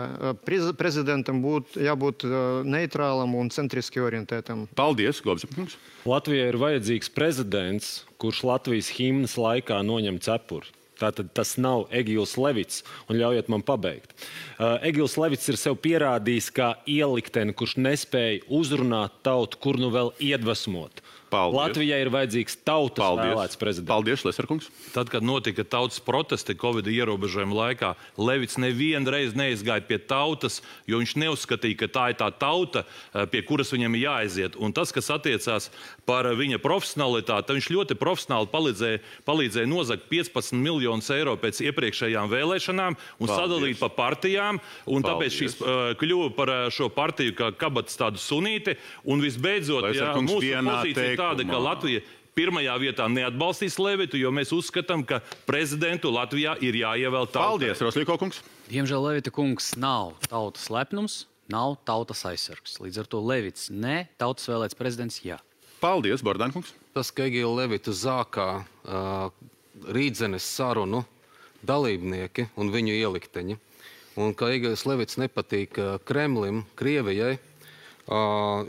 prezidentam būtu jābūt neitrālam un centriski orientētam. Paldies, Gobzem kungs. Latvijai ir vajadzīgs prezidents, kurš Latvijas himnas laikā noņem cepuri. Tātad tas nav Egils Levits, un ļaujiet man pabeigt. Egils Levits ir sev pierādījis kā ielikteni, kurš nespēja uzrunāt tautu, kur nu vēl iedvesmot. Paldies. Latvijai ir vajadzīgs tautas vēlēts prezidents. Paldies, Leserkungs. Tad, kad notika tautas protesti Covid ierobežojuma laikā, Levits nevienu reizi neizgāja pie tautas, jo viņš neuzskatīja, ka tā ir tā tauta, pie kuras viņam ir jāaiziet. Un tas, kas attiecās par viņa profesionalitāti, viņš ļoti profesionāli palīdzēja nozagt 15 miljonus eiro pēc iepriekšējām vēlēšanām un sadalīt pa partijām. Un tāpēc šīs kļuva par šo partiju kā kabatas tādu sunīti. Un visbeidzot, mūsu pozīcija tāda, ka Latvija pirmajā vietā neatbalstīs Levitu, jo mēs uzskatām, ka prezidentu Latvijā ir jāievēl tautai. Paldies, Roslīko kungs. Diemžēl Levita kungs nav tautas lepnums, nav tautas aizsargs. Līdz ar to Levits ne, tautas vēlēts prezidents jā. Paldies, Bordān kungs. Tas, ka Egila Levitu zākā Rīdzenes sarunu dalībnieki un viņu ielikteņi, un ka Egils Levits nepatīk Kremlim, Krievijai,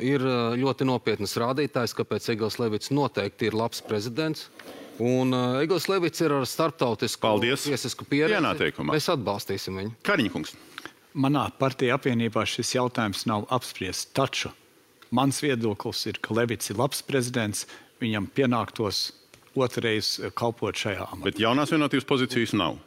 ir ļoti nopietnas rādītājs, kāpēc Egils Levits noteikti ir labs prezidents. Un Egils Levits ir ar starptautisku tiesisku pieredzi. Mēs atbalstīsim viņu. Kariņa kungs. Manā partija apvienībā šis jautājums nav apspriests. Taču mans viedoklis ir, ka Levits ir labs prezidents, viņam pienāktos otrreiz kalpot šajā amatā. Bet jaunās vienotības pozīcijas nav.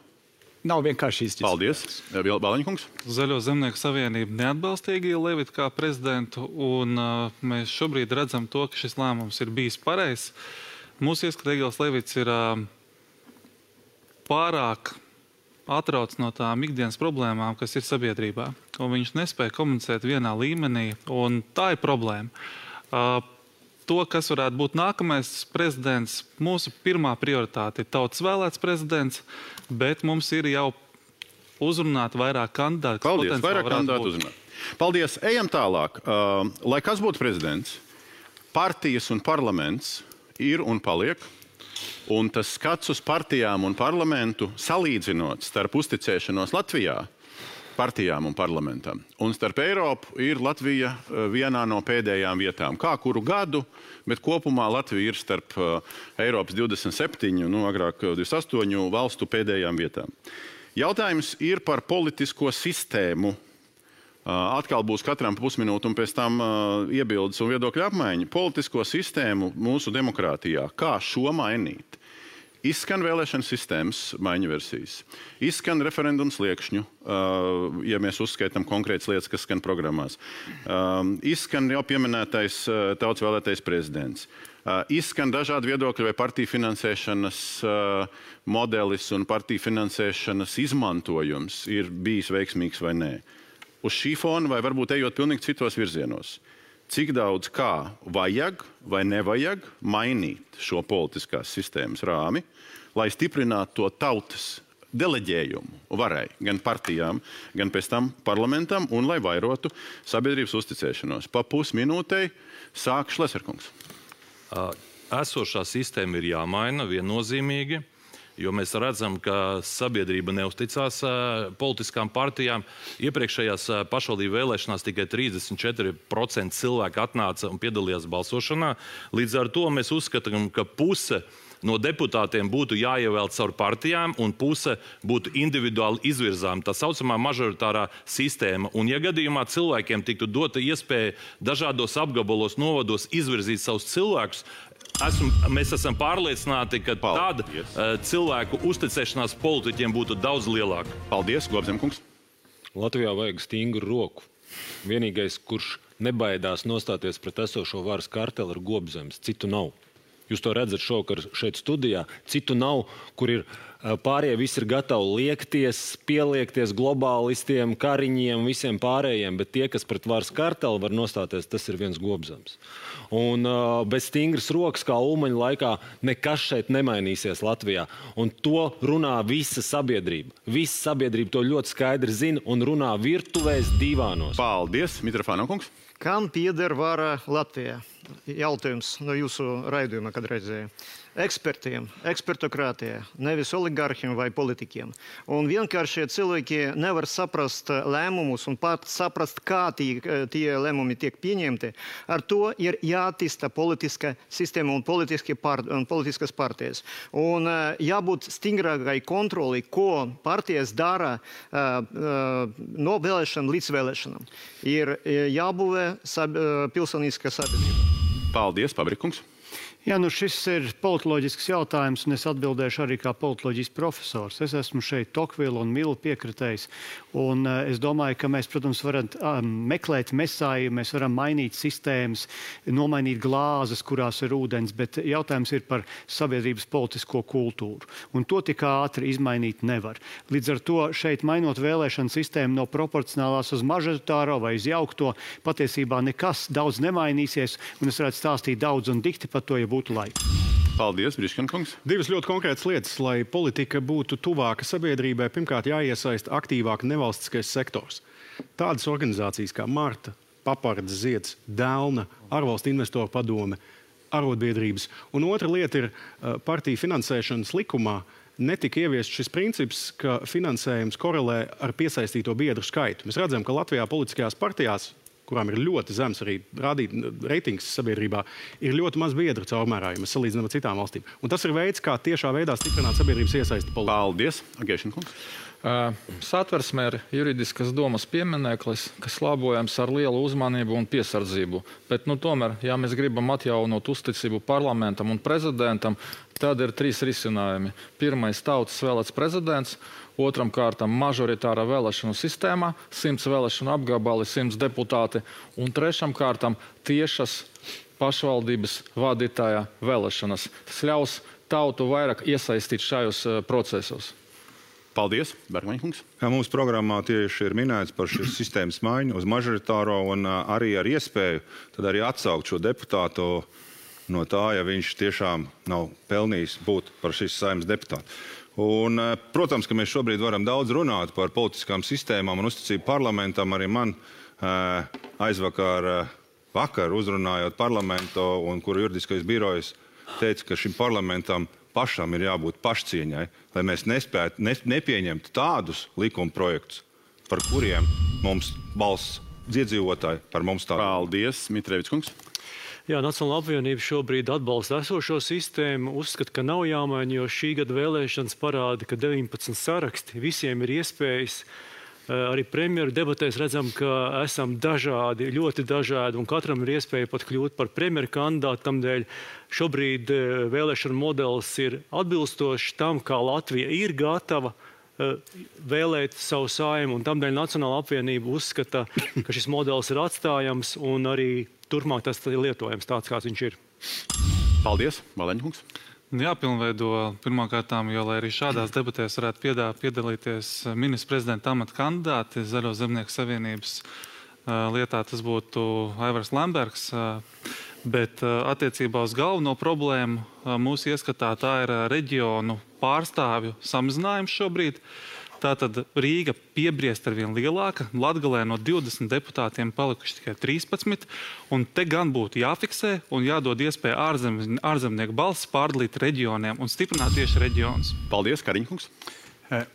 nav vienkārši izģis. Paldies. Balaņkungs. Zaļo zemnieku savienība neatbalsta Egīlu Levitu kā prezidentu, un mēs šobrīd redzam to, ka šis lēmums ir bijis pareizs. Mūsu ieskatā Egīls Levits ir pārāk atrauc no tām ikdienas problēmām, kas ir sabiedrībā. Un viņš nespēja komunicēt vienā līmenī, un tā ir problēma. To, kas varētu būt nākamais prezidents, mūsu pirmā prioritāte ir tautas vēlēts prezidents, bet mums ir jau uzrunāt vairāk kandidātu. Paldies, vairāk kandidātu uzrunāt. Paldies, ejam tālāk. Lai kas būtu prezidents, partijas un parlaments ir un paliek. Un tas skats uz partijām un parlamentu salīdzinot starp uzticēšanos Latvijā, partijām un parlamentam, un starp Eiropu ir Latvija vienā no pēdējām vietām. Kā kuru gadu, bet kopumā Latvija ir starp Eiropas 27, agrāk 28 valstu pēdējām vietām. Jautājums ir par politisko sistēmu. Atkal būs katram pusminūte un pēc tam iebildes un viedokļu apmaiņa. Politisko sistēmu mūsu demokrātijā. Kā šo mainīt? Izskan vēlēšana sistēmas maiņu versijas. Izskan referendums liekšņu, ja mēs uzskaitam konkrētas lietas, kas skan programmās. Izskan jau pieminētais tautas vēlētais prezidents. Izskan dažādi viedokļi, vai partiju finansēšanas modelis un partiju finansēšanas izmantojums ir bijis veiksmīgs vai nē. Uz šī fona vai varbūt ejot pilnīgi citos virzienos. Cik daudz kā vajag vai nevajag mainīt šo politiskās sistēmas rāmi, lai stiprinātu to tautas deleģējumu varai gan partijām, gan pēc tam parlamentam un lai vairotu sabiedrības uzticēšanos. Pa pusminūtei sāk Šleserkungs. Esošā sistēma ir jāmaina viennozīmīgi. Jo mēs redzam, ka sabiedrība neusticās politiskām partijām. Iepriekšējās pašvaldību vēlēšanās tikai 34% cilvēku atnāca un piedalījās balsošanā. Līdz ar to mēs uzskatām, ka puse no deputātiem būtu jāievēl caur partijām un puse būtu individuāli izvirzām. Tā saucamā mažoritārā sistēma. Un ja gadījumā cilvēkiem tiktu dota iespēja dažādos apgabalos, novados izvirzīt savus cilvēkus, mēs esam pārliecināti, ka tāda cilvēku uzticēšanās politiķiem būtu daudz lielāka. Paldies, Globzemkungs. Latvijā vajag stingru roku. Vienīgais, kurš nebaidās nostāties pret esošo varas karteli, ir Gobzems. Citu nav. Jūs to redzat šovakar šeit studijā. Citu nav, kur ir pārējie visi ir gatavi liekties, pieliekties globālistiem, kariņiem, visiem pārējiem, bet tie, kas pret varas karteli var nostāties, tas ir viens Gobzems. Un bez stingras rokas, kā Ulmaņa laikā, nekas šeit nemainīsies Latvijā. Un to runā visa sabiedrība. Visa sabiedrība to ļoti skaidri zina un runā virtuvēs divānos. Paldies, Mitrofānokungs. Kam pieder vara Latvijā? Jautājums no jūsu raidījuma, kad redzēju. Ekspertiem, ekspertokrātijā, nevis oligarhiem vai politikiem. Un vienkārši cilvēki nevar saprast lēmumus un pat saprast, kā tie lēmumi tiek pieņemti. Ar to ir jāattīsta politiska sistēma un politiskas partijas. Un jābūt stingrākai kontroli, ko partijas dara no vēlēšanām līdz vēlēšanām. Ir jābūvē pilsoniskā sabiedrība. Paldies, Pabrikungs. Jā, šis ir politoloģisks jautājums, un es atbildēšu arī kā politoloģijas profesors. Es esmu šeit Tokvila un Mila piekritējs, un es domāju, ka mēs, protams, varam meklēt mesāju, mēs varam mainīt sistēmas, nomainīt glāzes, kurās ir ūdens, bet jautājums ir par sabiedrības politisko kultūru, un to tik ātri izmainīt nevar. Līdz ar to šeit mainot vēlēšanu sistēmu no proporcionālās uz mažoritāro vai uz jaukto, patiesībā nekas daudz nemainīsies, un es varētu stāstīt daudz un dikti par to, ja būtu laiks. Paldies, Briškankungs. Divas ļoti konkrētas lietas, lai politika būtu tuvāka sabiedrībai. Pirmkārt, jāiesaista aktīvāk nevalstiskais sektors. Tādas organizācijas kā Marta, Papards, Zieds, Delna, Ārvalstu investoru padome, arotbiedrības. Un otra lieta ir partiju finansēšanas likumā. Netika ieviests šis princips, ka finansējums korelē ar piesaistīto biedru skaitu. Mēs redzam, ka Latvijā politiskajās partijās, kurām ir ļoti zems arī reitings sabiedrībā, ir ļoti maz biedru caurmērā, ja mēs salīdzinām ar citām valstīm. Un tas ir veids, kā tiešā veidā stiprināt sabiedrības iesaisti politikā. Paldies, Agēšankungs. Satversmē ir juridiskas domas piemineklis, kas labojams ar lielu uzmanību un piesardzību. Bet, tomēr, ja mēs gribam atjaunot uzticību parlamentam un prezidentam, tad ir 3 risinājumi. Pirmais - tautas vēlēts prezidents, otram kārtam - mažoritāra vēlēšanu sistēmā, 100 vēlēšanu apgabali, 100 deputāti, un trešam kārtam - tiešas pašvaldības vadītāja vēlēšanas. Tas ļaus tautu vairāk iesaistīt šajos procesos. Paldies, Bergmaņkungs. Mūsu programmā tieši ir minēts par šīs sistēmas maiņu uz mažoritāro un arī ar iespēju tad arī atsaukt šo deputātu no tā, ja viņš tiešām nav pelnījis būt par šīs Saeimas deputātu. Un, protams, ka mēs šobrīd varam daudz runāt par politiskām sistēmām un uzticību parlamentam. Arī man vakar uzrunājot parlamentu, un kuru juridiskais birojs teica, ka šim parlamentam pašam ir jābūt pašcieņai, lai mēs nepieņemtu tādus likuma projektus, par kuriem mums balss iedzīvotāji par mums tādu. Paldies, Mitrēvics kungs. Jā, Nacionāla apvienība šobrīd atbalsta esošo sistēmu, uzskata, ka nav jāmaina, jo šī gada vēlēšanas parāda, ka 19 saraksti, visiem ir iespējas. Arī premjeru debatēs redzam, ka esam dažādi, ļoti dažādi, un katram ir iespēja pat kļūt par premjeru kandidātu. Tamdēļ šobrīd vēlēšana modelis ir atbilstošs tam, kā Latvija ir gatava vēlēt savu Saeimu, un tamdēļ Nacionāla apvienība uzskata, ka šis modelis ir atstājams, un arī turpmāk tas ir lietojams tāds, kāds viņš ir. Paldies, Baleņkungs. Jāpilnveido pirmkārtām, jo, lai arī šādās debatēs varētu piedalīties ministra prezidenta amata kandidāti Zaļo zemnieku savienības lietā, tas būtu Aivars Lembergs. Bet attiecībā uz galveno problēmu mūsu ieskatā tā ir reģionu pārstāvju samazinājums šobrīd. Tātad Rīga piebriest ar vien lielāka, Latgalē no 20 deputātiem palikuši tikai 13, un te gan būtu jāfiksē un jādod iespēja ārzemnieku balsis pārdalīt reģioniem un stiprināt tieši reģionus. Paldies, Kariņkungs.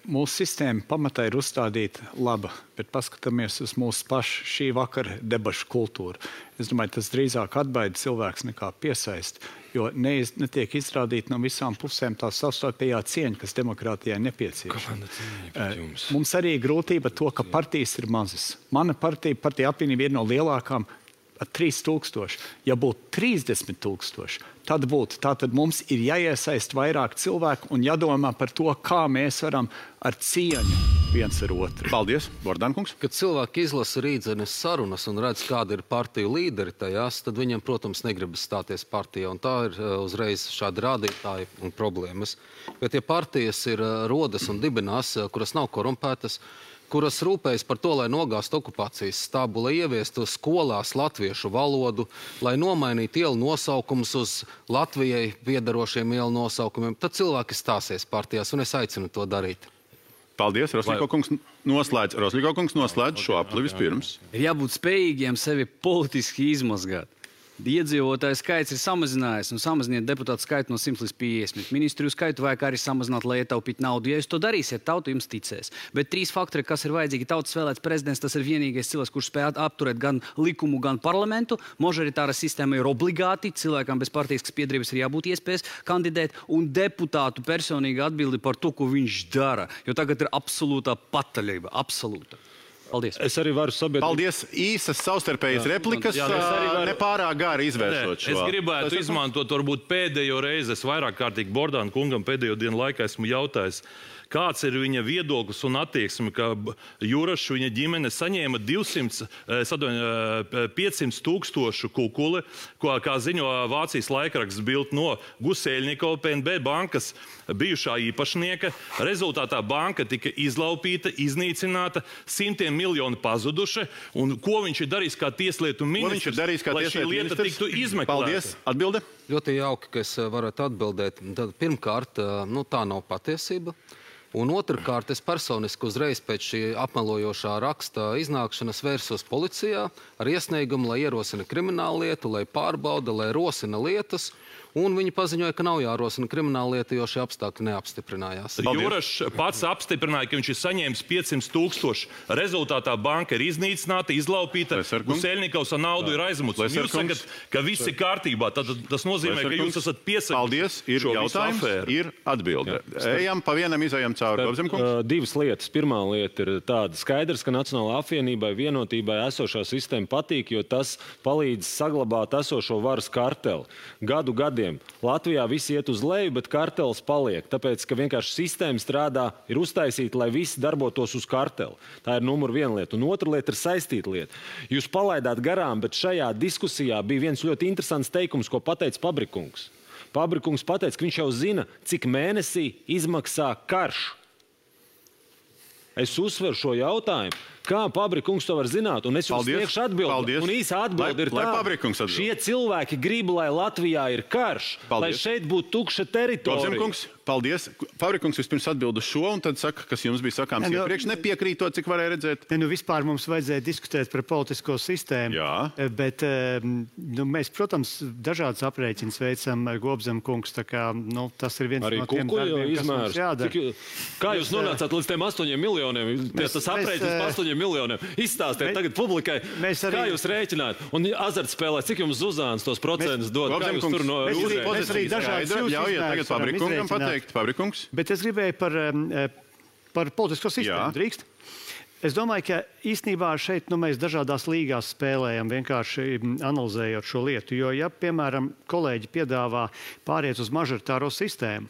Mūsu sistēma pamatā ir uzstādīta laba, bet paskatāmies uz mūsu pašu šī vakara debašu kultūru. Es domāju, tas drīzāk atbaida cilvēks nekā piesaist, jo netiek izrādīta no visām pusēm tā savstarpējā cieņa, kas demokrātijai nepieciešama. Mums arī ir grūtība to, ka partijas ir mazas. Mana partija apvienība ir no lielākām 3000. Ja būtu 30 000, tad būtu. Tātad mums ir jāiesaist vairāk cilvēku un jādomā par to, kā mēs varam ar cieņu viens ar otru. Paldies, Bordankungs. Kad cilvēki izlasa rītdienas sarunas un redz, kāda ir partiju līderi tajās, tad viņiem, protams, negribas stāties partijā. Un tā ir uzreiz šādi rādītāji un problēmas. Bet ja partijas ir rodas un dibinās, kuras nav korumpētas, kuras rūpējas par to, lai nogāstu okupācijas stābu, lai ieviestu skolās latviešu valodu, lai nomainītu ielu nosaukumus uz Latvijai piedarošiem ielu nosaukumiem, tad cilvēki stāsies partijās, un es aicinu to darīt. Paldies, Rosļiko kungs noslēdz šo apli vispirms. Ir jābūt spējīgiem sevi politiski izmazgāt. Iedzīvotāju skaits ir samazinājies, un samaziniet deputātu skaitu no 100 līdz 50. Ministriju skaitu vajag arī samazināt, lai ietaupītu naudu. Ja jūs to darīsiet, tauta jums ticēs. Bet 3 faktori, kas ir vajadzīgi, tautas vēlēts prezidents, tas ir vienīgais cilvēks, kurš spēj apturēt gan likumu, gan parlamentu. Mažoritāra sistēma ir obligāti, cilvēkam bez partiskas piederības ir jābūt iespējas kandidēt, un deputātu personīga atbildi par to, ko viņš dara. Jo tagad ir absolūtā pataļība, absolūta. Paldies. Es arī varu sabiedrīt. Paldies. Īsas savstarpējas replikas, nepārāk gāri izvēršot šo. Es gribētu izmantot varbūt pēdējo reizi. Es vairāk kārtīgi Bordāna kungam pēdējo dienu laikā esmu jautājis, kāds ir viņa viedoklis un attieksme, ka Jurašs viņa ģimene saņēma 500 000 kukuli, kā ziņo Vācijas laikraksts Bild no Guseļnikova PNB bankas bijušā īpašnieka. Rezultātā banka tika izlaupīta, iznīcināta, 100 miljoni pazuduši. Un ko viņš ir darījis kā tieslietu ministrs, lai šī lieta tiktu izmeklēta? Paldies. Atbilde? Ļoti jauki, ka es varētu atbildēt. Tad, pirmkārt, tā nav patiesība. Un otrkārt, es personiski uzreiz pēc šī apmelojošā raksta iznākšanas vērsos policijā ar iesniegumu, lai ierosina kriminālu lietu, lai pārbauda, lai rosina lietas. Un viņi paziņoja, ka nav jārosina krimināla lieta, jo šie apstākļi neapstiprinājās. Jurašs pats apstiprināja, ka viņš ir saņēmis 500 000. Rezultātā banka ir iznīcināta, izlaupīta, Guseļnikovs ar naudu ir aizmuts. Jūs sakat, ka viss ir kārtībā. Tad tas nozīmē, ka jūs esat piesakti. Paldies. Ir jautājums, ir atbilde. Ejam pa vienam, izejam cauri. Divas lietas. Pirmā lieta ir tāda skaidrs, ka Nacionālajai apvienībai vienotībai esošā sistēma patīk, jo tas palīdz saglabāt esošo varas karteli. Gadiem. Latvijā viss iet uz leju, bet kartelis paliek. Tāpēc, ka vienkārši sistēma strādā, ir uztaisīta, lai visi darbotos uz karteli. Tā ir numur viena lieta. Un otra lieta ir saistīta lieta. Jūs palaidāt garām, bet šajā diskusijā bija viens ļoti interesants teikums, ko pateica Pabrikungs. Pabrikungs pateica, ka viņš jau zina, cik mēnesī izmaksā karš. Es uzsveru šo jautājumu. Kā Pabrikungs to var zināt? Un es jums sniegšu atbildi. Un īsa atbildi ir tā, šie cilvēki grib, lai Latvijā ir karš, lai šeit būtu tukša teritorija. Paldies. Pabrikungs vispirms atbild uz šo, un tad saka, kas jums bija sakāms iepriekš, nepiekrītot, cik varēja redzēt. Vispār mums vajadzēja diskutēt par politisko sistēmu. Jā. Bet mēs, protams, dažādas aprēķinas veicam ar Gobzem kungs, tā kā tas ir viens no tiem darbiem, kas mums jādara. Kā jūs nonācāt līdz tiem 8 miljoniem? Tas aprēķins 8 miljoniem. Izstāstiet tagad publikai, kā jūs rēķināt. Un azartspēlē, cik jums Zuzāns tos procentus dod? Kā jūs tur no Pabrikungs. Bet es gribēju par politisko sistēmu. Drīkst? Es domāju, ka īstenībā šeit mēs dažādās līgās spēlējam, vienkārši analizējot šo lietu. Jo, ja, piemēram, kolēģi piedāvā pāriet uz mažoritāro sistēmu,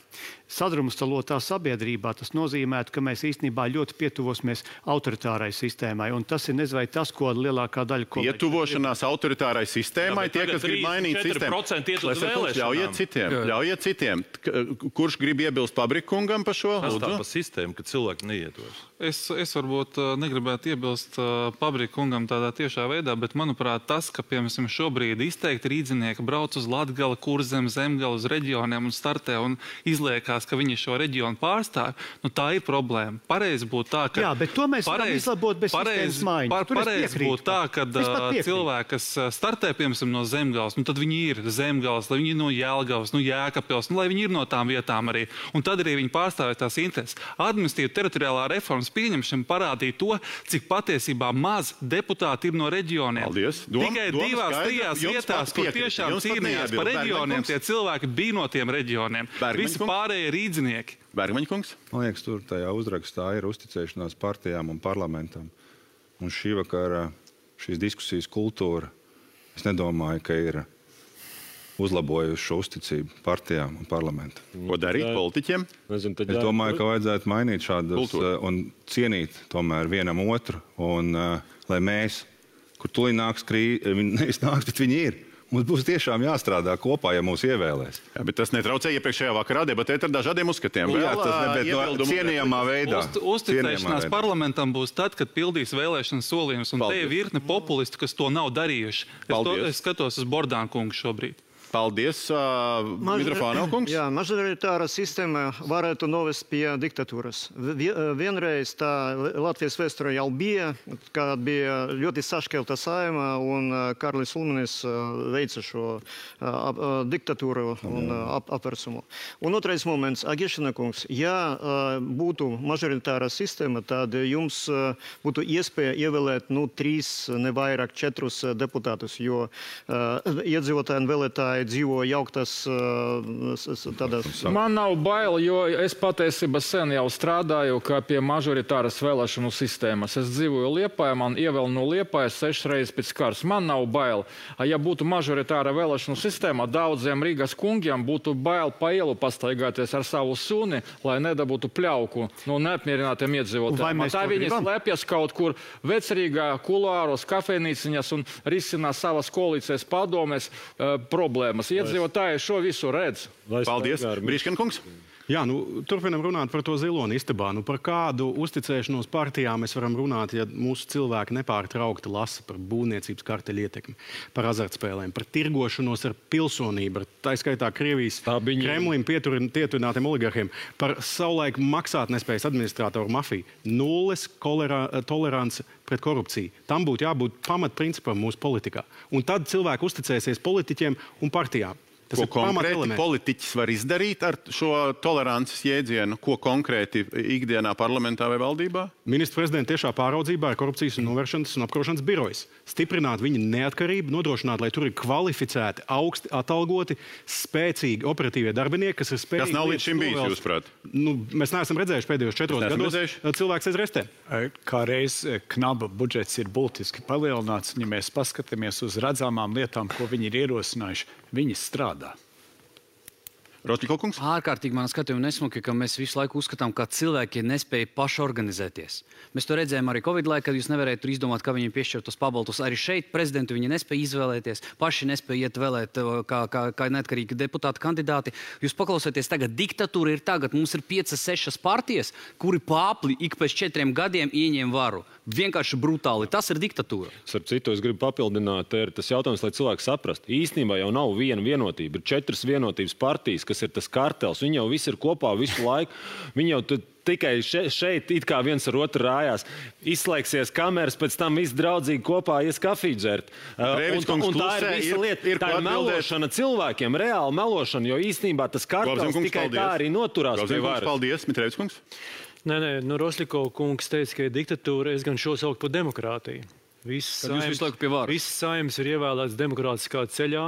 sadrumstalotā sabiedrībā, tas nozīmētu, ka mēs īstenībā ļoti pietuvosimies autoritārai sistēmai. Un tas ir nezinu, vai tas, ko lielākā daļa kolēģi... Pietuvošanās autoritārai sistēmai, tie, kas grib mainīt sistēmu. Ļaujiet citiem. Kurš grib iebilst Pabrikungam par šo? Tas tā pa sistēmu, ka cilvēki neietos. Es varbūt negribētu iebilst Pabrikungam tādā tiešā veidā, bet, manuprāt, tas, ka, piemēram, šobrīd izteikti rīdzinieki brauc uz Latgali, Kurzem, Zemgali, uz reģioniem un startē un izliekās, ka viņi šo reģionu pārstāv, tā ir problēma. Pareizi būtu tā, ka... Jā, bet to mēs varam izlabot bez sistēmas maiņas. Pareizi būtu tā, ka cilvēki, kas startē, piemēram, no Zemgales, tad viņi ir Zemgales, lai viņi ir no Jelgavas, no Jēkabpils, lai viņi ir no tām vietām arī. Un tad arī viņi pārstāvē tās intereses. Administratīva teritoriālā reformas pieņemšana parādīja to, cik patiesībā maz deputāti ir no reģioniem. Paldies. Tikai 2-3 vietās, kur tiešām cīnījās par reģioniem, tie cilvēki bija no tiem reģioniem. Visi pārējie rīdzinieki. Bergmaņkungs? Man liekas, tur tajā uzrakstā ir uzticēšanās partijām un parlamentam. Un šī vakara šīs diskusijas kultūra, es nedomāju, ka ir uzlabojuši šo uzticību partijām un parlamentam. Ko darīt politiķiem? Es domāju, ka vajadzētu mainīt šādus un cienīt tomēr vienam otru. Un lai mēs, kur tūlīt nāks krīze, nevis nāks, bet viņi ir. Mums būs tiešām jāstrādā kopā, ja mūs ievēlēs. Jā, bet tas netraucē iepriekšējā vakarā debatēt ar dažādiem uzskatiem. Jā, tas cienījamā veidā. Uzticēšanās parlamentam būs tad, kad pildīs vēlēšanas solījumus, un te ir virkne populistu, kas to nav darījuši. Es skatos uz Bordānu kungu šobrīd. Paldies, Mitrofānov kungs. Jā, mažoritāra sistēma varētu novest pie diktatūras. Vienreiz tā Latvijas vēsturē jau bija, kad bija ļoti sašķelta saima un Karlis Ulmanis veica šo diktatūru un apversumu. Un otrais moments, Agešina kungs, ja būtu mažoritāra sistēma, tad jums būtu iespēja ievēlēt 3, ne vairāk 4 deputātus, jo iedzīvotāji un vēlētāji dzīvo jauktas tādās... Man nav bail, jo es patiesībā sen jau strādāju kā pie mažoritāras vēlēšanu sistēmas. Es dzīvoju Liepājā, man ievēl no Liepājas 6 reizes pēc kārs. Man nav bail. Ja būtu mažoritāra vēlēšanu sistēma, daudziem Rīgas kungiem būtu bail pa ielu pastaigāties ar savu suni, lai nedabūtu pļauku no neapmierinātiem iedzīvotājiem. Tā viņi slēpjas kaut kur Vecrīgā, kuluāros, kafejnīciņas un risina savas koalīcijas padomēs problēmas. Iedzīvotāji šo visu redz. Paldies. Brīškenkungs? Jā, turpinam runāt par to ziloni istabā. Par kādu uzticēšanos partijām mēs varam runāt, ja mūsu cilvēki nepārtraukti lasa par būvniecības karteļu ietekmi, par azartspēlēm, par tirgošanos ar pilsonību, tā skaitā Krievijas Kremlim pietuvinātiem oligarhiem, par savulaik maksātnespējas administratoru mafiju. Nulles tolerance pret korupciju. Tam būtu jābūt pamatprincipam mūsu politikā. Un tad cilvēki uzticēsies politiķiem un partijām. Ko konkrēti politiķis var izdarīt ar šo tolerances jēdzienu? Ko konkrēti ikdienā parlamentā vai valdībā? Ministra prezidenta tiešā pāraudzībā ir korupcijas un novēršanas un apkarošanas birojas. Stiprināt viņa neatkarību, nodrošināt, lai tur ir kvalificēti, augsti atalgoti, spēcīgi operatīvie darbinieki, kas ir spējīgi... Kas nav līdz šim bijis, jūsuprāt? Mēs neesam redzējuši pēdējos 4 gados cilvēks aiz restēm. Kā reiz knaba budžets ir būtiski palielināts, ja mēs paskatāmies uz redzamām lietām, ko viņi ir ierosinājuši, viņi strādā. Rosļikovkungs? Ārkārtīgi man skatījumi nesmuki, ka mēs visu laiku uzskatām, ka cilvēki nespēja paši organizēties. Mēs to redzējām arī Covid laikā, kad jūs nevarējāt tur izdomāt, kā viņiem piešķirt tos pabaltus. Arī šeit prezidentu viņi nespēja izvēlēties, paši nespēja iet vēlēt kā neatkarīgi deputāti kandidāti. Jūs paklausieties, tagad diktatūra ir tagad. Mums ir 5-6 partijas, kuri pāpli ik pēc 4 gadiem ieņem varu. Vienkārši brutāli. Tas ir diktatūra. Starp citu, es gribu papildināt, ir tas jautājums, lai cilvēki saprastu. Īstenībā jau nav viena vienotība. Ir 4 vienotības partijas, kas ir tas kartels. Viņi jau visi ir kopā visu laiku. Viņi jau tikai šeit it kā viens ar otru rājās. Izslēgsies kameras, pēc tam visi draudzīgi kopā ies kafiju dzert. Un tā ir visa lieta. Tā ir melošana cilvēkiem, reāli melošana, jo īstenībā tas kartels tikai tā arī noturās pie varas. Paldies, Mitrēvis kungs. Nē, Rosļikova kungs teica, ka ir diktatūra, es gan šo saukt par demokrātiju. Visas saimnes ir ievēlētas demokrātiskā ceļā,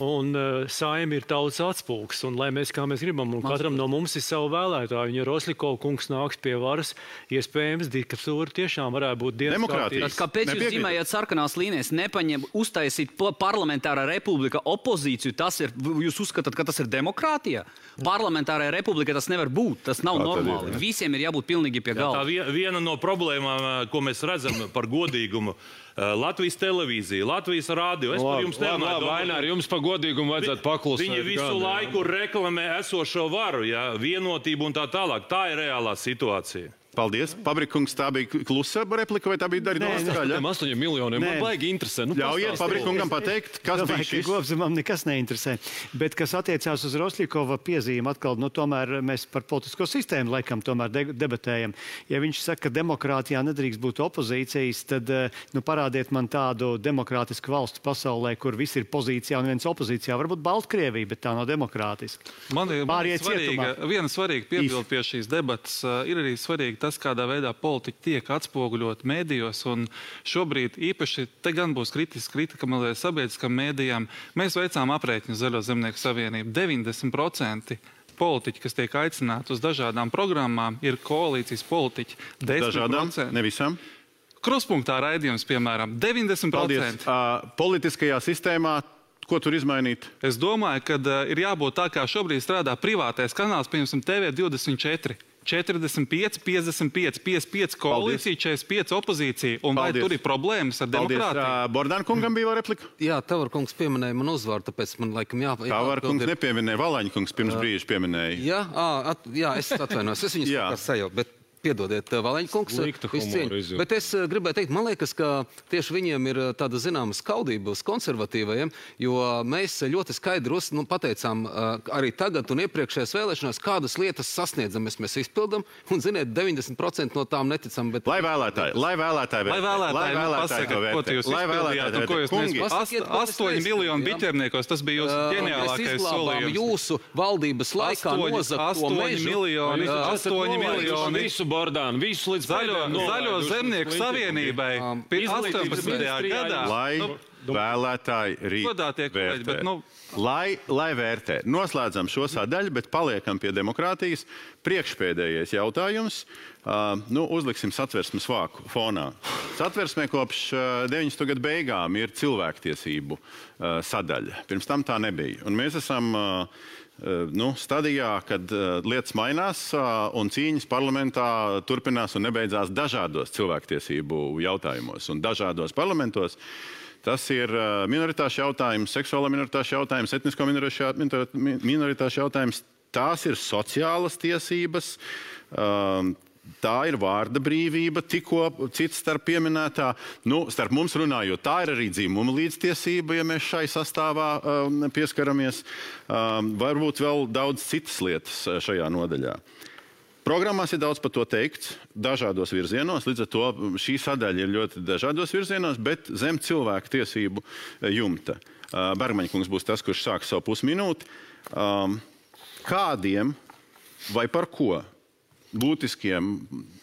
un saime ir tautas atspulgs. Un, lai mēs, kā mēs gribam, un katram no mums ir savu vēlētāju, un ja Rosļikova kungs nāks pie varas, iespējams, diktatūra tiešām varētu būt demokrātija. Kāpēc jūs zīmējat sarkanās līnijas, nepaņem uztaisīt parlamentārā republika opozīciju? Jūs uzskatāt, ka tas ir demokrātija? Parlamentārā republika tas nevar būt, tas nav normāli. Visiem ir jābūt pilnīgi pie galda. Tā viena no problēmām, ko mēs redzam par godīgumu, Latvijas televīzija, Latvijas rādio. Es par jums nerunāju. Vainār, jums par godīgumu vajadzētu paklusēt. Viņi visu laiku reklamē esošo varu, vienotību un tā tālāk. Tā ir reālā situācija. Paldies. Pabrikungs, tā bija klusa replika vai tā bija darīta skaļa? 8 miljoniem. Man baigi interesē. Ļaujiet Pabrikungam pateikt, kas bija šis. Kopumam nekas neinteresē. Bet kas attiecās uz Rosļikova piezīmi, atkal, tomēr mēs par politisko sistēmu laikam tomēr debatējam. Ja viņš saka, ka demokrātijā nedrīkst būt opozīcijas, tad parādiet man tādu demokrātisku valstu pasaulē, kur visi ir pozīcijā un viens opozīcijā. Varbūt Baltkrievija, bet tā nav demokrātiska. Man ir viena svarīga piebilde pie šīs debatas. Ir arī svarīgi tas, kādā veidā politiķi tiek atspoguļot mēdījos, un šobrīd īpaši te gan būs kritika sabiedriskām mēdījām. Mēs veicām aprēķinu Zaļo zemnieku savienību. 90% politiķi, kas tiek aicināti uz dažādām programmām, ir koalīcijas politiķi. 10%. Dažādām, ne visam. Kruspunktā raidījums, piemēram, 90%. Paldies. Politiskajā sistēmā, ko tur izmainīt? Es domāju, ka ir jābūt tā, kā šobrīd strādā privātais kanāls, piemēram, TV24. 45, 55, 55 koalīcija, 45 opozīcija. Un vai tur ir problēmas ar demokrātiju? Bordāna kungam bija replika? Jā, Tavar kungs pieminēja man uzvaru, tāpēc man laikam Tavar kungs nepieminēja, Valaņa kungs pirms brīža pieminēja. Jā, es atvainojos, es viņus kā sajaucu, bet piedodiet, Valaņa kungs, bet es gribēju teikt, man liekas, ka tieši viņiem ir tāda zināma skaudība uz konservatīvajiem, jo mēs ļoti skaidri pateicām arī tagad un iepriekšējās vēlēšanās, kādas lietas sasniedzam, mēs izpildam, un ziniet, 90% no tām neticam, bet... Lai vēlētāji pasaka, ko jūs izpildījāt un ko jūs nespējat. 8 miljonu biķerniekos, tas bija jūsu ģeniālākais solījums. Jūsu valdības laikā nozakt to mežu. 8 miljoni. Bordānu, visu līdz Zaļo zemnieku savienībai 18. gadā. Lai vēlētāji rīt vērtē. Lai vērtē. Noslēdzam šo sadaļu, bet paliekam pie demokrātijas. Priekšpēdējais jautājums. Uzliksim satversmes vāku fonā. Satversmē kopš 90. gadu beigām ir cilvēktiesību sadaļa. Pirms tam tā nebija. Un mēs esam... stadijā, kad lietas mainās un cīņas parlamentā turpinās un nebeidzās dažādos cilvēktiesību jautājumos un dažādos parlamentos. Tas ir minoritāšu jautājums, seksuālā minoritāšu jautājums, etnisko minoritāšu jautājums. Tās ir sociālas tiesības, tā ir vārda brīvība, tikko cits starp pieminētā. Starp mums runājot, tā ir arī dzimuma līdztiesība, ja mēs šai sastāvā pieskaramies. Varbūt vēl daudz citas lietas šajā nodaļā. Programmās ir daudz par to teikts, dažādos virzienos, līdz ar to šī sadaļa ir ļoti dažādos virzienos, bet zem cilvēku tiesību jumta. Bergmaņa kungs būs tas, kurš sāks savu pusminūti. Kādiem vai par ko būtiskiem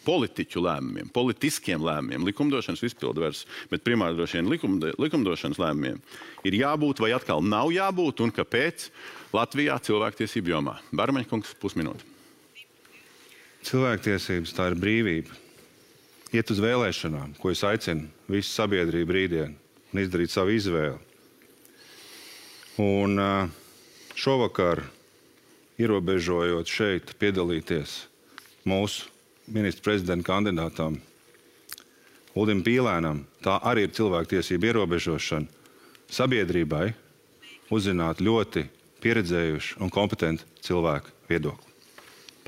politiķu lēmumiem, politiskiem lēmumiem, likumdošanas izpildvaras, bet primāri droši vien likumdošanas lēmumiem ir jābūt vai atkal nav jābūt un kāpēc Latvijā cilvēktiesību jomā? Bergmaņa kungs, pusminūte. Cilvēktiesības tā ir brīvība. Iet uz vēlēšanām, ko es aicinu visu sabiedrību rītdien un izdarīt savu izvēli. Un šovakar, ierobežojot šeit piedalīties mūsu ministra prezidenta kandidātām Uldim Pīlēnam, tā arī ir cilvēktiesība ierobežošana sabiedrībai uzzināt ļoti pieredzējuši un kompetenti cilvēku viedokli.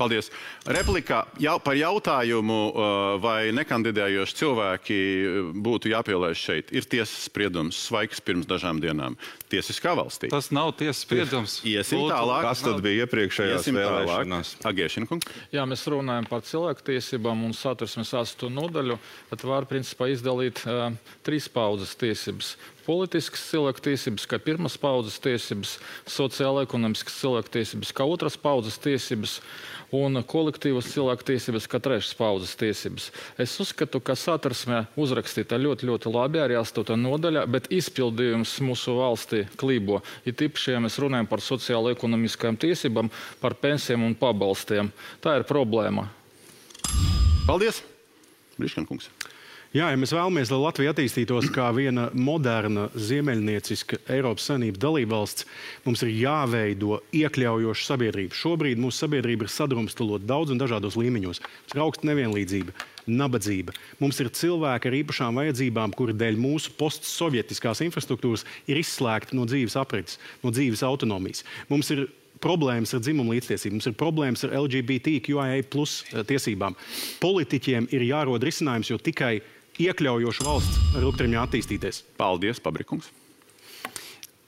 Paldies. Replikā par jautājumu, vai nekandidējoši cilvēki būtu jāpielaiž šeit. Ir tiesas spriedums Svaigs pirms dažām dienām. Tiesiskā valstī. Tas nav tiesas spriedums. Iesim tālāk. Kas tad bija iepriekšējās vēlēšanās? Agiešina kungs. Jā, mēs runājam par cilvēktiesībām un satversmes 8. nodaļu. Tad var principā izdalīt 3 paudzes tiesības. Politiskas cilvēktiesības, kā pirmas paudzes tiesības, sociāla-ekonomiskas cilvēktiesības, kā otras paudzes tiesības un kolektīvas cilvēktiesības, kā trešas paudzes tiesības. Es uzskatu, ka satversmē uzrakstīta ļoti labi arī 8. nodaļa, bet izpildījums mūsu valstī klībo. Ir tīpaši, ja mēs runājam par sociāla-ekonomiskajām tiesībām, par pensijām un pabalstiem. Tā ir problēma. Paldies. Briškan kungs. Jā, ja mēs vēlamies, lai Latvija attīstītos kā viena moderna, ziemeļnieciska Eiropas Savienības dalībvalsts, mums ir jāveido iekļaujoša sabiedrība. Šobrīd mūsu sabiedrība ir sadrumstalota daudz un dažādos līmeņos. Mums ir augsta nevienlīdzība, nabadzība. Mums ir cilvēki ar īpašām vajadzībām, kuri dēļ mūsu postsovietiskās infrastruktūras ir izslēgti no dzīves aprites, no dzīves autonomijas. Mums ir problēmas ar dzimumu līdztiesību, mums ir problēmas ar LGBTQIA+ tiesībām. Politiķiem ir jārod risinājums, jo tikai iekļaujoša valsts var ilgtermiņā attīstīties. Paldies, Pabrikungs.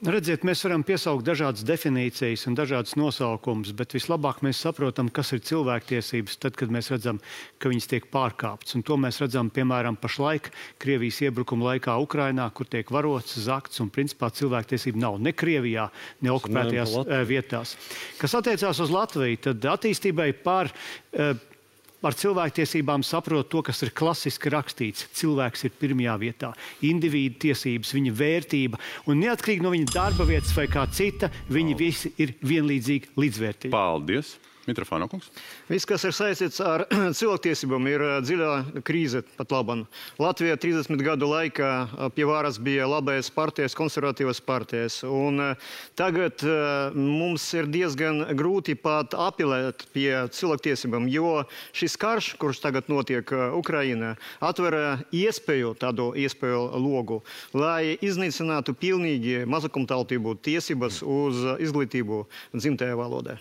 Redziet, mēs varam piesaukt dažādas definīcijas un dažādas nosaukumus, bet vislabāk mēs saprotam, kas ir cilvēktiesības tad, kad mēs redzam, ka viņas tiek pārkāptas. Un to mēs redzam, piemēram, pašlaik Krievijas iebrukuma laikā Ukrainā, kur tiek varots, zakts un principā cilvēktiesība nav ne Krievijā, ne okupētajās vietās. Kas attiecās uz Latviju, tad attīstībai ar cilvēktiesībām saprot to, kas ir klasiski rakstīts. Cilvēks ir pirmajā vietā. Individu tiesības, viņa vērtība. Un neatkarīgi no viņa darba vietas vai kā cita, viņi visi ir vienlīdzīgi līdzvērtīgi. Paldies. Mitrofāno kungs. Viss, kas ir saistīts ar cilvēktiesībām, ir dziļā krīze pat labam. Latvijā 30 gadu laikā pie varas bija labais partijas, konservatīvas partijas. Un tagad mums ir diezgan grūti pat apelēt pie cilvēktiesībām, jo šis karš, kurš tagad notiek Ukrainā, atver tādu iespēju logu, lai iznīcinātu pilnīgi mazākumtautību tiesības uz izglītību dzimtajā valodā.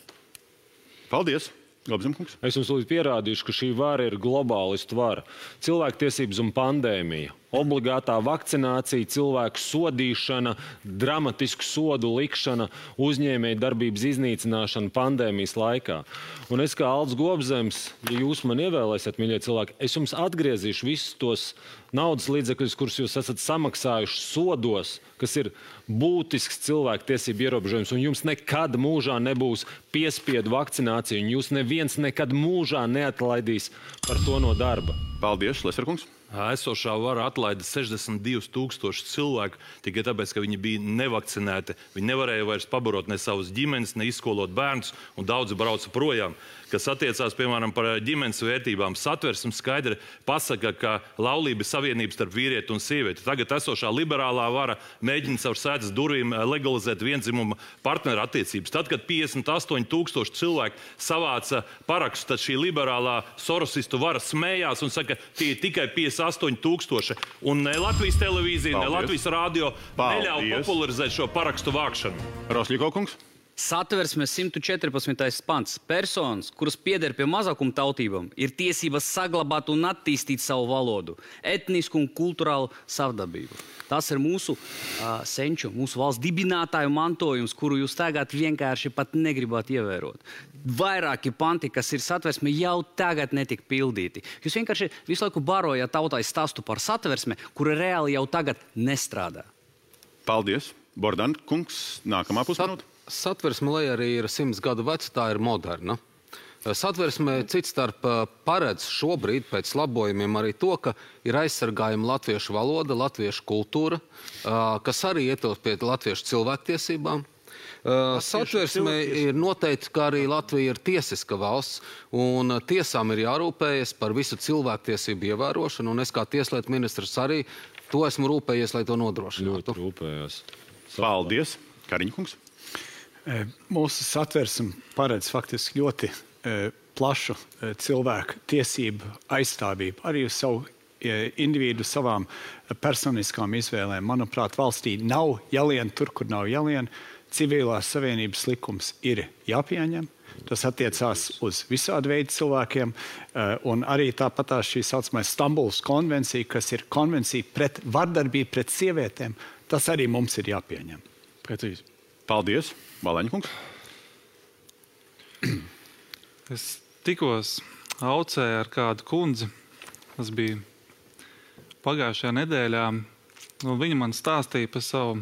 Paldies! Gobzemkungs. Es jums lūdzu pierādīšu, ka šī vara ir globālistu vara. Cilvēktiesības un pandēmija. Obligātā vakcinācija, cilvēku sodīšana, dramatisku sodu likšana, uzņēmēju darbības iznīcināšana pandēmijas laikā. Un es kā Aldis Gobzems, ja jūs man ievēlēsiet, mīļie cilvēki, es jums atgriezīšu visus tos naudas līdzekļus, kurus jūs esat samaksājuši sodos, kas ir būtisks cilvēku tiesību ierobežojums, un jums nekad mūžā nebūs piespiedu vakcinācija, un jūs neviens nekad mūžā neatlaidīs par to no darba. Paldies, Leserkungs. Esošā vara atlaida 62,000 cilvēku tikai tāpēc, ka viņi bija nevakcinēti. Viņi nevarēja vairs pabarot ne savus ģimenes, ne izskolot bērnus, un daudzi brauca projām. Kas attiecās, piemēram, par ģimenes vērtībām, satversme skaidri pasaka, ka laulība ir savienība starp vīrieti un sievieti. Tagad esošā liberālā vara mēģina caur sētas durvīm legalizēt viendzimuma partneru attiecības. Tad, kad 58,000 cilvēku savāca parakstus, tad šī liberālā sorosistu vara smējās un saka, tie ir tikai 58,000. Un ne Latvijas televīzija, ne Latvijas radio neļauj popularizēt šo parakstu vākšanu. Rosļiko kungs. Satversmes 114. pants. Personas, kuras pieder pie mazākuma tautībām, ir tiesības saglabāt un attīstīt savu valodu, etnisku un kulturālu savdabību. Tas ir mūsu senču, mūsu valsts dibinātāju mantojums, kuru jūs tagad vienkārši pat negribat ievērot. Vairāki panti, kas ir satversme, jau tagad netika pildīti. Jūs vienkārši visu laiku barojat tautai stāstu par satversme, kura reāli jau tagad nestrādā. Paldies. Bordan kungs, nākamā pusminūte. Satversme, lai arī ir 100 gadu veca, tā ir moderna. Satversme cits starp paredz šobrīd pēc labojumiem arī to, ka ir aizsargājama latviešu valoda, latviešu kultūra, kas arī ietilpst pie latviešu cilvēktiesībām. Satversme ir noteikti, ka arī Latvija ir tiesiska valsts, un tiesām ir jārūpējas par visu cilvēktiesību ievērošanu, un es kā tieslietu ministrs arī to esmu rūpējies, lai to nodrošinātu. Ļoti rūpējās. Paldies. Kariņkungs. Mūsu satversme paredz faktiski ļoti plašu cilvēku tiesību aizstāvību, arī uz savu individu savām personiskām izvēlēm. Manuprāt, valstī nav jālien tur, kur nav jālien. Civilās savienības likums ir jāpieņem. Tas attiecās uz visādu veidu cilvēkiem, un arī tāpat šī saucamā Stambulas konvencija, kas ir konvencija pret vardarbību pret sievietēm, tas arī mums ir jāpieņem. Precīzi. Paldies. Balaņkungs. Es tikos aucēju ar kādu kundzi. Tas bija pagājušajā nedēļā. Viņa man stāstīja par savu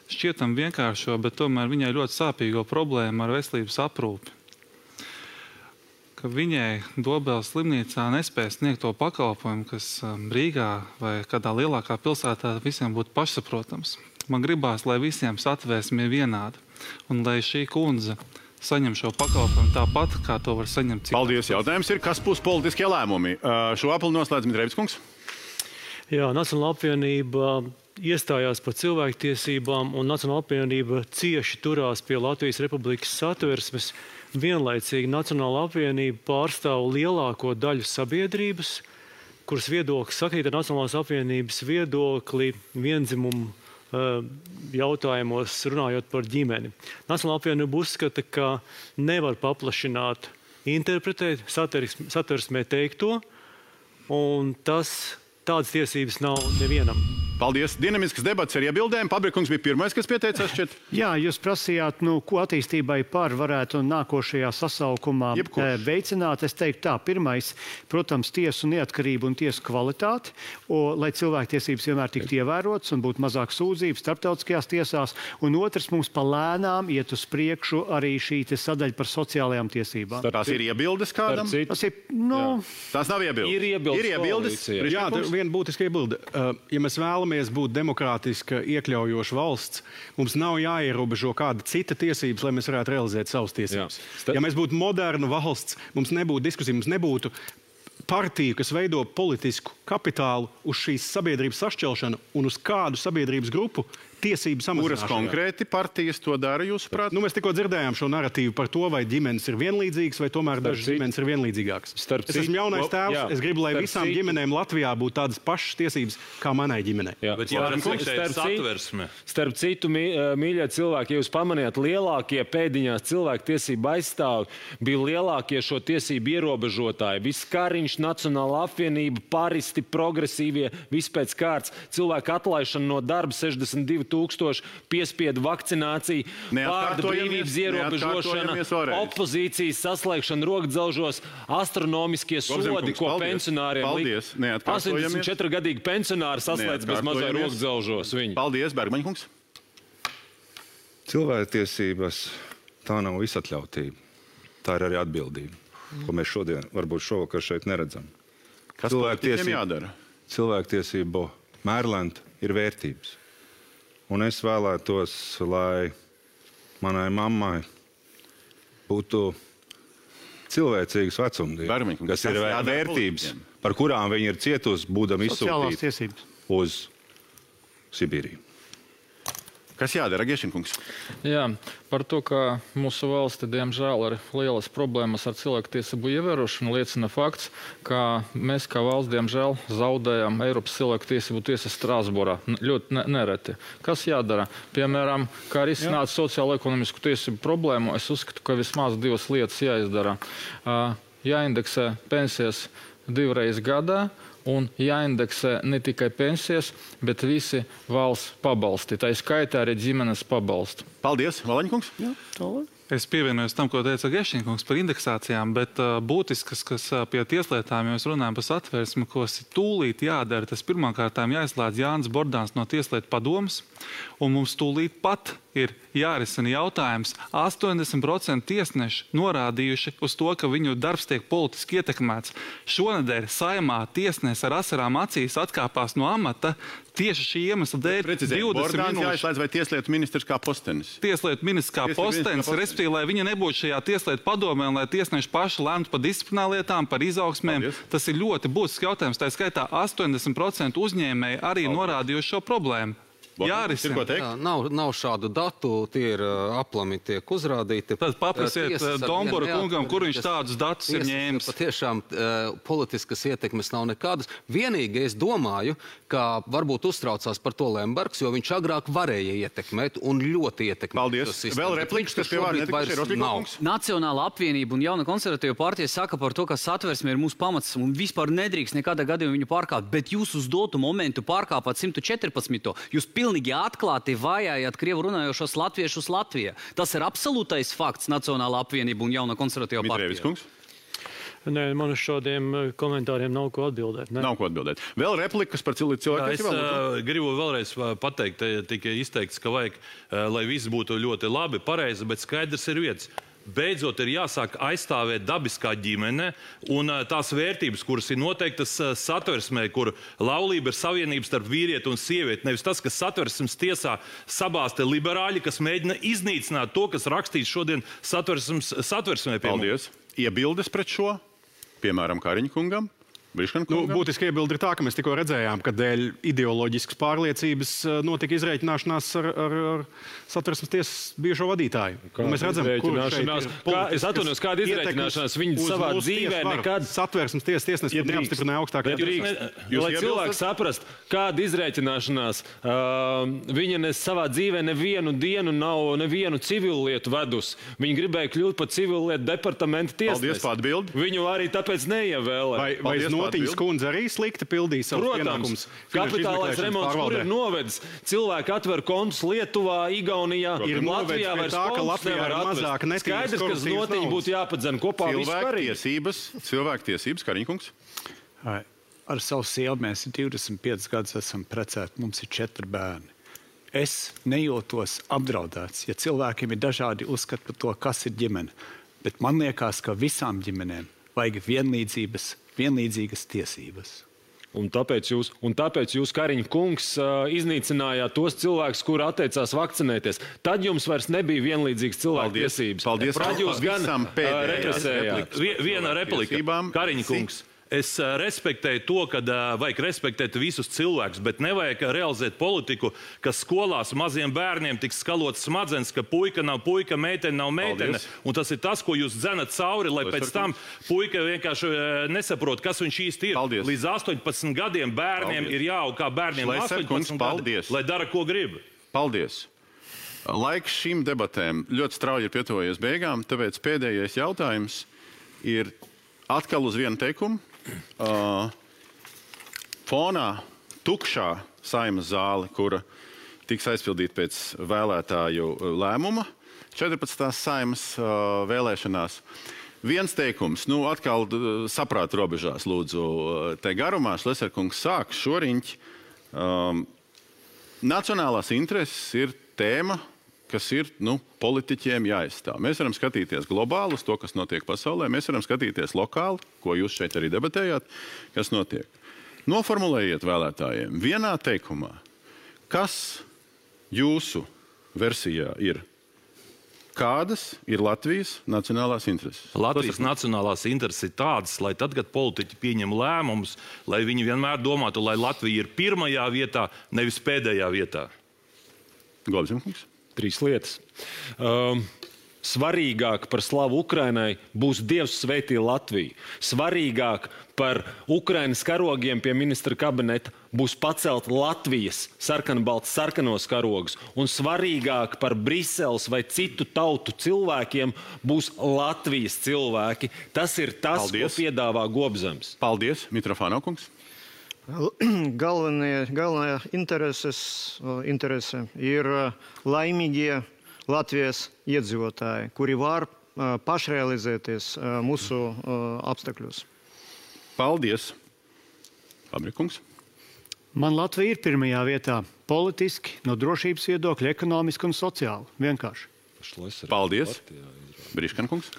šķietam vienkāršo, bet tomēr viņai ļoti sāpīgo problēmu ar veselības aprūpi. Ka viņai Dobeles slimnīcā nespēja sniegt to pakalpojumu, kas Rīgā vai kādā lielākā pilsētā visiem būtu pašsaprotams. Man gribās, lai visiem satvērsme ir vienāda un lai šī kundze saņem šo pakalpojumu tāpat, kā to var saņemt citā. Paldies. Jautājums ir, kas būs politiskie lēmumi? Šo apli noslēdz Mitrēvis kungs. Jā, Nacionāla apvienība iestājās par cilvēktiesībām, un Nacionāla apvienība cieši turās pie Latvijas Republikas satversmes. Vienlaicīgi Nacionāla apvienība pārstāv lielāko daļu sabiedrības, kuras viedoklis sakrīt ar Nacionālās apvienības viedokli viendzimumu jautājumos, runājot par ģimeni. Nacionāla apvienība uzskata, ka nevar paplašināt, interpretēt satversmē teikto, un tādas tiesības nav nevienam. Paldies. Dinamisks debats ar iebildēm. Pabrikungs bija pirmais, kas pieteicās šķiet. Jā, jūs prasījāt, ko attīstībai varētu nākošajā sasaukumā veicināt. Es teiktu tā, pirmais, protams, tiesu neatkarību un tiesu kvalitāti, lai cilvēktiesības vienmēr tiktu ievērotas un būtu mazāk sūdzību starptautiskajās tiesās. Un otrs, mums palēnām iet uz priekšu arī šī sadaļa par sociālajām tiesībām. Tās ir iebildes kādam? Tās nav iebildes. Ir iebildes. Jā, viena būtiska iebilde. Ja mēs vēlamies būt demokrātiska, iekļaujoša valsts, mums nav jāierobežo kāda cita tiesības, lai mēs varētu realizēt savas tiesības. Ja mēs būtu moderna valsts, mums nebūtu diskusija, mums nebūtu partiju, kas veido politisku kapitālu uz šīs sabiedrības sašķelšanu un uz kādu sabiedrības grupu tiesību samazināšanu. Kuras konkrēti partijas to dara, jūsuprāt? Mēs tikko dzirdējām šo narratīvu par to, vai ģimenes ir vienlīdzīgas, vai tomēr dažas ģimenes ir vienlīdzīgākas. Es esmu jaunais tēvs, es gribu, lai visām ģimenēm Latvijā būtu tādas pašas tiesības kā manai ģimenei. Starp citu, mīļie cilvēki, ja jūs pamanījāt, lielākie pēdiņās cilvēktiesību aizstāvi bija lielākie šo tiesību ierobežotāji. Viss Kariņš, Nacionāla apvienība, paristi, progresīvie, viss pēc kārtas, cilvēku atlaišana no darba 62 000, piespiedu vakcinācija, vārda brīvības ierobežošana, opozīcijas saslēgšana rokdzelžos, astronomiskie sodi, ko pensionāriem lika. 84-gadīgi pensionāri saslēdz bez mazā rokdzelžos. Paldies, Bergmaņkungs. Cilvēktiesības tā nav visatļautība. Tā ir arī atbildība, ko mēs šovakar šeit neredzam. Kas politiķiem jādara? Cilvēktiesību mērlenta ir vērtības. Un es vēlētos, lai manai mammai būtu cilvēcīgas vecumdienas, kas ir vērtības, par kurām viņa ir cietusi, būdama izsūtīta uz Sibīriju. Kas jādara, Gešinkungs? Jā, par to, ka mūsu valsti, diemžēl, ir lielas problēmas ar cilvēktiesību ievērošanu, liecina fakts, ka mēs kā valsts, diemžēl, zaudējam Eiropas cilvēktiesību tiesas Strasbūrā. Ļoti nereti. Kas jādara? Piemēram, kā risināt sociālo-ekonomisku tiesību problēmu, es uzskatu, ka vismaz 2 lietas jāizdara. Jāindeksē pensijas 2 reizes gadā, un jāindeksē ne tikai pensijas, bet visi valsts pabalsti. Tā skaitā arī ģimenes pabalsti. Paldies, Valaņkungs. Es pievienojos tam, ko teica Gešinkungs par indeksācijām, bet būtiskas, kas pie tieslietām, ja mēs runājam par satversmi, kas tūlīt jādara, tas pirmkārtām jāizslēdz Jānis Bordāns no Tieslietu padomes, un mums tūlīt pat ir jārisina jautājums. 80% tiesneši norādījuši uz to, ka viņu darbs tiek politiski ietekmēts. Šonedēļ Saeimā tiesnesis ar asarām acīs atkāpās no amata tieši šī iemesla dēļ. 20 Bordāns minūtes. jāizslēdz vai tieslietu ministrs kā postenis? Tieslietu ministrs kā postenis, respektīvi, lai viņa nebūtu šajā tieslietu padomē un lai tiesneši paši lēmtu par disciplinārlietām, par izaugsmēm. Tas ir ļoti būtisks jautājums. Tā skaitā 80% uzņēmēji arī norādījuši šo problēmu. Jārisina. Nav šādu datu, tie ir aplami tiek uzrādīti. Tad paprasiet Dombora kungam, kur viņš tādus datus ir ņēmis. Patiešām politiskas ietekmes nav nekādas. Vienīgi es domāju, ka varbūt uztraucās par to Lembergs, jo viņš agrāk varēja ietekmēt un ļoti ietekmēt. Paldies. Vēl repliks, kas pie vārds Nacionāla apvienība un Jauna konservatīva partija saka par to, ka satversme ir mūsu pamats un vispār nedrīkst nekādā gadījumā viņu pārkāpt, bet jūs uz dotu momentu pārkāpāt 114. Jūs pilnīgi atklāti vajājāt krievu runājošos latviešus Latvijā. Tas ir absolūtais fakts Nacionāla apvienība un Jauna konservatīva partija. Nē, man uz šādiem komentāriem nav ko atbildēt. Ne? Nav ko atbildēt. Vēl replikas par cilvēku. Es gribu vēlreiz pateikt, tika izteikts, ka vajag, lai viss būtu ļoti labi, pareizi, bet skaidrs ir vietas. Beidzot ir jāsāk aizstāvēt dabiskā ģimene un tās vērtības, kuras ir noteiktas satversmē, kur laulība ir savienības starp vīrieti un sievieti. Nevis tas, kas satversmes tiesā sabāzte liberāļi, kas mēģina iznīcināt to, kas rakstīts šodien satversmē. Paldies. Iebildes pret šo, piemēram, Kariņkungam? Būtiski iebildi ir tā, ka mēs tikko redzējām, ka dēļ ideoloģiskas pārliecības notika izreikināšanās ar satversmes tiesas bijušo vadītāju. Mēs redzam, kur šeit ir es atvainojos, kāda izreikināšanās viņi savā dzīvē nekad satversmes tiesas tiesnesis neapstiprināja augstākajā tiesā. Lai cilvēks saprast, kāda izreikināšanās viņa savā dzīvē nevienu dienu nav nevienu civilu lietu vedus. Viņa gribēja kļūt par civilu lietu departamenta tiesnesi. Paldies par atbildi. Viņu arī tāpēc neievēlē. Notiņas kundze arī slikti pildīja savus pienākumus. Kapitālais remonts, kur ir novedis. Cilvēki atver kontus Lietuvā, Igaunijā, Latvijā vairs kontus nevar atvest. Skaidrs, ka Notiņa būtu jāpadzen kopā Cilvēktiesības, Kariņkungs. Ar savu sievu mēs 25 gadus esam precēti, mums ir 4 bērni. Es nejūtos apdraudēts, ja cilvēkiem ir dažādi uzskati par to, kas ir ģimene. Bet man liekas, ka visām ģimenēm vajag vienlīdzīgas tiesības. Un tāpēc jūs, Kariņa kungs, iznīcinājāt tos cilvēkus, kuri atteicās vakcinēties. Tad jums vairs nebija vienlīdzīgas cilvēku tiesības. Paldies. Tad jūs gan represējāt. Viena replika. Kariņa kungs. Es respektēju to, ka vajag respektēt visus cilvēkus, bet nevajag realizēt politiku, ka skolās maziem bērniem tiks skalots smadzenes, ka puika nav puika, meitene nav meitene. Un tas ir tas, ko jūs dzenat cauri, lai pēc tam puika vienkārši nesaprot, kas viņš īsti ir. Paldies. Līdz 18 gadiem bērniem ir jāaug kā bērniem 18 gadi, lai dara, ko grib. Paldies. Laiks šīm debatēm ļoti strauji ir pietuvojies beigām, tāpēc pēdējais jautājums ir atkal uz vienu teikumu. Fonā tukšā Saeimas zāle, kura tiks aizpildīta pēc vēlētāju lēmuma 14. Saeimas vēlēšanās. Viens teikums, atkal saprāta robežās, lūdzu, te garumā Šleserkungs sāk šoriņķi. Nacionālās intereses ir tēma, kas ir politiķiem jāizstāv. Mēs varam skatīties globāli uz to, kas notiek pasaulē, mēs varam skatīties lokāli, ko jūs šeit arī debatējāt, kas notiek. Noformulējiet vēlētājiem vienā teikumā, kas jūsu versijā ir. Kādas ir Latvijas nacionālās intereses? Latvijas nacionālās intereses ir tādas, lai tad, kad politiķi pieņem lēmumus, lai viņi vienmēr domātu, lai Latvija ir pirmajā vietā, nevis pēdējā vietā. Gobzemkungs. 3 lietas. Svarīgāk par slavu Ukrainai būs Dievs svētī Latviju. Svarīgāk par Ukrainas karogiem pie ministra kabineta būs pacelt Latvijas sarkanos karogus. Un svarīgāk par Briseles vai citu tautu cilvēkiem būs Latvijas cilvēki. Tas ir tas, ko piedāvā Gobzems. Paldies, Mitrofānov kungs. Galvenā interese ir laimīgie Latvijas iedzīvotāji, kuri var pašrealizēties mūsu apstākļos. Paldies. Fabrikungs. Man Latvija ir pirmajā vietā. Politiski, no drošības viedokļa, ekonomiski un sociāli. Vienkārši. Paldies. Briškankungs.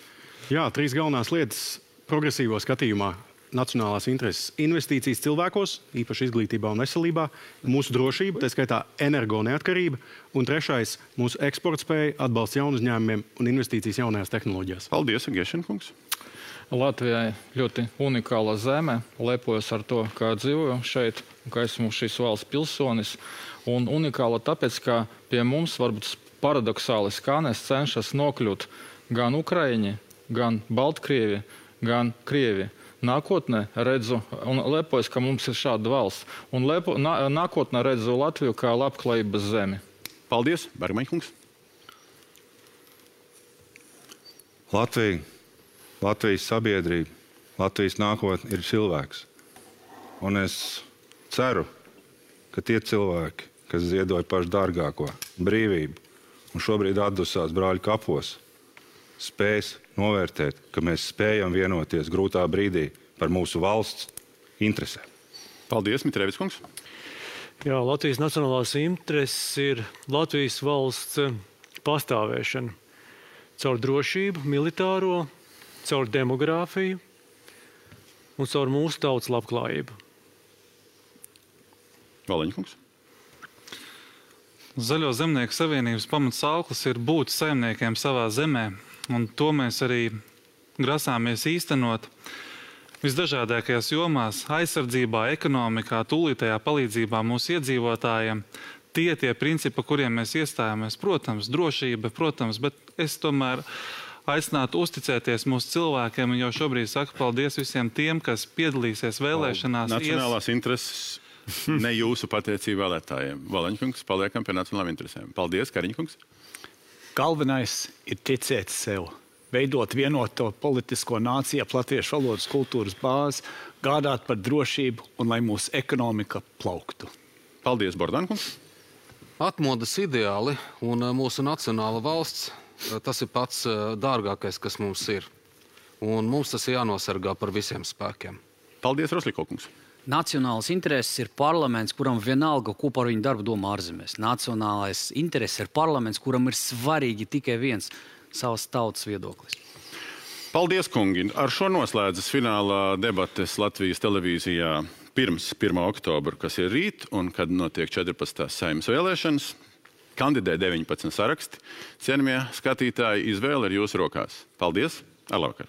Jā, 3 galvenās lietas progresīvo skatījumā. Nacionālās intereses, investīcijas cilvēkos, īpaši izglītībā un veselībā, mūsu drošība, tā skaitā energo neatkarība, un 3. mūsu eksporta spēja, atbalsts jaunu uzņēmumiem un investīcijas jaunajās tehnoloģijās. Paldies, Gešenkungs. Latvijai ļoti unikāla zeme, lepojos ar to, kā dzīvoju šeit, ka esmu šīs valsts pilsonis, un unikāla tāpēc, ka pie mums varbūt paradoksāli skanēs cenšas nokļūt gan Ukraiņi, gan Baltkrievi, gan Krievi. Nākotnē redzu un lepojos, ka mums ir šāda valsts. Un nākotnē redzu Latviju kā labklājības zemi. Paldies, Bergmaņkungs. Latvijas sabiedrība, Latvijas nākotne ir cilvēks. Un es ceru, ka tie cilvēki, kas ziedoja pašu dārgāko brīvību un šobrīd atdusās brāļu kapos, spēs novērtēt, ka mēs spējam vienoties grūtā brīdī par mūsu valsts interesēm. Paldies, Mitrevis kungs. Jā, Latvijas nacionālās intereses ir Latvijas valsts pastāvēšana caur drošību, militāro, caur demogrāfiju un caur mūsu tautas labklājību. Valiņkungs. Zaļo zemnieku savienības pamatsauklis ir būt saimniekiem savā zemē. Un to mēs arī grasāmies īstenot visdažādākajās jomās - aizsardzībā, ekonomikā, tūlītējā palīdzībā mūsu iedzīvotājiem. Tie principi, kuriem mēs iestājāmies, protams, drošība, protams, bet es tomēr aicinātu uzticēties mūsu cilvēkiem un jau šobrīd saku paldies visiem tiem, kas piedalīsies vēlēšanās. Nacionālās intereses ne jūsu pateicību vēlētājiem. Valiņkungs, paliekam pie nacionālām interesēm. Paldies, Kariņkungs. Galvenais ir ticēt sev, veidot vienoto politisko nāciju, latviešu valodas kultūras bāzi, gādāt par drošību un lai mūsu ekonomika plauktu. Paldies, Bordankungs. Atmodas ideāli un mūsu nacionāla valsts, tas ir pats dārgākais, kas mums ir. Un mums tas ir jānosargā par visiem spēkiem. Paldies, Roslikokungs. Nacionālais intereses ir parlaments, kuram vienalga, ko par viņu darbu domā ārzemēs. Nacionālais intereses ir parlaments, kuram ir svarīgi tikai viens savas tautas viedoklis. Paldies, kungi. Ar šo noslēdzas finālā debates Latvijas televīzijā pirms 1. oktobra, kas ir rīt, un kad notiek 14. Saeimas vēlēšanas. Kandidē 19 saraksti. Cienījamie skatītāji, izvēle ir jūsu rokās. Paldies! Ar labvakar!